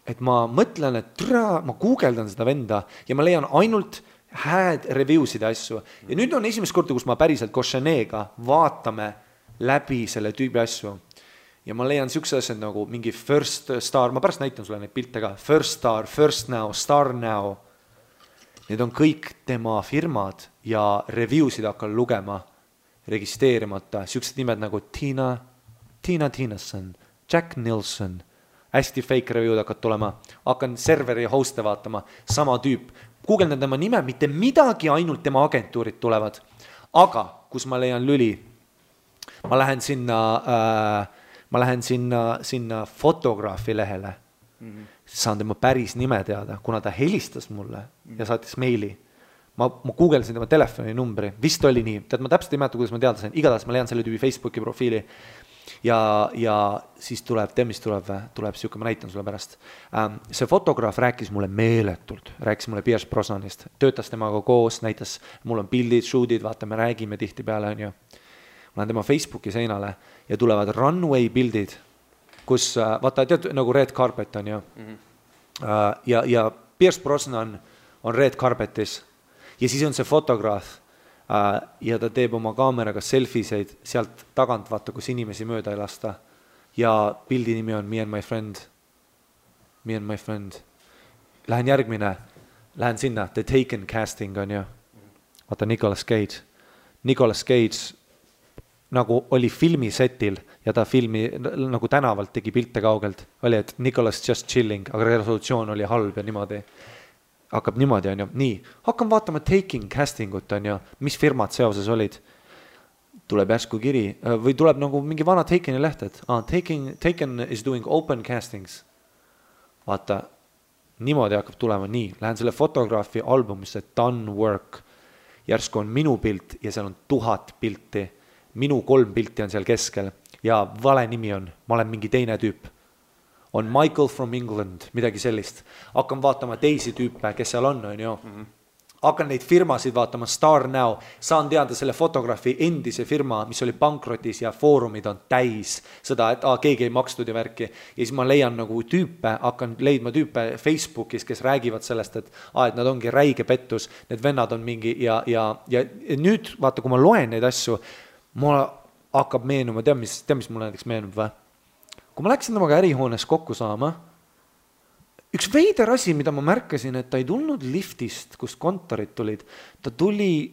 et ma mõtlen, et ma guugeldan seda venda ja ma leian ainult hääd reviewsid ja asju. Ja nüüd on esimest korda, kus ma päriselt Koshenega vaatame läbi selle tüübi asju. Ja ma leian siukse asjad nagu mingi First Star, ma pärast näitan sulle neid pilte ka, First Star, First Now, Star Now. Need on kõik tema firmad ja reviewsid hakkan lugema, registreerimata. Siuksed nimed nagu Tina Tinasson, Jack Nilsson, hästi fake review'd hakkad tulema, hakkan serveri host'e vaatama, sama tüüp, guugeldan tema nime, mitte midagi, ainult tema agentuurid tulevad, aga kus ma leian lüli, ma lähen sinna fotograafi lehele, saan tema päris nime teada, kuna ta helistas mulle ja saatis meili, ma guugeldasin tema telefoninumbri, vist oli nii, tead ma täpselt ei mäleta, kuidas ma teada sain, igatahes ma leian selle tüübi Facebooki profiili, ja siis tuleb siuke, ma näitan sulle pärast. See fotograaf rääkis mulle meeletult, rääkis mulle Pierce Brosnanist, töötas temaga koos, näitas, mul on pildid, shootid, vaata, me räägime tihti peale, on ju. Ma lähen tema Facebooki seinale ja tulevad runway pildid, kus, vaata, tead, nagu red carpet on ju. Ja Pierce Brosnan on red carpetis ja siis on see fotograaf, ja ta teeb oma kaameraga selfiseid sealt tagant, vaata, kus inimesi mööda ei lasta. Ja pildi nimi on Me and my friend. Lähen järgmine, lähen sinna, The Taken casting on ju. Vaata, Nicolas Cage nagu oli filmisetil ja ta filmi nagu tänavalt tegi pilte kaugelt. Oli, et Nicolas just chilling, aga resolutsioon oli halb ja niimoodi. Hakkab niimoodi, on ju, nii, hakkan vaatama Taking castingut, on ju, mis firmad seoses olid, tuleb järsku kiri, või tuleb nagu mingi vana Takeni leht, et Taken is doing open castings, vaata, niimoodi hakkab tulema, nii, lähen selle fotograafi albumisse, Done Work, järsku on minu pilt ja seal on 1000 pilti, minu 3 pilti on seal keskel ja vale nimi on, ma olen mingi teine tüüp. On Michael from England, midagi sellist. Hakkan vaatama teisi tüüpe, kes seal on ju. Hakkan neid firmasid vaatama, Star Now, saan teada selle fotograafi endise firma, mis oli pankrotis ja foorumid on täis seda, et keegi ei makstud ja värki. Ja siis ma leian nagu tüüpe, hakkan leidma tüüpe Facebookis, kes räägivad sellest, et nad ongi räige pettus, need vennad on mingi ja nüüd vaata, kui ma loen neid asju, mulle hakkab meenuma, tead, mis mulle näiteks meenub või? Kui ma läksin temaga ärihoones kokku saama, üks veider asi, mida ma märkasin, et ta ei tulnud liftist, kust kontorid tulid, ta tuli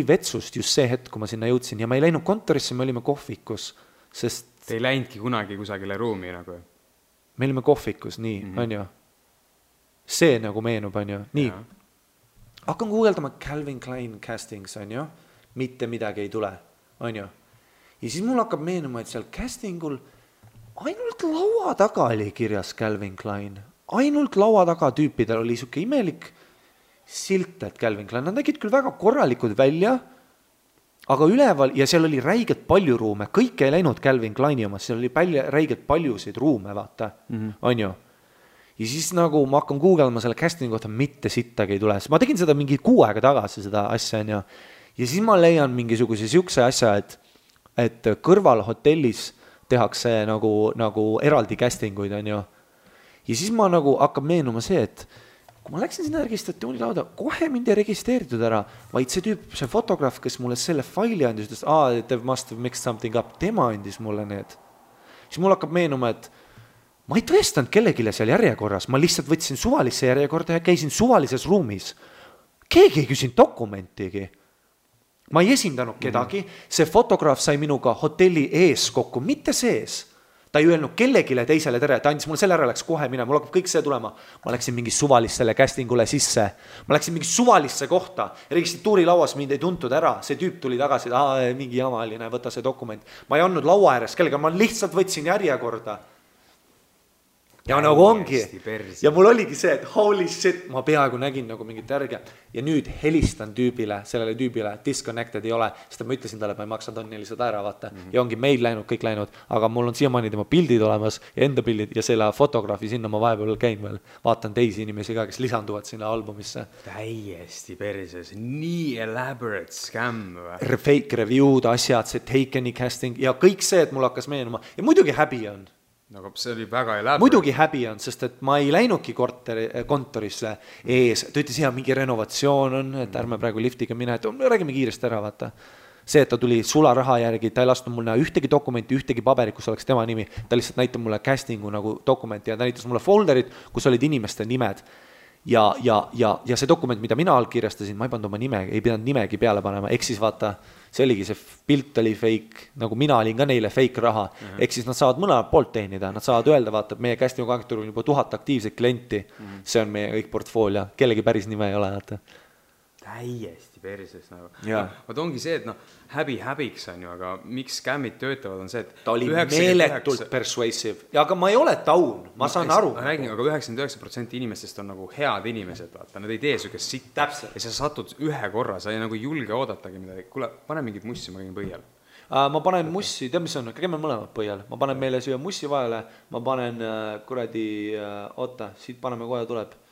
vetsust just see hetk, kui ma sinna jõudsin ja ma ei läinud kontorisse, me olime kohvikus, sest... Te ei läinudki kunagi kusagile ruumi nagu? Me olime kohvikus, nii, on ju. See nagu meenub, on ju, nii. Hakkan guugeldama Calvin Klein castings, on ju, mitte midagi ei tule, on ju. Ja siis mul hakkab meenuma, et seal castingul ainult laua taga oli kirjas Calvin Klein. Ainult laua taga tüüpidel oli siuke imelik silt, et Calvin Klein. Nad nägid küll väga korralikud välja, aga üleval, ja seal oli räigelt palju ruume. Kõik ei läinud Calvin Kleini omas, seal oli räigelt paljusid ruume, vaata. On ju? Ja siis nagu ma hakkan googlema selle castingi kohta, mitte sittagi ei tule. Ma tegin seda mingi 6 aega tagasi, seda asja, on ju. Ja siis ma leian mingisuguse siukse asja, et kõrval hotellis tehakse nagu eraldi castinguid, on ju. Ja siis ma nagu hakkab meenuma see, et kui ma läksin sinna registratsiooni lauda, kohe mind ei registreeritud ära, vaid see tüüp, see fotograaf, kes mulle selle faili andis, ütles, they must have mixed something up, tema andis mulle need. Siis mul hakkab meenuma, et ma ei tõestanud kellegile seal järjekorras, ma lihtsalt võtsin suvalisse järjekorda ja käisin suvalises ruumis. Keegi ei küsinud dokumentigi. Ma ei esindanud kedagi, see fotograaf sai minuga hotelli ees kokku, mitte sees. Ta ei öelnud kellegile teisele tere, ta andis mulle selle ära, läks kohe minema, mul hakkab kõik see tulema. Ma läksin mingi suvalissele castingule sisse, ma läksin mingi suvalisse kohta, registratuuri lauas mind ei tuntud ära, see tüüp tuli tagasi, mingi jamaline, võta see dokument. Ma ei andnud laua ääres kellega, ma lihtsalt võtsin järjekorda. Ja nagu ongi. Ja mul oligi see, et holy shit, ma peaaegu nägin nagu mingit järge. Ja nüüd helistan sellele tüübile, disconnected ei ole, sest ma ütlesin talle, et ma ei maksa tonni lihtsalt ära, vaata. Ja ongi meil läinud, kõik läinud, aga mul on siiamaani tema pildid olemas ja enda pildid ja selle fotograafi sinna ma vahepeal käin veel. Vaatan teisi inimesi ka, kes lisanduvad sinna albumisse. Täiesti perses, nii elaborate scam. Fake review'd, asjad, see Takeni casting ja kõik see, et mul hakkas meenuma. Ja muidugi häbi on. Aga see oli väga elaborate. Muidugi häbi on, sest et ma ei läinudki kontorisse ees. Ta ütles, mingi renovatsioon on, et ärme praegu liftiga mine, et räägime kiiresti ära, vaata. See, et ta tuli sularaha järgi, ta ei lasknud mulle ühtegi dokumenti, ühtegi paberit, kus oleks tema nimi. Ta lihtsalt näitab mulle castingu nagu dokumenti ja ta näitas mulle folderid, kus olid inimeste nimed. Ja see dokument, mida mina allkirjastasin, ma ei pannud oma nime, ei pidanud nimegi peale panema. Eks siis vaata, see oligi, see pilt oli fake, nagu mina olin ka neile fake raha. Eks siis nad saavad mõlemad poolt teenida, nad saavad öelda, vaata, et meie castingu agentuur on juba 1000 aktiivset klienti. See on meie kõik portfoolio, kellegi päris nime ei ole, vaata. Täiesti perses nagu. Vaat ongi see, et häbiks on ju, aga miks scammid töötavad on see, et ta oli meeletult persuasive. Ja aga ma ei ole taun, ma saan aru. Ma räägin, aga 99% inimestest on nagu head inimesed, vaata, nad ei tee sükest sitt. Täpselt. Ja sa satud ühe korra, sa ei nagu julge oodatagi midagi. Kuule, pane mingit mussi, ma käin põhjal. Ma panen mussi, tead mis on, käime mõlemad põhjal. Ma panen meile siia mussi vahele, ma panen kuradi, oota, siit paneme kohe tuleb.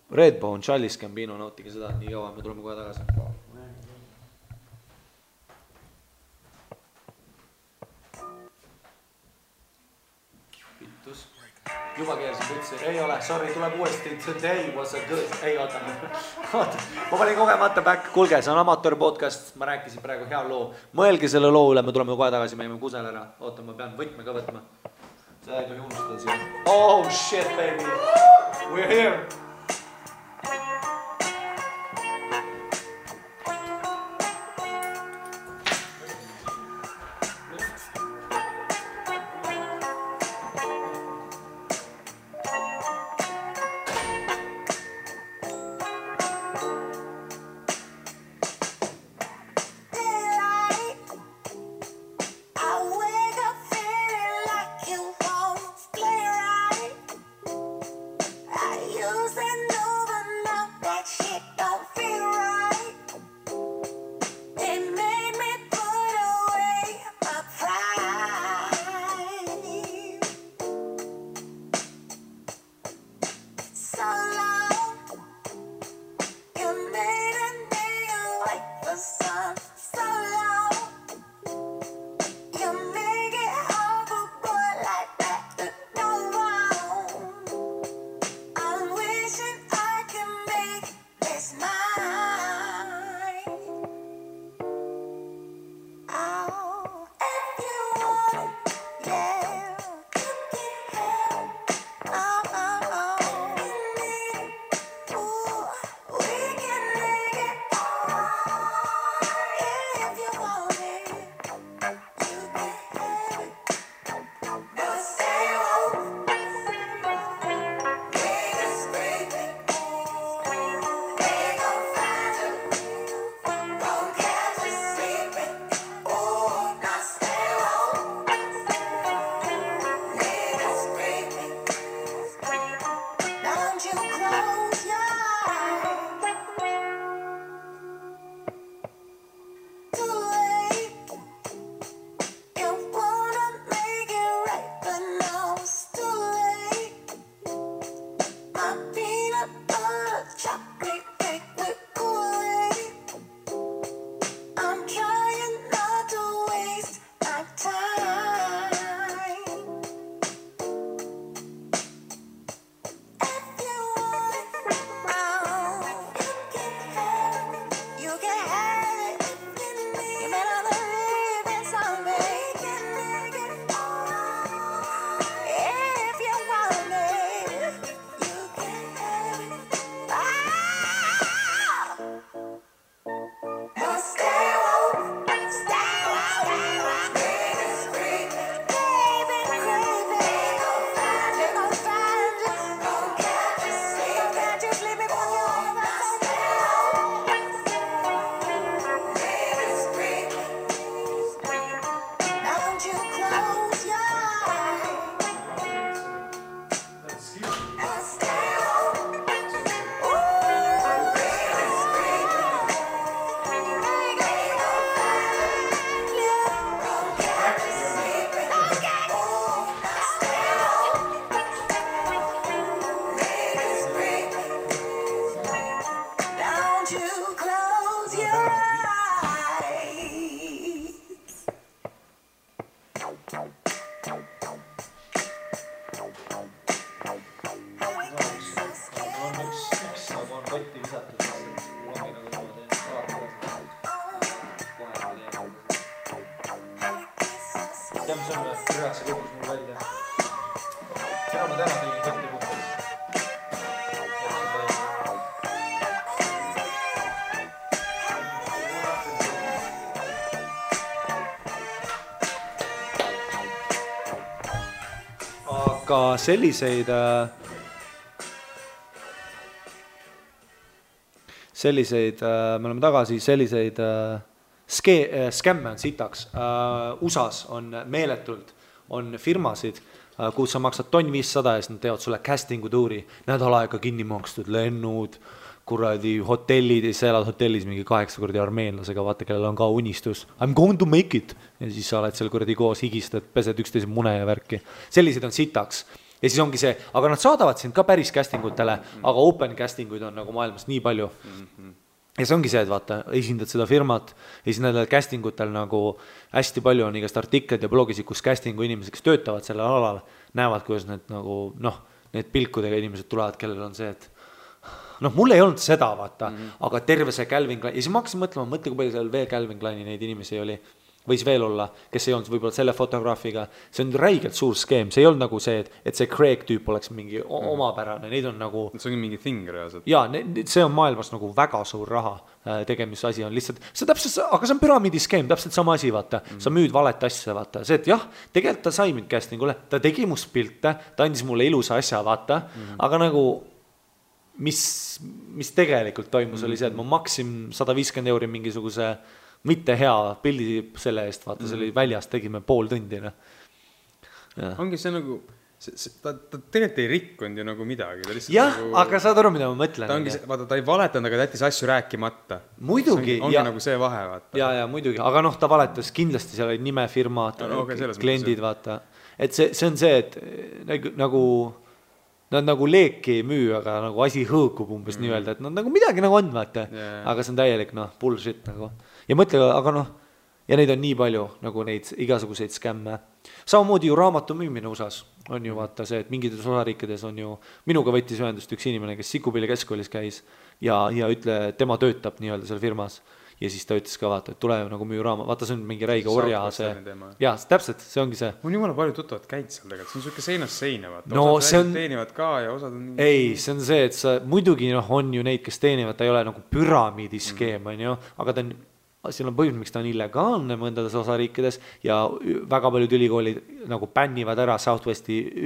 Redbone, Charles Gambino, nautige seda, nii kaua, me tuleme kohe tagasi. Pittus. Juba keersin pütsi, ei ole, sorry, tuleb uuesti, today was a good, ei oota, ma panin kogemata back, kuulge, see on amatöör podcast, ma rääkisin praegu hea loo, mõelge selle loo üle, me tuleme kohe tagasi, me jäime kusel ära, oota, ma pean võtme ka võtma, seda ei tohi unustada siia, oh shit baby, we're here. Use Aga selliseid me oleme tagasi, selliseid skämme on sitaks. USAs on meeletult, on firmasid, kus sa maksad 1500 ja nad teevad sulle castingu tuuri, nädal aega kinni makstud, lennud, kuradi hotellid, ja sa elad hotellis mingi 8 kordi armeenlasega, vaata, kellel on ka unistus. I'm going to make it. Ja siis sa oled seal kuradi koos, higistad, pesed üksteise mune ja värki. Sellised on sitaks. Ja siis ongi see, aga nad saadavad sind ka päris castingutele, aga open castinguid on nagu maailmas nii palju. Ja see ongi see, et vaata, esindad seda firmat ja siis nendel castingutel nagu hästi palju on igast artiklid ja blogis, kus castingu inimesed, kes töötavad sellel alal, näevad, kuidas need nagu, need pilkudega inimesed tulevad, kellel on see, et mul ei olnud seda, vaata, aga terve see Calvin Klein, ja siis ma hakkasin mõtlema, mõtle, kui palju seal veel Calvin Kleini neid inimesi oli, võis veel olla, kes ei olnud võib-olla selle fotograafiga, see on räigelt suur skeem, see ei olnud nagu see, et see Craig tüüp oleks mingi omapärane, neid on nagu... See on mingi thing reaalselt. Jaa, see on maailmas nagu väga suur raha tegemisasi on lihtsalt, see täpselt, aga see on püramiidi skeem, täpselt sama asi, vaata, sa müüd valet asja, vaata, see, et jah, tegelikult ta sai mind castingule, ta tegi must pilte, ta andis mulle ilusa asja, vaata, aga nagu... Mis tegelikult toimus oli see, et ma maksin 150 € mingisuguse mitte hea pildi selle eest, vaata, see oli väljas, tegime pool tundi. Ongi see nagu, ta tegelikult ei rikkunud ju nagu midagi. Jah, nagu, aga saad aru, mida ma mõtlen. Vaata, ta ei valetanud, aga ta jättis asju rääkimata. Muidugi. Ongi nagu see vahe, vaata. Ja, muidugi, aga ta valetas kindlasti, seal oli nimefirmad, kliendid, vaata. Et see on see, et nagu... Nad nagu leeki ei müü, aga nagu asi hõõkub umbes nii-öelda, et nad nagu midagi nagu on, vaata. Aga see on täielik, bullshit nagu. Ja mõtle, aga ja neid on nii palju, nagu neid igasuguseid skämme. Samamoodi ju raamatu müümine USAs on ju vaata see, et mingites osariikides on ju, minuga võttis ühendust üks inimene, kes Sikupilli keskkoolis käis ja ütle, tema töötab nii-öelda seal firmas. Ja siis ta ütles ka, vaata, et tule nagu müü raama, vaata, see on mingi räige orja see. Jaa, täpselt, see ongi see. On jumala palju tuttavad käid seal tegelikult, see on selline seinast seina, vaata. No, osad teenivad ka ja osad on... Ei, see on see, et sa muidugi on ju neid, kes teenivad, ta ei ole nagu püramiidiskeem, on ju, aga ta on... Siin on põhjus, miks ta on illegaalne mõndades osariikides ja väga paljud ülikoolid nagu bännivad ära Southwestern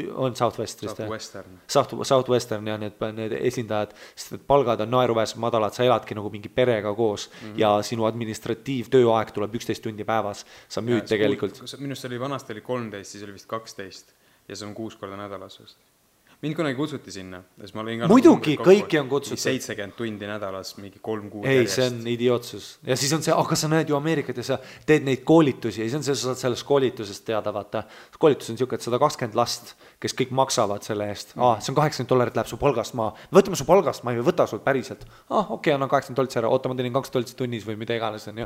ja need esindajad, sest palgad on naeruväärselt madalad, sa eladki nagu mingi perega koos ja sinu administratiivtööaeg tuleb 11 tundi päevas, sa müüd tegelikult. Minust oli vanasti oli 13, siis oli vist 12 ja see on 6 korda nädalas vist. Mind kunagi kutsuti sinna. Muidugi, kõiki on kutsutud. 70 tundi nädalas, mingi 3 kuud järjest. Ei, see on idiootsus. Ja siis on see, aga sa näed ju Ameerikat ja sa teed neid koolitusi ja siis on see, sa saad sellest koolitusest teada, vaata. Koolitus on siuke, et 120 last, kes kõik maksavad selle eest. See on $80 läheb su palgast maa. Võtame su palgast, ma ei võta sul päriselt. Okei, annan $80 ära, oota, ma teenin $2 tunnis või mida iganes on.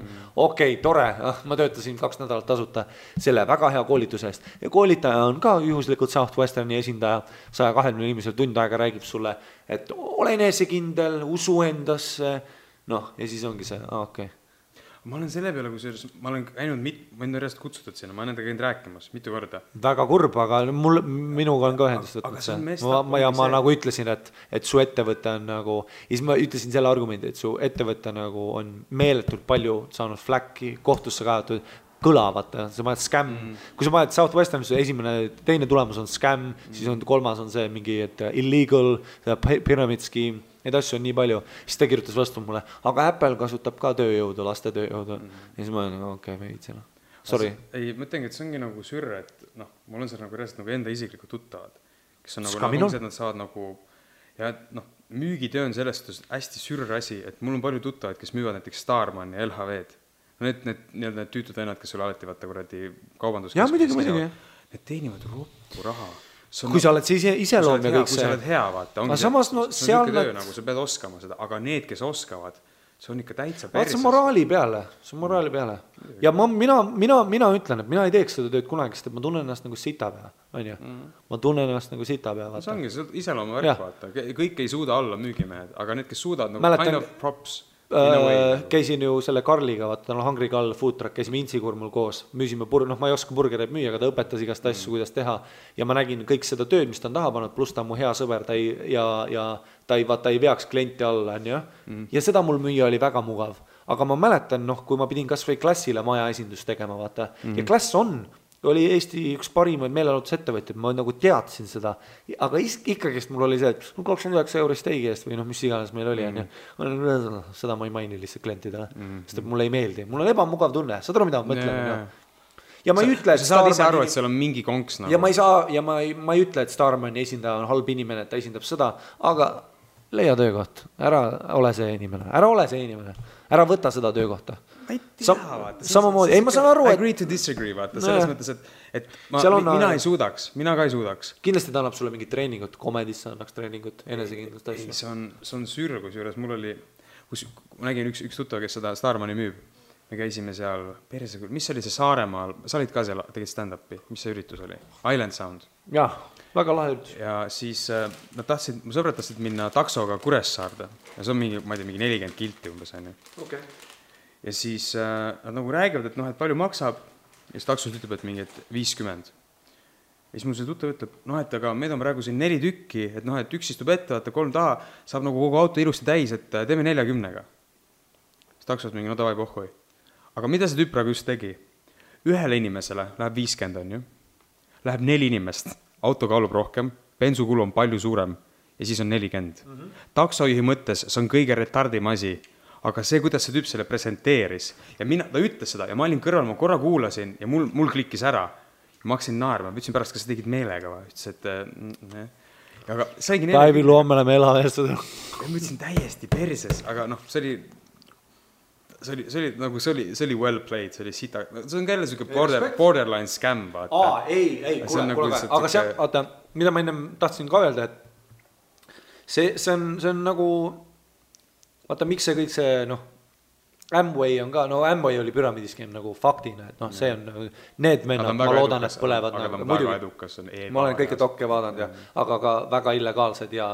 Okei, tore, ma töötasin 2 nädalat tasuta selle väga hea koolituse eest. Ja koolitaja on ka juhuslikult Southwesterni esindaja 120 inimesel tund aega räägib sulle, et ole enesekindel, usu endasse, ja siis ongi see, okei. Ma olen selle peale, ma olen käinud, ma olen järjest kutsutud sinna, ma olen nendega käinud rääkimas mitu korda. Väga kurb, aga minuga on ka ühendust võtnud see. Ma nagu ütlesin, et su ettevõte on nagu, ja siis ma ütlesin selle argumendi, et su ettevõte nagu on meeletult palju saanud fläkki, kohtusse kajatud, kõlavata, sa paned scam, kui sa paned Southwestern, teine tulemus on scam, siis on kolmas on see mingi, et illegal, pyramid scheme, neid asju on nii palju, siis ta kirjutas vastu mulle, aga Apple kasutab ka tööjõudu, laste tööjõudu, ja siis ma olen, okei, me viitsime. Sorry. Ei, mõtlengi, et see ongi nagu sürre, et mul on seal nagu reaalselt nagu enda isiklikud tuttavad, kes on nagu, nad saavad nagu, ja müügitöö on sellest hästi sürre asi, et mul on palju tuttavad, kes müüvad näiteks Starman ja LHV-d. Need tüütud vennad, kes sulle alati vaata kuradi kaubanduskeskuses. Need teenivad roppu raha. Kui sa oled see iseloom ja kõik see. Kui sa oled hea, vaata. Aga samas, see on töö, nagu sa pead oskama seda. Aga need, kes oskavad, see on ikka täitsa perses. See on moraali peale. Ja mina ütlen, et mina ei teeks seda tööd kunagi, sest et ma tunnen ennast nagu sitapea, on ju? Ma tunnen ennast nagu sitapea, vaata. See ongi, see iseloomu värk, vaata. Kõik ei suuda olla müügimehed, aga need, kes suudavad, nagu kind of props. Käisin ju selle Karliga, vaata, tal on Hungry Carl food truck, käisime Intsikurmul koos, müüsime ma ei oska burgereid müüa, aga ta õpetas igast asju, kuidas teha ja ma nägin kõik seda tööd, mis ta on taha pannud, pluss ta on mu hea sõber, ta ei veaks klienti alla, on ju, ja seda mul müüa oli väga mugav, aga ma mäletan, kui ma pidin kas või Klassile maja esindust tegema, vaata, ja Klass oli Eesti üks parimaid meelelahutusettevõtjad, ma nagu teadsin seda, aga ikkagist mul oli see, et 29 € steigi eest või mis iganes meil oli, seda ma ei maini lihtsalt klientidele, sest et mulle ei meeldi, mul on ebamugav tunne, saad aru, mida ma mõtlen? Ja ma ei ütle, et sa saad ise aru, et seal on mingi konks nagu. Ja ma ei ütle, et Starmani esindaja on halb inimene, et ta esindab seda, aga leia töökoht, ära ole see inimene, ära võta seda töökohta. Ma ei tea, vaata. Samamoodi, ma saan aru, et... Agree to disagree, vaata, selles mõttes, et mina ei suudaks, mina ka ei suudaks. Kindlasti ta annab sulle mingit treeningut, komedisse annaks treeningut, enesekindlust asja. See on sürgus juures, mul oli, ma nägin üks tuttav, kes seda Starmani müüb, me käisime seal, mis oli see Saaremaal, sa olid ka seal, tegid stand-upi, mis see üritus oli? Island Sound. Jah, väga lahe üritus. Ja siis mu sõbrad tahtsid minna taksoga Kuressaarde ja see on mingi 40 kilti umbes, on ju. Okay. Ja siis nad nagu räägivad, et palju maksab ja siis taksos ütleb, et mingi 50. Ja siis mul see tuttav ütleb, et aga meid on praegu siin 4 tükki, et üks istub ette, 3 taha, saab nagu kogu auto ilusti täis, et teeme 40-ga. Siis taksos mingi, davai pohhui. Aga mida see tüüp praegu just tegi? Ühele inimesele läheb 50, on ju. Läheb 4 inimest, auto kaalub rohkem, bensukulu on palju suurem ja siis on 40. Taksojuhi mõttes see on kõige retardim asi, aga see, kuidas see tüüp selle presenteeris ja ta ütles seda ja ma olin kõrval, ma korra kuulasin ja mul klikkis ära. Ma hakkasin naerma, ütlesin pärast, kas sa tegid meelega või? Ütles, et... Aga saigi Päevi loome oleme elameestada. Ma ütlesin täiesti perses, aga see oli well played, see oli sita, see on jälle selline borderline scam, vaata. Ei, kuule, aga see, vaata, mida ma ennem tahtsin ka öelda, et see on nagu, vaata, miks see kõik see, Amway on ka, Amway oli püramiidiskeem nagu faktina, et see on, need vennad, ma loodan, et põlevad. Aga ta on väga edukas. Ma olen kõike dokke vaadanud, aga ka väga illegaalsed ja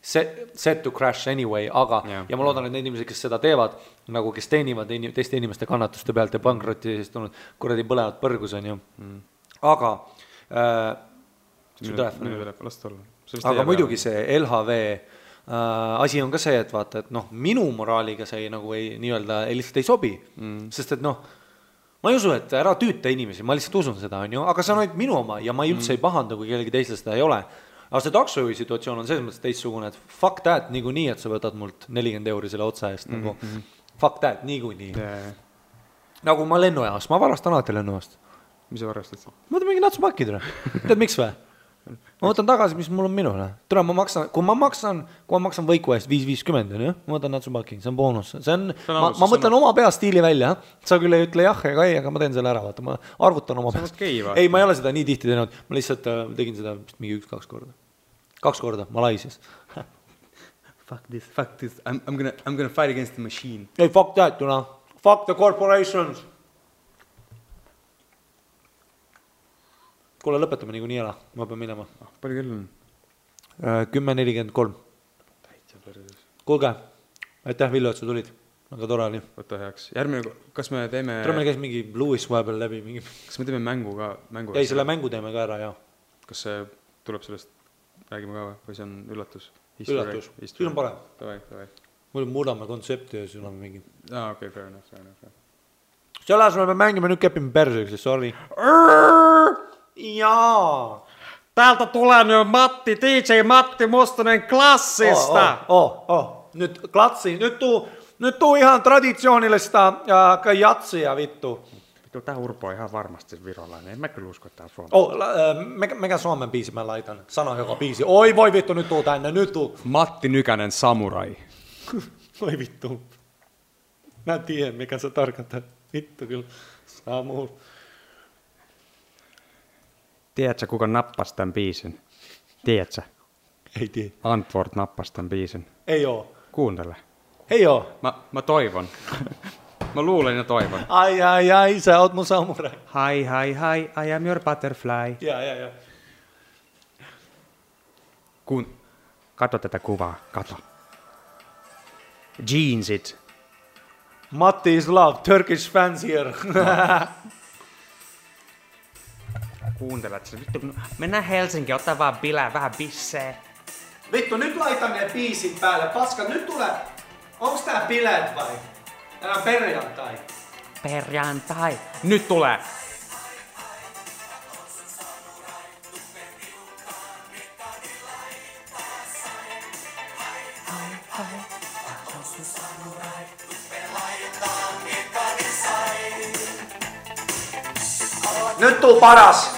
set to crash anyway, aga, ja ma loodan, et need inimesed, kes seda teevad, nagu kes teenivad teiste inimeste kannatuste pealt ja pankrotti siis tulnud, kuradi põlevad põrgus on ju. Aga, aga muidugi see LHV asi on ka see, et vaata, et minu moraaliga see nagu nii-öelda lihtsalt ei sobi, sest et ma ei usu, et ära tüüta inimesi, ma lihtsalt usun seda, on ju, aga see on ainult minu oma ja ma üldse ei pahandu, kui kellegi teisel seda ei ole. Aga see taksojuhi situatsioon on selles mõttes teistsugune, et fuck that niikuinii, et sa võtad mult 40 € selle otsa eest, nagu fuck that niikuinii. Nagu ma lennujaas, ma varastan alati lennujaast. Mis sa varastad? Ma võtan mingi natsupakid, tead miks või? Ma võtan tagasi, mis mul on minule. Tule, kui ma maksan võiku eest 5.50, ma võtan natsupaki, see on boonus. Ma mõtlen oma pea stiili välja, sa küll ei ütle jah ega ei, aga ma teen selle ära, vaata, ma arvutan oma peast. Ei, ma ei ole seda nii tihti teinud, ma lihtsalt tegin seda mingi 1-2 korda. 2 korda, Malaisias. Fuck this, I'm gonna fight against the machine. Ei, fuck that, fuck the corporations. Kuule, lõpetame nii ära, ma pean minema. Palju kell on? 10.43. Kuulge, aitäh Villu, et sa tulid. Aga tore oli. Võta heaks. Järgmine, kas me teeme... Tule meil käis mingi Louis vahepeal läbi. Kas me teeme mängu ka? Ei, selle mängu teeme ka ära, jah. Kas see tuleb sellest, räägime ka või see on üllatus? Üllatus, siis on parem. Davai. Muidu muudame kontsepti ja siis on mingi... Okei, fair enough. Selles me mängime nüüd kepime perseks, sorry. Jaa. Täältä tulee nyt Matti, DJ Matti Mustonen Klassista. Nyt Klassi, nyt tuu ihan traditsioonillista jatsia vittu. Vittu, tää Urpo on ihan varmasti virolainen, en mä kyllä usko, että tää on Suomi. Mikä Suomen biisi mä laitan? Sano joka biisi. Oi voi vittu, nyt tuu tänne, nyt tuu. Matti Nykänen Samurai. Oi vittu. Mä tiedän, mikä se tarkoittaa. Vittu kyllä. Samurai. Tiedätkö, kuka nappasi tämän biisin? Tiedätkö? Ei tiedä. Antwort nappasi tämän biisin. Ei oo. Kuuntele. Heio. Ma toivon. Ma luulen ja toivon. Ai, sä oot mun samurai. Hi, I am your butterfly. Ja. Kato tätä kuvaa, kato. Jeansit. Matti is love, Turkish fans here. Kuuntelet sitä. Vittu, mennään Helsinkiin, ottaa vaan bilää, vähän bissee. Vittu, nyt laitan ne biisit päälle. Paska, nyt tulee. Onks tää bileet vai? Tänään perjantai. Perjantai. Nyt tulee. Nyt tuu paras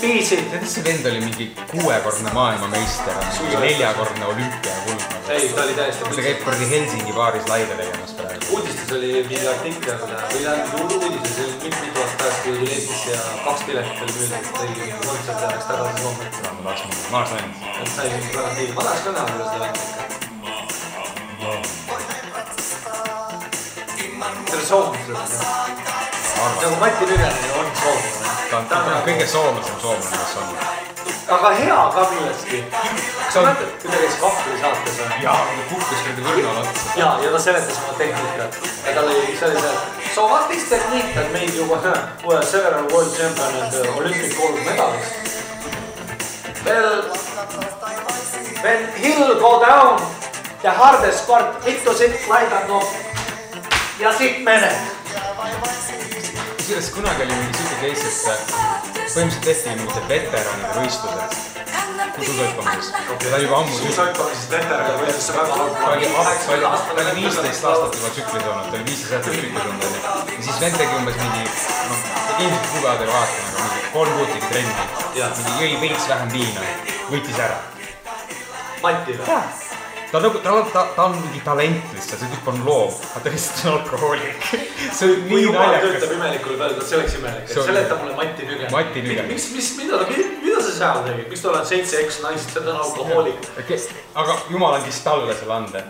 biisit. Teetä se vend oli mingi 6-korne maailmameister, 4-korne olümpiakuld. Ei, ta oli täiesti. Ta käib kuradi Helsingi baaris laive tegemas praegu. Uudistes oli mingi artikkel, või tähendab uudises oli mitu aastat pärast, kui tuli Eestisse ja 2 piletit oli müüdud, tõi kontsert ja läks tagasi Soome. Ma tahaks näinud. Sai mingi garantii. Ma tahaks ka näha, kuidas ta läks ikka. See oli soomlased. Nagu Mati Nügenen on soomlane. Ta on kõige soomlasem soomlane, kes on. Aga hea ka millestki. Kas sa mõtled, kui ta käis Kahvli saates või? Jaa, ta kukkus kõrdi võrna latsa. Ja ta seletas oma tehnikat. Ja tal oli see, so what is technique that made you several world champion and Olympic gold medalist? Well, when hill go down, the hardest part, vittu sit laidan no ja sit mened. Kusjuures kunagi oli mingi süke case, et põhimõtteliselt tehti mingite veteranide võistlused suusoipamises. Ja ta juba ammu suusoipamises veteranide võistluses väga halb. Ta oli 15 aastat juba tsüklis olnud, ta oli 15 aastat tsüklis olnud. Ja siis vend tegi umbes mingi, ilmselt kugevad ei vaata, aga mingi 3 kuud tegi trenni. Mingi jõi veits vähem viina, võitis ära. Mati või? Ta on mingi talent lihtsalt, see tüüp on loom, aga ta lihtsalt on alkohoolik. See on nii naljakas. Töötab imelikule peale, see oleks imelik. Seleta mulle Mati Nügenen. Mati Nügenen. Mida sa seal tegid? Miks ta oled 7X naised, see on alkohoolik? Aga jumal andis talle selle ande.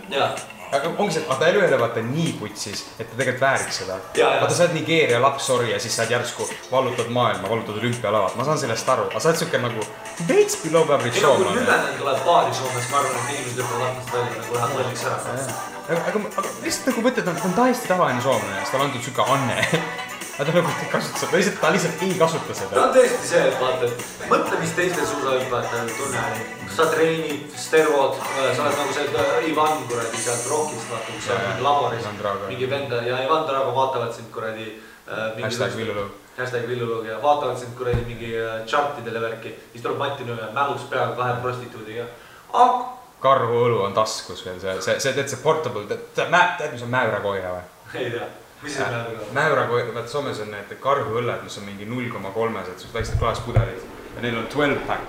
Aga ongi see, ta ei ole vaata nii putsis, et ta tegelikult vääriks seda. Vaata sa oled Nigeeria laps, sorry, ja siis sa oled järsku vallutad maailma, vallutad olümpialavat. Ma saan sellest aru, aga sa oled suke nagu veits below average show. Kui Nügenen tuleb paari Soomes, ma arvan, et inimesed lõpvad aknast välja, nagu ühe tolliks ära. Aga lihtsalt nagu mõtled, ta on täiesti tavaline soomlane, sest ta on antud suke anne. Aga ta nagu ei kasuta seda, ta lihtsalt ei kasuta seda. Ta on tõesti see, et vaata, et mõtle, mis teistel suusahüppajad tunne. Sa treenid, stervod, sa oled nagu see Ivan kuradi sealt rockist, vaata, kus sa oled laboris. Mingi venda ja Ivan Drago vaatavad sind kuradi #Villulug ja vaatavad sind kuradi mingi chartidele värki. Siis tuleb Mati Nügenen mälus peal 2 prostituudiga. Karhu õlu on taskus veel, see teed see portable, tead mis on mäürakoira või? Ei tea. Mis see mäürakoira? Mäürakoira, vaat Soomes on need karhuõlled, mis on mingi 0,3-sed, sus väiksed klaaspudelid ja neil on 12-pack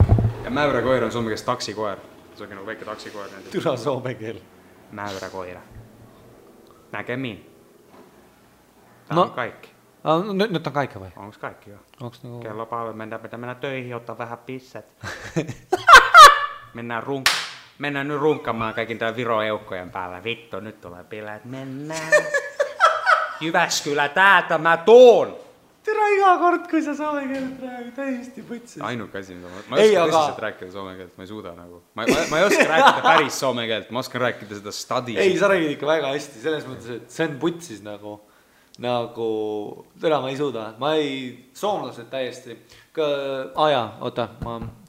ja mäürakoir on soome kees taksikoer, see on nagu väike taksikoer. Türa soome keel. Mäyräkoira. Näkemiin. Tämä on kaikki. Nyt on kaikki vai? Onks kaikki jo? Onks niinku... Kello paljon mennä töihin, ottaa vähän pisset. Mennään nyt runkkamaan kaikin tää Viro-eukkojen päällä. Vittu, nyt tulee bileet. Mennään. Jyväskylä, täältä mä tuun! Tere iga kord, kui sa soome keelt räägid, täiesti võtsis. Ainuke asi, ma ei oska tõsiselt rääkida soome keelt, ma ei suuda nagu. Ma ei oska rääkida päris soome keelt, ma oskan rääkida seda stadi. Ei, sa räägid ikka väga hästi, selles mõttes, et see on putsis nagu tere, ma ei suuda. Ma ei, soomlased täiesti. Oota,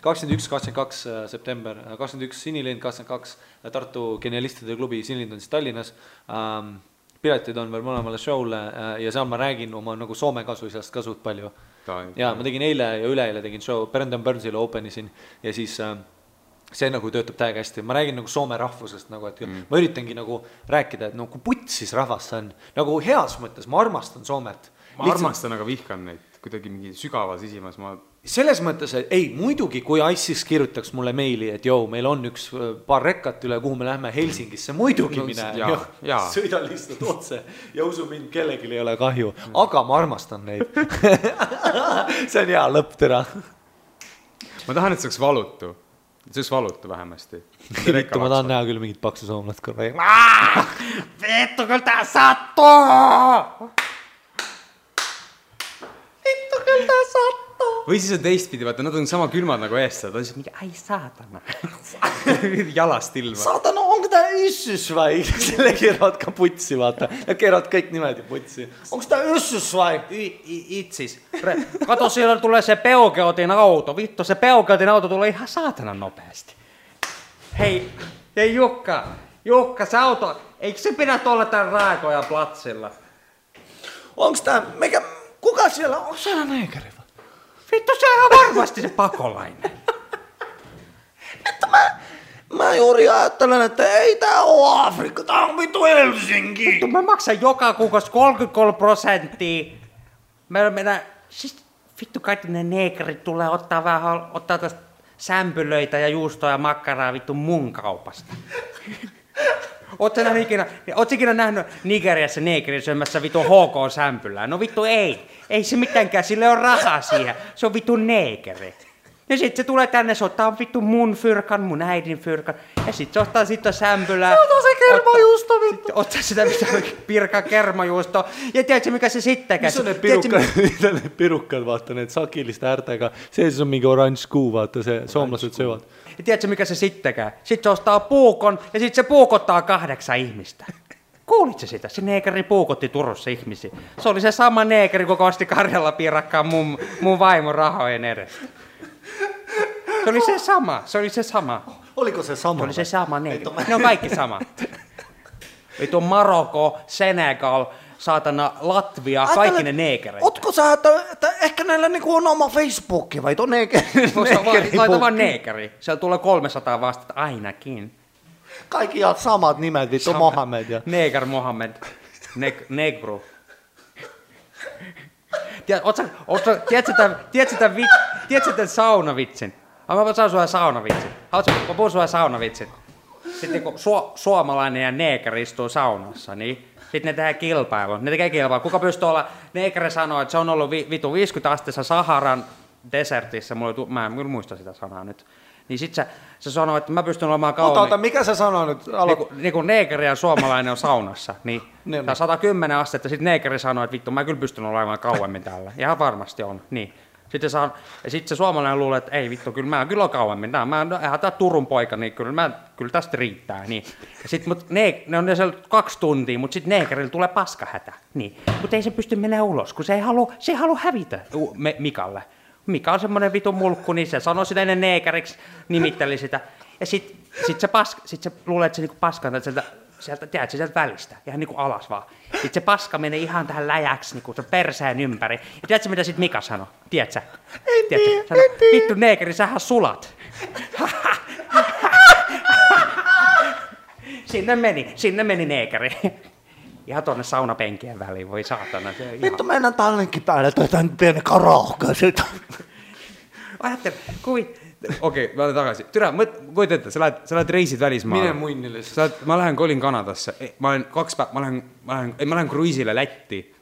21-22 september, 21 Sinilind, 22 Tartu Genialistide klubi, Sinilind on siis Tallinnas. Piletid on veel mõlemale show'le ja seal ma räägin oma nagu soome kasuisast ka suht palju. Ja ma tegin eile ja üleeile tegin show, Brendan Burnsile openisin ja siis see nagu töötab täiega hästi. Ma räägin nagu soome rahvusest, nagu, et ma üritangi nagu rääkida, et nagu putsis rahvas see on. Nagu heas mõttes, ma armastan Soomet. Ma armastan, aga vihkan neid kuidagi mingi sügavas isimas. Selles mõttes, et ei, muidugi, kui ISIS kirjutaks mulle meili, et joo, meil on üks paar rekkat üle, kuhu me lähme Helsingisse, muidugi mine, sõida lihtsalt otse ja usu mind, kellelgi ei ole kahju, aga ma armastan neid. See on hea lõpp, tere. Ma tahan, et see oleks valutu. see oleks valuta vähemasti. Vittu, ma tahan näha küll mingit paksu soomlast korra. Vittu, küll tää sattuu! Vittu, küll tää sattuu! Või siis on teistpidi, vaata, nad on sama külmad nagu eestlased, on siis mingi, ai saatana. Jalast ilma. Saatana, onko tää yssus vai? Selle keeravad ka putsi, vaata. Ja keeravad kõik nimed ja putsi. Onko tää yssus vai? Itsis. Kato, siellä tulee se Peugeotin auto. Vittu, se Peugeotin auto tulee ihan saatana nopeasti. Hei Jukka, se auto, eikö se pidä olla tän Raakojan platsilla? Onko tää, kuka siellä, onko siellä neekeri? Vittu, se on varmasti se pakolainen. Että mä juuri ajattelen, että ei tää oo Afrikka, tää on vittu Helsinki. Vittu, mä maksan joka kuukausi 33%. Siis vittu, kaikki ne neekerit tulee ottaa tästä sämpylöitä ja juustoa ja makkaraa vittu mun kaupasta. Ootko ikinä nähnyt Nigeriassa neekerin syömässä vittu HK-sämpylää? No vittu ei se mitenkään, sille on rahaa siihen. Se on vittu neekeri. Ja sit se tulee tänne, se ottaa vittu mun fyrkan, mun äidin fyrkan. Ja sit se ottaa sitten sämpylää. Se ottaa se kermajuusto vittu. Ottaa sitä pirkan kermajuusto. Ja tiedätkö mikä se sittenkään? Missä on ne pirukkat, vaata, ne sakillista ärtäga. Se on mingi orange kuu, vaata, se suomalaiset syövät. Ja tiedätkö mikä se sittenkään? Sit se ostaa puukon ja sit se puukottaa 8 ihmistä. Kuulitko sitä? Se neekeri puukotti Turussa ihmisiä. Se oli se sama neekeri, kun osti Karjala piirakkaan mun vaimon rahojen edestä. Se oli se sama. Oliko se sama? Se oli se sama neekeri. Ne on kaikki sama. Ei tuo Marokko, Senegal, saatana Latvia, kaikki ne neekereitä. Ootko sä, että ehkä näillä niinku on oma Facebookki vai tuo neekeri? Laita vaan neekeri. Siellä tulee 300 vastata ainakin. Kaikki ihan samat nimet, vittu Mohammed ja... Neger Mohammed. Negru. Tiedätkö tämän saunavitsin? Mä saan sulle saunavitsin. Mä puhun sulle saunavitsin. Sitten kun suomalainen ja neeker istuu saunassa, niin sitten ne tekee kilpailua. Kuka pystyy olla... Neekeri sanoo, että se on ollut vitu 50 asteessa Saharan desertissä. Mä en muista sitä sanaa nyt. Niin sit se sanoo, että mä pystyn olemaan kauemmin... Ota, mikä se sanoo nyt? Niin kun neekeri ja suomalainen on saunassa, niin tää 110 astetta, sit neekeri sanoo, että vittu, mä kyllä pystyn olemaan kauemmin täällä. Ihan varmasti on, niin. Sitten se suomalainen luulee, että ei vittu, kyllä mä kyllä on kauemmin. Eihän tää Turun poika, niin kyllä tästä riittää. Niin. Ja sit, ne on siellä 2 tuntia, mutta sitten neekerillä tulee paskahätä. Niin. Mutta ei se pysty mennä ulos, kun se ei halua hävitä Mikalle. Mika on semmonen vitun mulkku, niin se sanoi sitä ennen neekeriksi, nimitteli sitä. Ja sit se luulee, että se niinku paskantaa sieltä välistä, ihan niinku alas vaan. Sitten se paska menee ihan tähän läjäksi, niinku se perseen ympäri. Ja tiedätkö mitä sit Mika sanoi? Tiedätkö? En tiedä. Vittu neekeri, sähän sulat. Sinne meni neekeri. Ihan tuonne saunapenkien väliin, voi saatana. Vittu, mennään tallenkin päälle, tämän pienen karaoke. Ajattele, Okei, mä olen takaisin. Tyrä, kuit ette, sä lähet reisit välismaalle. Mine muinnille. Mä kolin Kanadasse. Mä lähen kruiisille Lätti.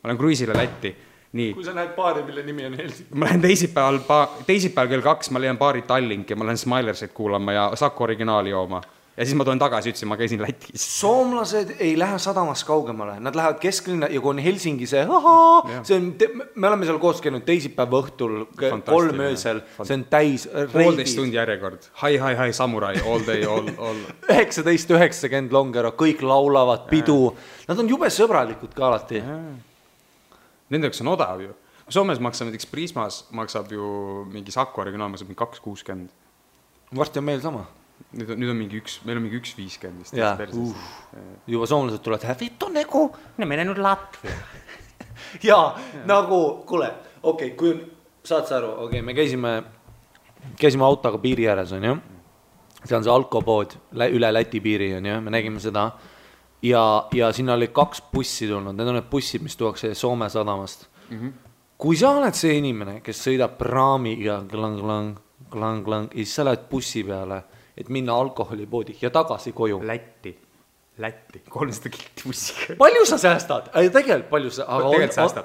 Niin. Kun sä näet baari, mille nimi on Helsinki. Mä lähen teisipäivällä kello 2, mä lähen baari Tallinkki, mä lähen Smilersit kuulemaan ja Sakko originaali joomaan. Ja siis mä toin takaisin, ütlesin, mä käisin Lätis. Suomalaiset ei lähde sadamassa kaugemmalle. Nad lähevad kesklinna ja kun Helsingi se on, me oleme seal koos käinud teisipäeva õhtul 3 öösel. See on täis reidis. 1,5 tundi järjekord. Hi, samurai, all day, all. 19.90 Longero, kõik laulavad, pidu. Nad on jube sõbralikud ka alati. Nendeks on odav ju. Soomes maksab näiteks Prismas, maksab ju mingi Sakko originaal, maksab 2,60. Varsti on meil sama. Nüüd on mingi meil on mingi 1,50 vist. Juba soomlased tulevad, vittu nagu. Ne menee nüüd Latvia. Ja nagu, kuule, okei, kui saad sa aru, okei, me käisime autoga piiri ääres, on ju. See on see alkopood üle Läti piiri, on ju, me nägime seda. Ja sinna oli 2 bussi tulnud, need on need bussid, mis tuuakse Soome sadamast. Kui sa oled see inimene, kes sõidab praamiga klang, ja siis sa lähed bussi peale, et minna alkoholipoodi ja tagasi koju. Lätti. Lätti, 300 kilti bussiga. Palju sa säästad? Tegelikult palju sa...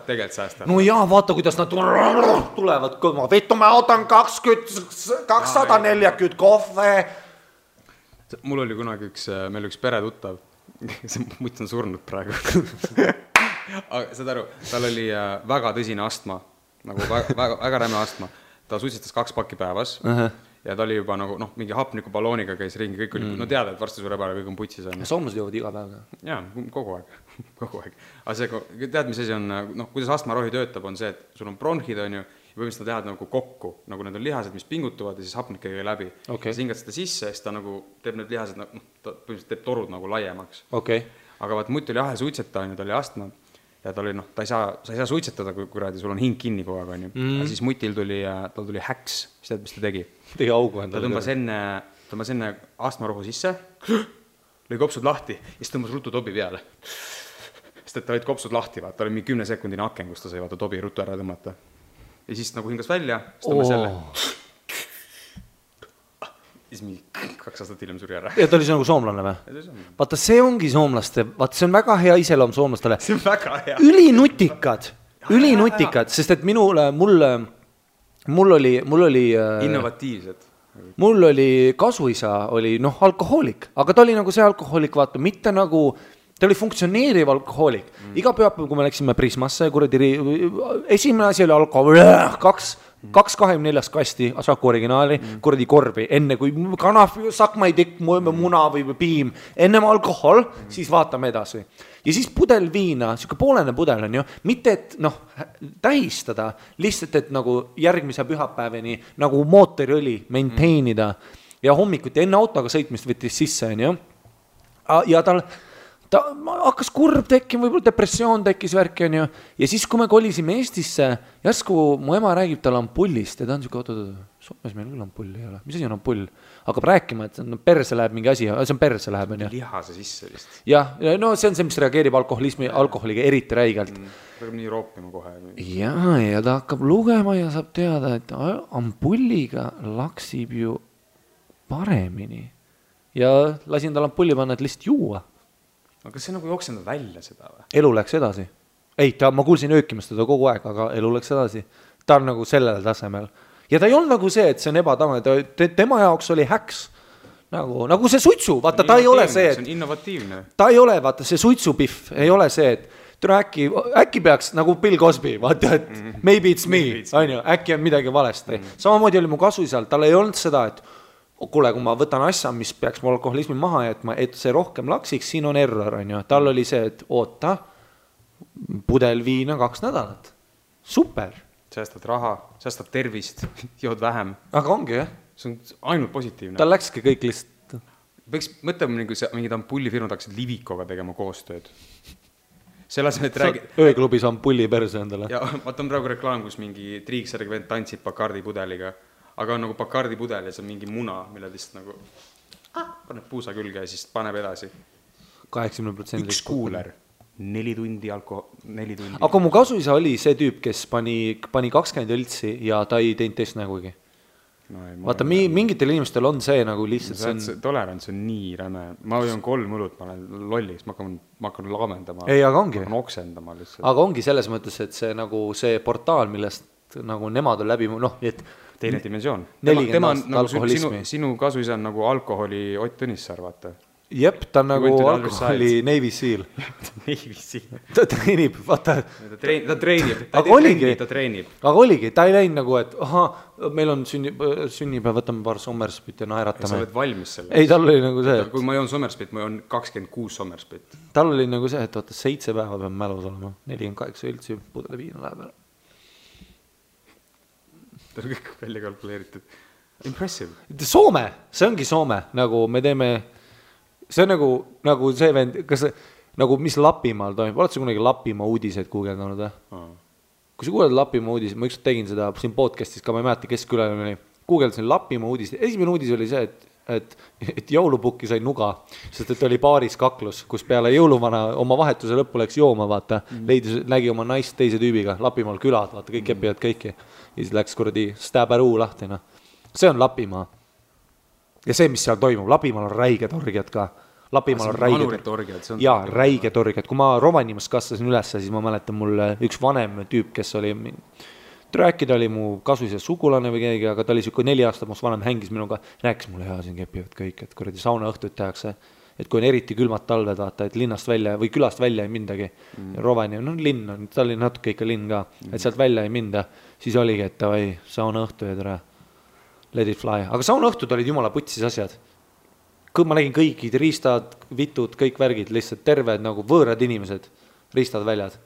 Tegelikult säästab. No jaa, vaata, kuidas nad tulevad kõlma. Vittu, ma ootan 240 kohve. Mul oli kunagi meil üks peretuttav, see mutt on surnud praegu. Aga saad aru, tal oli väga tõsine astma, nagu väga räme astma. Ta suitsetas 2 pakki päevas ja ta oli juba nagu, mingi hapnikuballooniga käis ringi, kõik oli, no teada, et varsti sureb ära, kõik on putsis. Soomlased joovad iga päev. Jaa, kogu aeg. Aga see, tead, mis asi on, kuidas astmarohi töötab, on see, et sul on bronhid, on ju, ja põhimõtteliselt ta tead nagu kokku, nagu need on lihased, mis pingutuvad ja siis hapnik käi läbi. Sa hingad seda sisse ja siis ta nagu teeb need lihased, ta põhimõtteliselt teeb torud nagu laiemaks. Aga vaat mutt oli ahe suitseta, ta oli astma ja ta oli, sa ei saa suitsetada, kui kuradi, sul on hing kinni kogu aeg, on ju. Ja siis mutil tal tuli häks, mis tead, mis ta tegi? Tegi augu endale. Ta tõmbas enne astmarohu sisse, lõi kopsud lahti ja siis tõmbas ruttu tobi peale. Sest et ta olid kopsud lahti, vaata, ta oli mingi 10 sekundine aken, kus ta sai vaata tobi ruttu ära tõmmata. Ja siis nagu hingas välja, siis tõmbas selle. Siis mingi 2 aastat hiljem suri ära. Ja ta oli see nagu soomlane või? Vaata, see ongi soomlaste, vaata, see on väga hea iseloom soomlastele. See on väga hea. Ülinutikad, sest et mul oli innovatiivsed. Mul oli kasuisa, oli alkohoolik, aga ta oli nagu see alkohoolik, vaata, mitte nagu, ta oli funktsioneeriv alkohoolik. Iga pühapäev, kui me läksime Prismasse, esimene asi oli alkohol, 224 kasti Saku originaali, kuradi korbi, enne kui kanaf, sakmaitikk, muna või piim, ennem alkohol, siis vaatame edasi. Ja siis pudel viina, siuke poolene pudel on ju, mitte et tähistada, lihtsalt et nagu järgmise pühapäeveni nagu mootoriõli maintainida ja hommikuti enne autoga sõitmist võttis sisse on ju. Ja ta hakkas kurb tekkima, võib-olla depressioon tekkis värki on ju. Ja siis, kui me kolisime Eestisse, järsku mu ema räägib tal ampullist ja ta on siuke, Soomes meil küll ampull ei ole. Mis asi on ampull? Hakkab rääkima, et perse läheb mingi asi, see on perse läheb on ju. Lihase sisse vist. Ja, no see on see, mis reageerib alkoholiga eriti räigelt. Hakkab nii roopima kohe. Ja ta hakkab lugema ja saab teada, et ampulliga laksib ju paremini. Ja lasin tal ampulli panna, et lihtsalt juua. Aga kas see nagu jooksenda välja seda või? Elu läks edasi. Ei, ma kuulsin öökimast teda kogu aeg, aga elu läks edasi. Ta on nagu sellel tasemel. Ja ta ei olnud nagu see, et see on ebatavane. Tema jaoks oli häks. Nagu see suitsu. Vaata, ta ei ole see, et... See on innovatiivne. Ta ei ole, vaata, see suitsupihv ei ole see, et äkki peaks nagu Bill Cosby, vaata, et maybe it's me, äkki on midagi valesti. Samamoodi oli mu kasuisal, tal ei olnud seda, et kuule, kui ma võtan asja, mis peaks mu alkoholismi maha jätma, et see rohkem laksiks, siin on error, on ju. Tal oli see, et oota, pudel viina 2 nädalat. Super. Säästad raha, säästad tervist, jood vähem. Aga ongi, jah. See on ainult positiivne. Tal läkski kõik lihtsalt. Võiks mõtlema, nagu mingid ampullifirmad hakkasid Livikoga tegema koostööd. Selles me räägid... Ööklubis ampulli perse endale. Ja vaata on praegu reklaam, kus mingi triiksärg vend tantsib Bacardi pudeliga. Aga on nagu Bacardi pudel ja see on mingi muna, mille lihtsalt nagu paneb puusa külge ja siis paneb edasi. 80%. Üks kuuler, 4 tundi alkohol, 4 tundi. Aga mu kasuisa oli see tüüp, kes pani 20 õltsi ja ta ei teinud teist nägugi. No, vaata, mingitel inimestel on see nagu lihtsalt see tolerants on nii räme. Ma joon 3 õlut, ma olen lolliks, ma hakkan laamendama. Ei, aga ongi. Ma hakkan oksendama lihtsalt. Aga ongi selles mõttes, et see nagu see portaal, millest nagu nemad on läbi, et teine dimensioon. 40 aastat alkoholismi. Sinu kasuisa on nagu alkoholi Ott Tõnissaar, vaata. Jep, ta on nagu alkoholi Navy Seal. Navy Seal. Ta treenib, vaata. Ta treenib. Aga oligi, ta ei läinud nagu, et meil on sünnipäev, võtame paar Sommerspit ja naeratame. Sa oled valmis selle? Ei, tal oli nagu see, et... Kui ma joon Sommerspit, ma joon 26 Sommerspit. Tal oli nagu see, et 7 päeva peab mälus olema. 48 üldsi pudele viina läheb ära. Ta on kõik välja kalkuleeritud. Impressive. Soome, see ongi Soome, nagu me teeme, see on nagu see vend, kas nagu mis Lapimaal toimub, oled sa kunagi Lapimaa uudiseid guugeldanud või? Kui sa kuuled Lapimaa uudiseid, ma ükskord tegin seda siin podcastis ka, ma ei mäleta, kes külaline oli, guugeldasin Lapimaa uudiseid, esimene uudis oli see, et jõulupukki sai nuga, sest et oli paaris kaklus, kus peale jõuluvana oma vahetuse lõppu läks jooma, vaata, nägi oma naist teise tüübiga, Lapimaal külad, vaata, kõik kepivad kõiki. Ja siis läks kuradi Stäbäruu lahti, no. See on Lapimaa. Ja see, mis seal toimub, Lapimaal on räiged orgiad ka. Lapimaal on räiged orgiad. Jaa, räiged orgiad. Kui ma Rovaniemas kasvasin üles, siis ma mäletan mul üks vanem tüüp, kes oli rääkida oli mu kasulise sugulane või keegi, aga ta oli siuke 4 aastat must vanem, hängis minuga, rääkis mulle ja siin kepivad kõik, et kuradi sauna õhtuid tehakse, et kui on eriti külmad talved, vaata, et linnast välja või külast välja ei mindagi. Rovaniemi, no linn on, ta oli natuke ikka linn ka, et sealt välja ei minda, siis oligi, et davai, sauna õhtu ja tere, let it fly. Aga sauna õhtud olid jumala putsis asjad. Ma nägin kõigid riistad, vitud, kõik värgid, lihtsalt terved nagu võõrad inimesed, riistad väljad.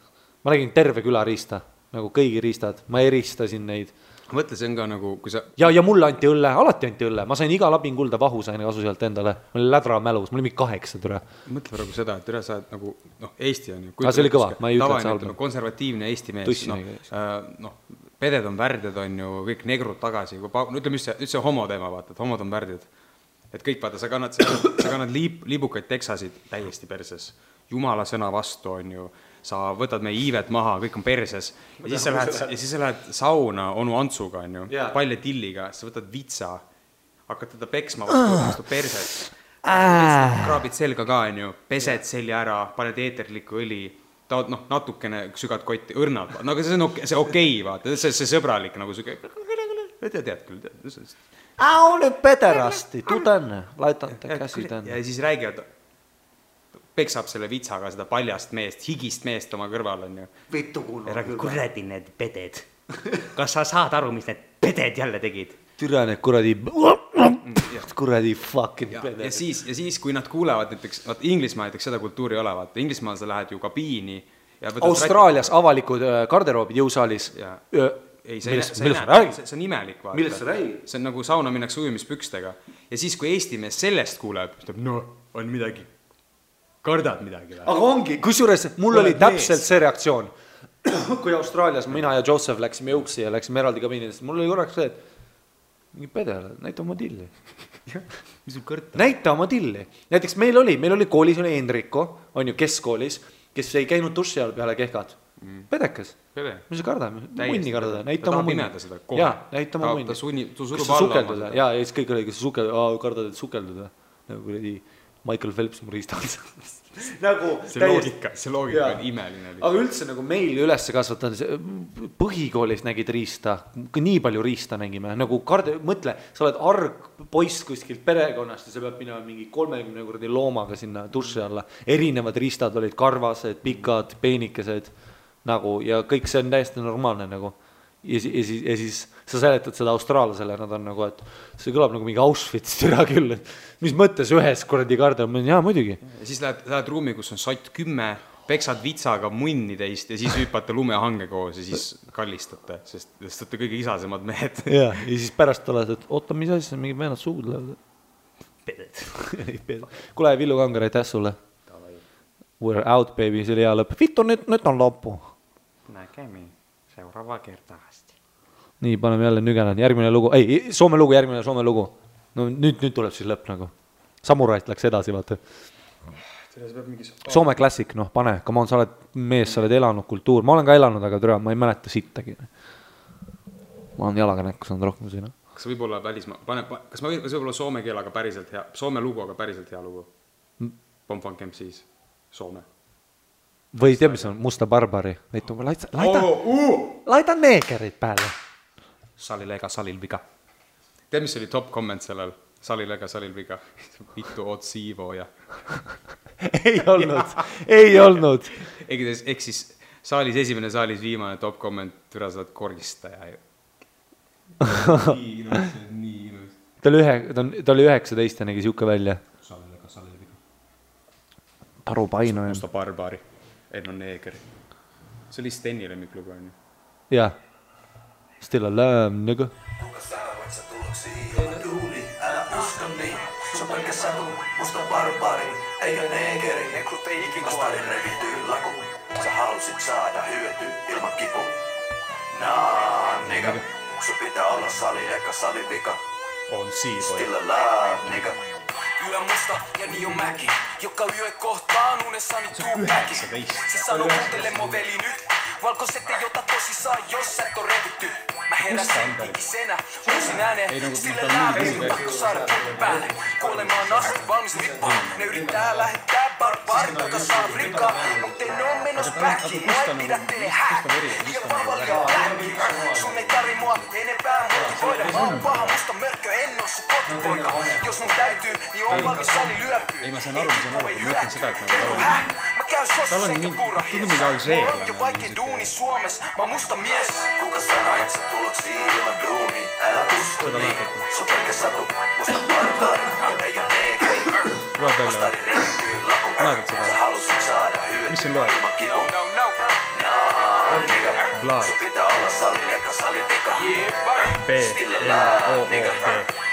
Ma nägin terve küla riista. Nagu kõigi riistad, ma eristasin neid. Mõtle, see on ka nagu, kui sa... Ja mulle anti õlle, alati anti õlle. Ma sain iga lapingulda vahu, sain kasu sealt endale. Ma olin lädra mälus, mul oli 8 türa. Mõtle praegu seda, et üle sa oled nagu, Eesti on ju... see oli kõva, ma ei ütle, et see halb. Konservatiivne Eesti mees. Peded on värdjad, on ju, kõik negrud tagasi. Ütleme üldse homo teema, vaata, et homod on värdjad. Et kõik, vaata, sa kannad liibukaid teksasid täiesti perses. Jumala sõna vastu, on ju. Sa võtad meie iivet maha, kõik on perses ja siis sa lähed sauna onu Antsuga, on ju, palja tilliga, sa võtad vitsa, hakkad teda peksma vastu perset, kraabid selga ka, on ju, pesed selja ära, paned eeterlikku õli, taod natukene sügad kotti, õrnad, no aga see okei, vaata, see sõbralik nagu süge, tead küll, nüüd pederasti, tuu tänne, laitan käsi tänne. Ja siis räägivad, peksab selle vitsaga seda paljast meest, higist meest oma kõrval, on ju. Vittu kuulnud. Kuradi need peded. Kas sa saad aru, mis need peded jälle tegid? Türa need kuradi fucking peded. Ja siis, kui nad kuulevad näiteks, Inglismaa näiteks seda kultuuri ei ole, vaata, Inglismaal sa lähed ju kabiini. Austraalias avalikud garderoobid jõusaalis. Millest sa räägid? See on imelik, vaata. Millest sa räägid? See on nagu sauna minnakse ujumispükstega. Ja siis, kui Eesti mees sellest kuuleb, on midagi. Kardad midagi. Aga ongi, kusjuures mul oli täpselt see reaktsioon. Kui Austraalias mina ja Joseph läksime jõuksi ja läksime eraldi kabiinidest, mul oli korraks see, et mingi pedele, näita oma tilli. Näita oma tilli. Näiteks meil oli koolis, oli Enrico, on ju keskkoolis, kes ei käinud duši all peale kehkad. Pedekas. Mis sa kardad? Munni kardada. Näita oma munni. Jaa, näita oma munni. Kas sa sukelduda? Jaa, ja siis kõik oli, kas sa kardad, et sukelduda? Nagu kuradi Michael Phelps mu riistal. Nagu see loogika on imeline. Aga üldse nagu meil üles kasvatanud, põhikoolis nägid riista, nii palju riista nägime, nagu mõtle, sa oled arg poiss kuskilt perekonnast ja sa pead minema mingi 30 kuradi loomaga sinna duši alla. Erinevad riistad olid karvased, pikad, peenikesed nagu, ja kõik see on täiesti normaalne nagu. Ja siis sa seletad seda austraallasele, nad on nagu, et see kõlab nagu mingi Auschwitz türa küll, et mis mõttes ühes kuradi karda, jaa muidugi. Ja siis lähed ruumi, kus on sott 10, peksad vitsaga munni teist ja siis hüppate lumehange koos ja siis kallistate, sest olete kõige isasemad mehed. Ja siis pärast oled, et oota, mis asja, mingi vennad suud lähevad. Peded. Kule, Villu Kangar, aitäh sulle. We're out, baby, see oli hea lõpp. Vittu, nüüd on loppu. Nägemi. Seuraava kertaasti. Nii, paneme jälle nügenan. Järgmine lugu. Ei, Soome lugu. No nüüd tuleb siis lõpp nagu. Samurait läks edasi, vaata. Soome klassik, pane. Come on, sa oled mees, sa oled elanud kultuur. Ma olen ka elanud, aga türa, ma ei mäleta sittagi. Ma olen jalaga näkku saanud rohkem siin. Kas võib olla välismaa? Kas võib olla soome keelaga päriselt hea? Soome lugu, aga päriselt hea lugu? Pomfunk MCs. Soome. Või tea, mis on Musta Barbari? Laita neegerid pääle. Salil ega salil viga. Tea, mis oli top comment sellel? Salil ega salil viga. Vittu oot siivo ja... Ei olnud. Ehk siis saalis esimene, saalis viimane top comment, türa saad koristaja. Nii ilus. Ta oli 19 ja nägi siuke välja. Salil ega salil viga. Taru Paino. Musta Barbari. Enno Neeger. See oli Steni lemmiklugu, on ju? Jah. Still alive, nigga. Kuka sä voit sä tuloksi ilman duuli, älä usko niin. Sun pelkä satu, musta barbari, eikä neegeri. Negrut ei ikin vastaan revityy laku. Sä halusit saada hyöty ilman kipu. Nah, nigga. Sun pitää olla sali eikä salivika. On siivoja. Still alive, nigga. Yö musta ja niin on mäki, joka yö kohtaan unessani tuu mäki. Siis sano kuuntele mo veli nyt, Valkoiset ei ota tosissaan, jos et on revitty. Mä heräsin ikisenä, uusin ääneen, sille lääviin, pakko saada pukki päälle. Kuolemaan asti valmis rippu, ne yrittää lähettää barbaarit, joka saa rikkaa. Mut en oo menos päkkiin, mua ei pidä teille häkki. Ja vavalia lähki, sun ei tarvi mua enempää motivoida. Mä oon paha musta mörkö, en oo sun kotipoika. Jos mun täytyy, niin on valmis sali lyöpyy. Ei mä saan aru, mä mietin sitä, että mä käyn sossa eikä purra hies. Mulla on jo vaikein duuni Suomessa, mä oon musta mies. Kuka sanoo, et sä tuloksi ilman duuni? Älä usko niin, se on pelkä satu. Musta barbaari, ei oo neekeri. Vastari revittyy lakun. Sä halusit saada hyötyä ilman kivun. Nigga, sun pitää olla salin eka salin vika. Stillellään, nigga.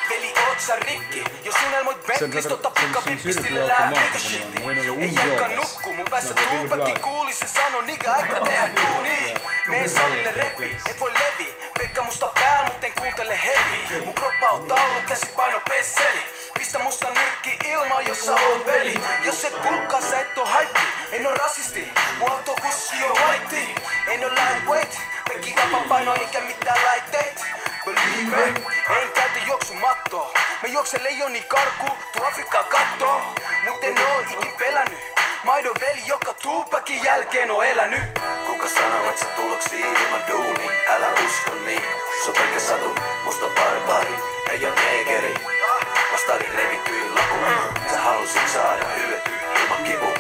Veli, oot sä rikki? Jos unelmoit Bentlist, ota pikapippi, stillellään, nigga shitti. Ei jakka nukku, mun päässä tuupäkki kuuli, se sano, nigga, aika tehdä duuni. Mene salille reppi, et voi levi. Pekka musta pääl, mut en kuuntele hevi. Mun kroppa on taulu, käsi paino pesseli. Pistä musta nyrkki ilmaan, jos sä oot veli. Jos et pulkkaa, sä et oo haippi. En oo rasisti, mun autokussi on white. En oo lightweight, pekki vapapaino eikä mitään laitteet. Believe me, en käytä juoksumattoa. Mä juoksen leijoni karkuun, tuu Afrikkaan kattoo. Mut en oo ikin pelännyt. Maidon veli, joka Tupakin jälkeen on elänyt. Kuka sanoo, et sä tuloksi ilman duuni? Älä usko niin, se on pelkä satu. Musta barbaari, ei oo neekeri. Vastari revittyy lakuun. Sä halusit saada hyötyä ilman kivun.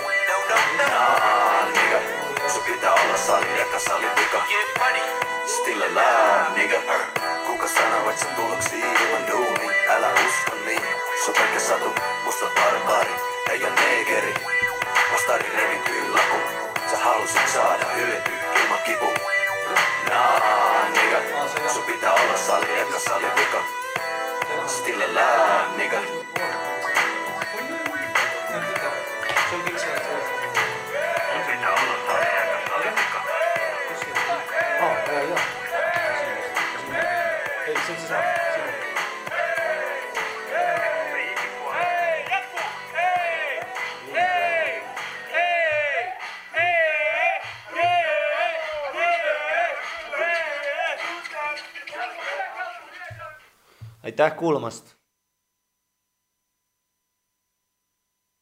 Nigga, sun pitää olla salin eka salin vika. Stillellään, nigga. Kuka sanoo, et sä tuloksi ilman duuni? Älä usko niin, se on pelkä satu. Musta barbaari, ei oo neekeri. Vastari revittyy lakuun. Sä halusit saada hyötyä ilman kivun. Nigga, sun pitää olla salin eka salin vika. Stillellään, nigga. Aitäh kuulamast!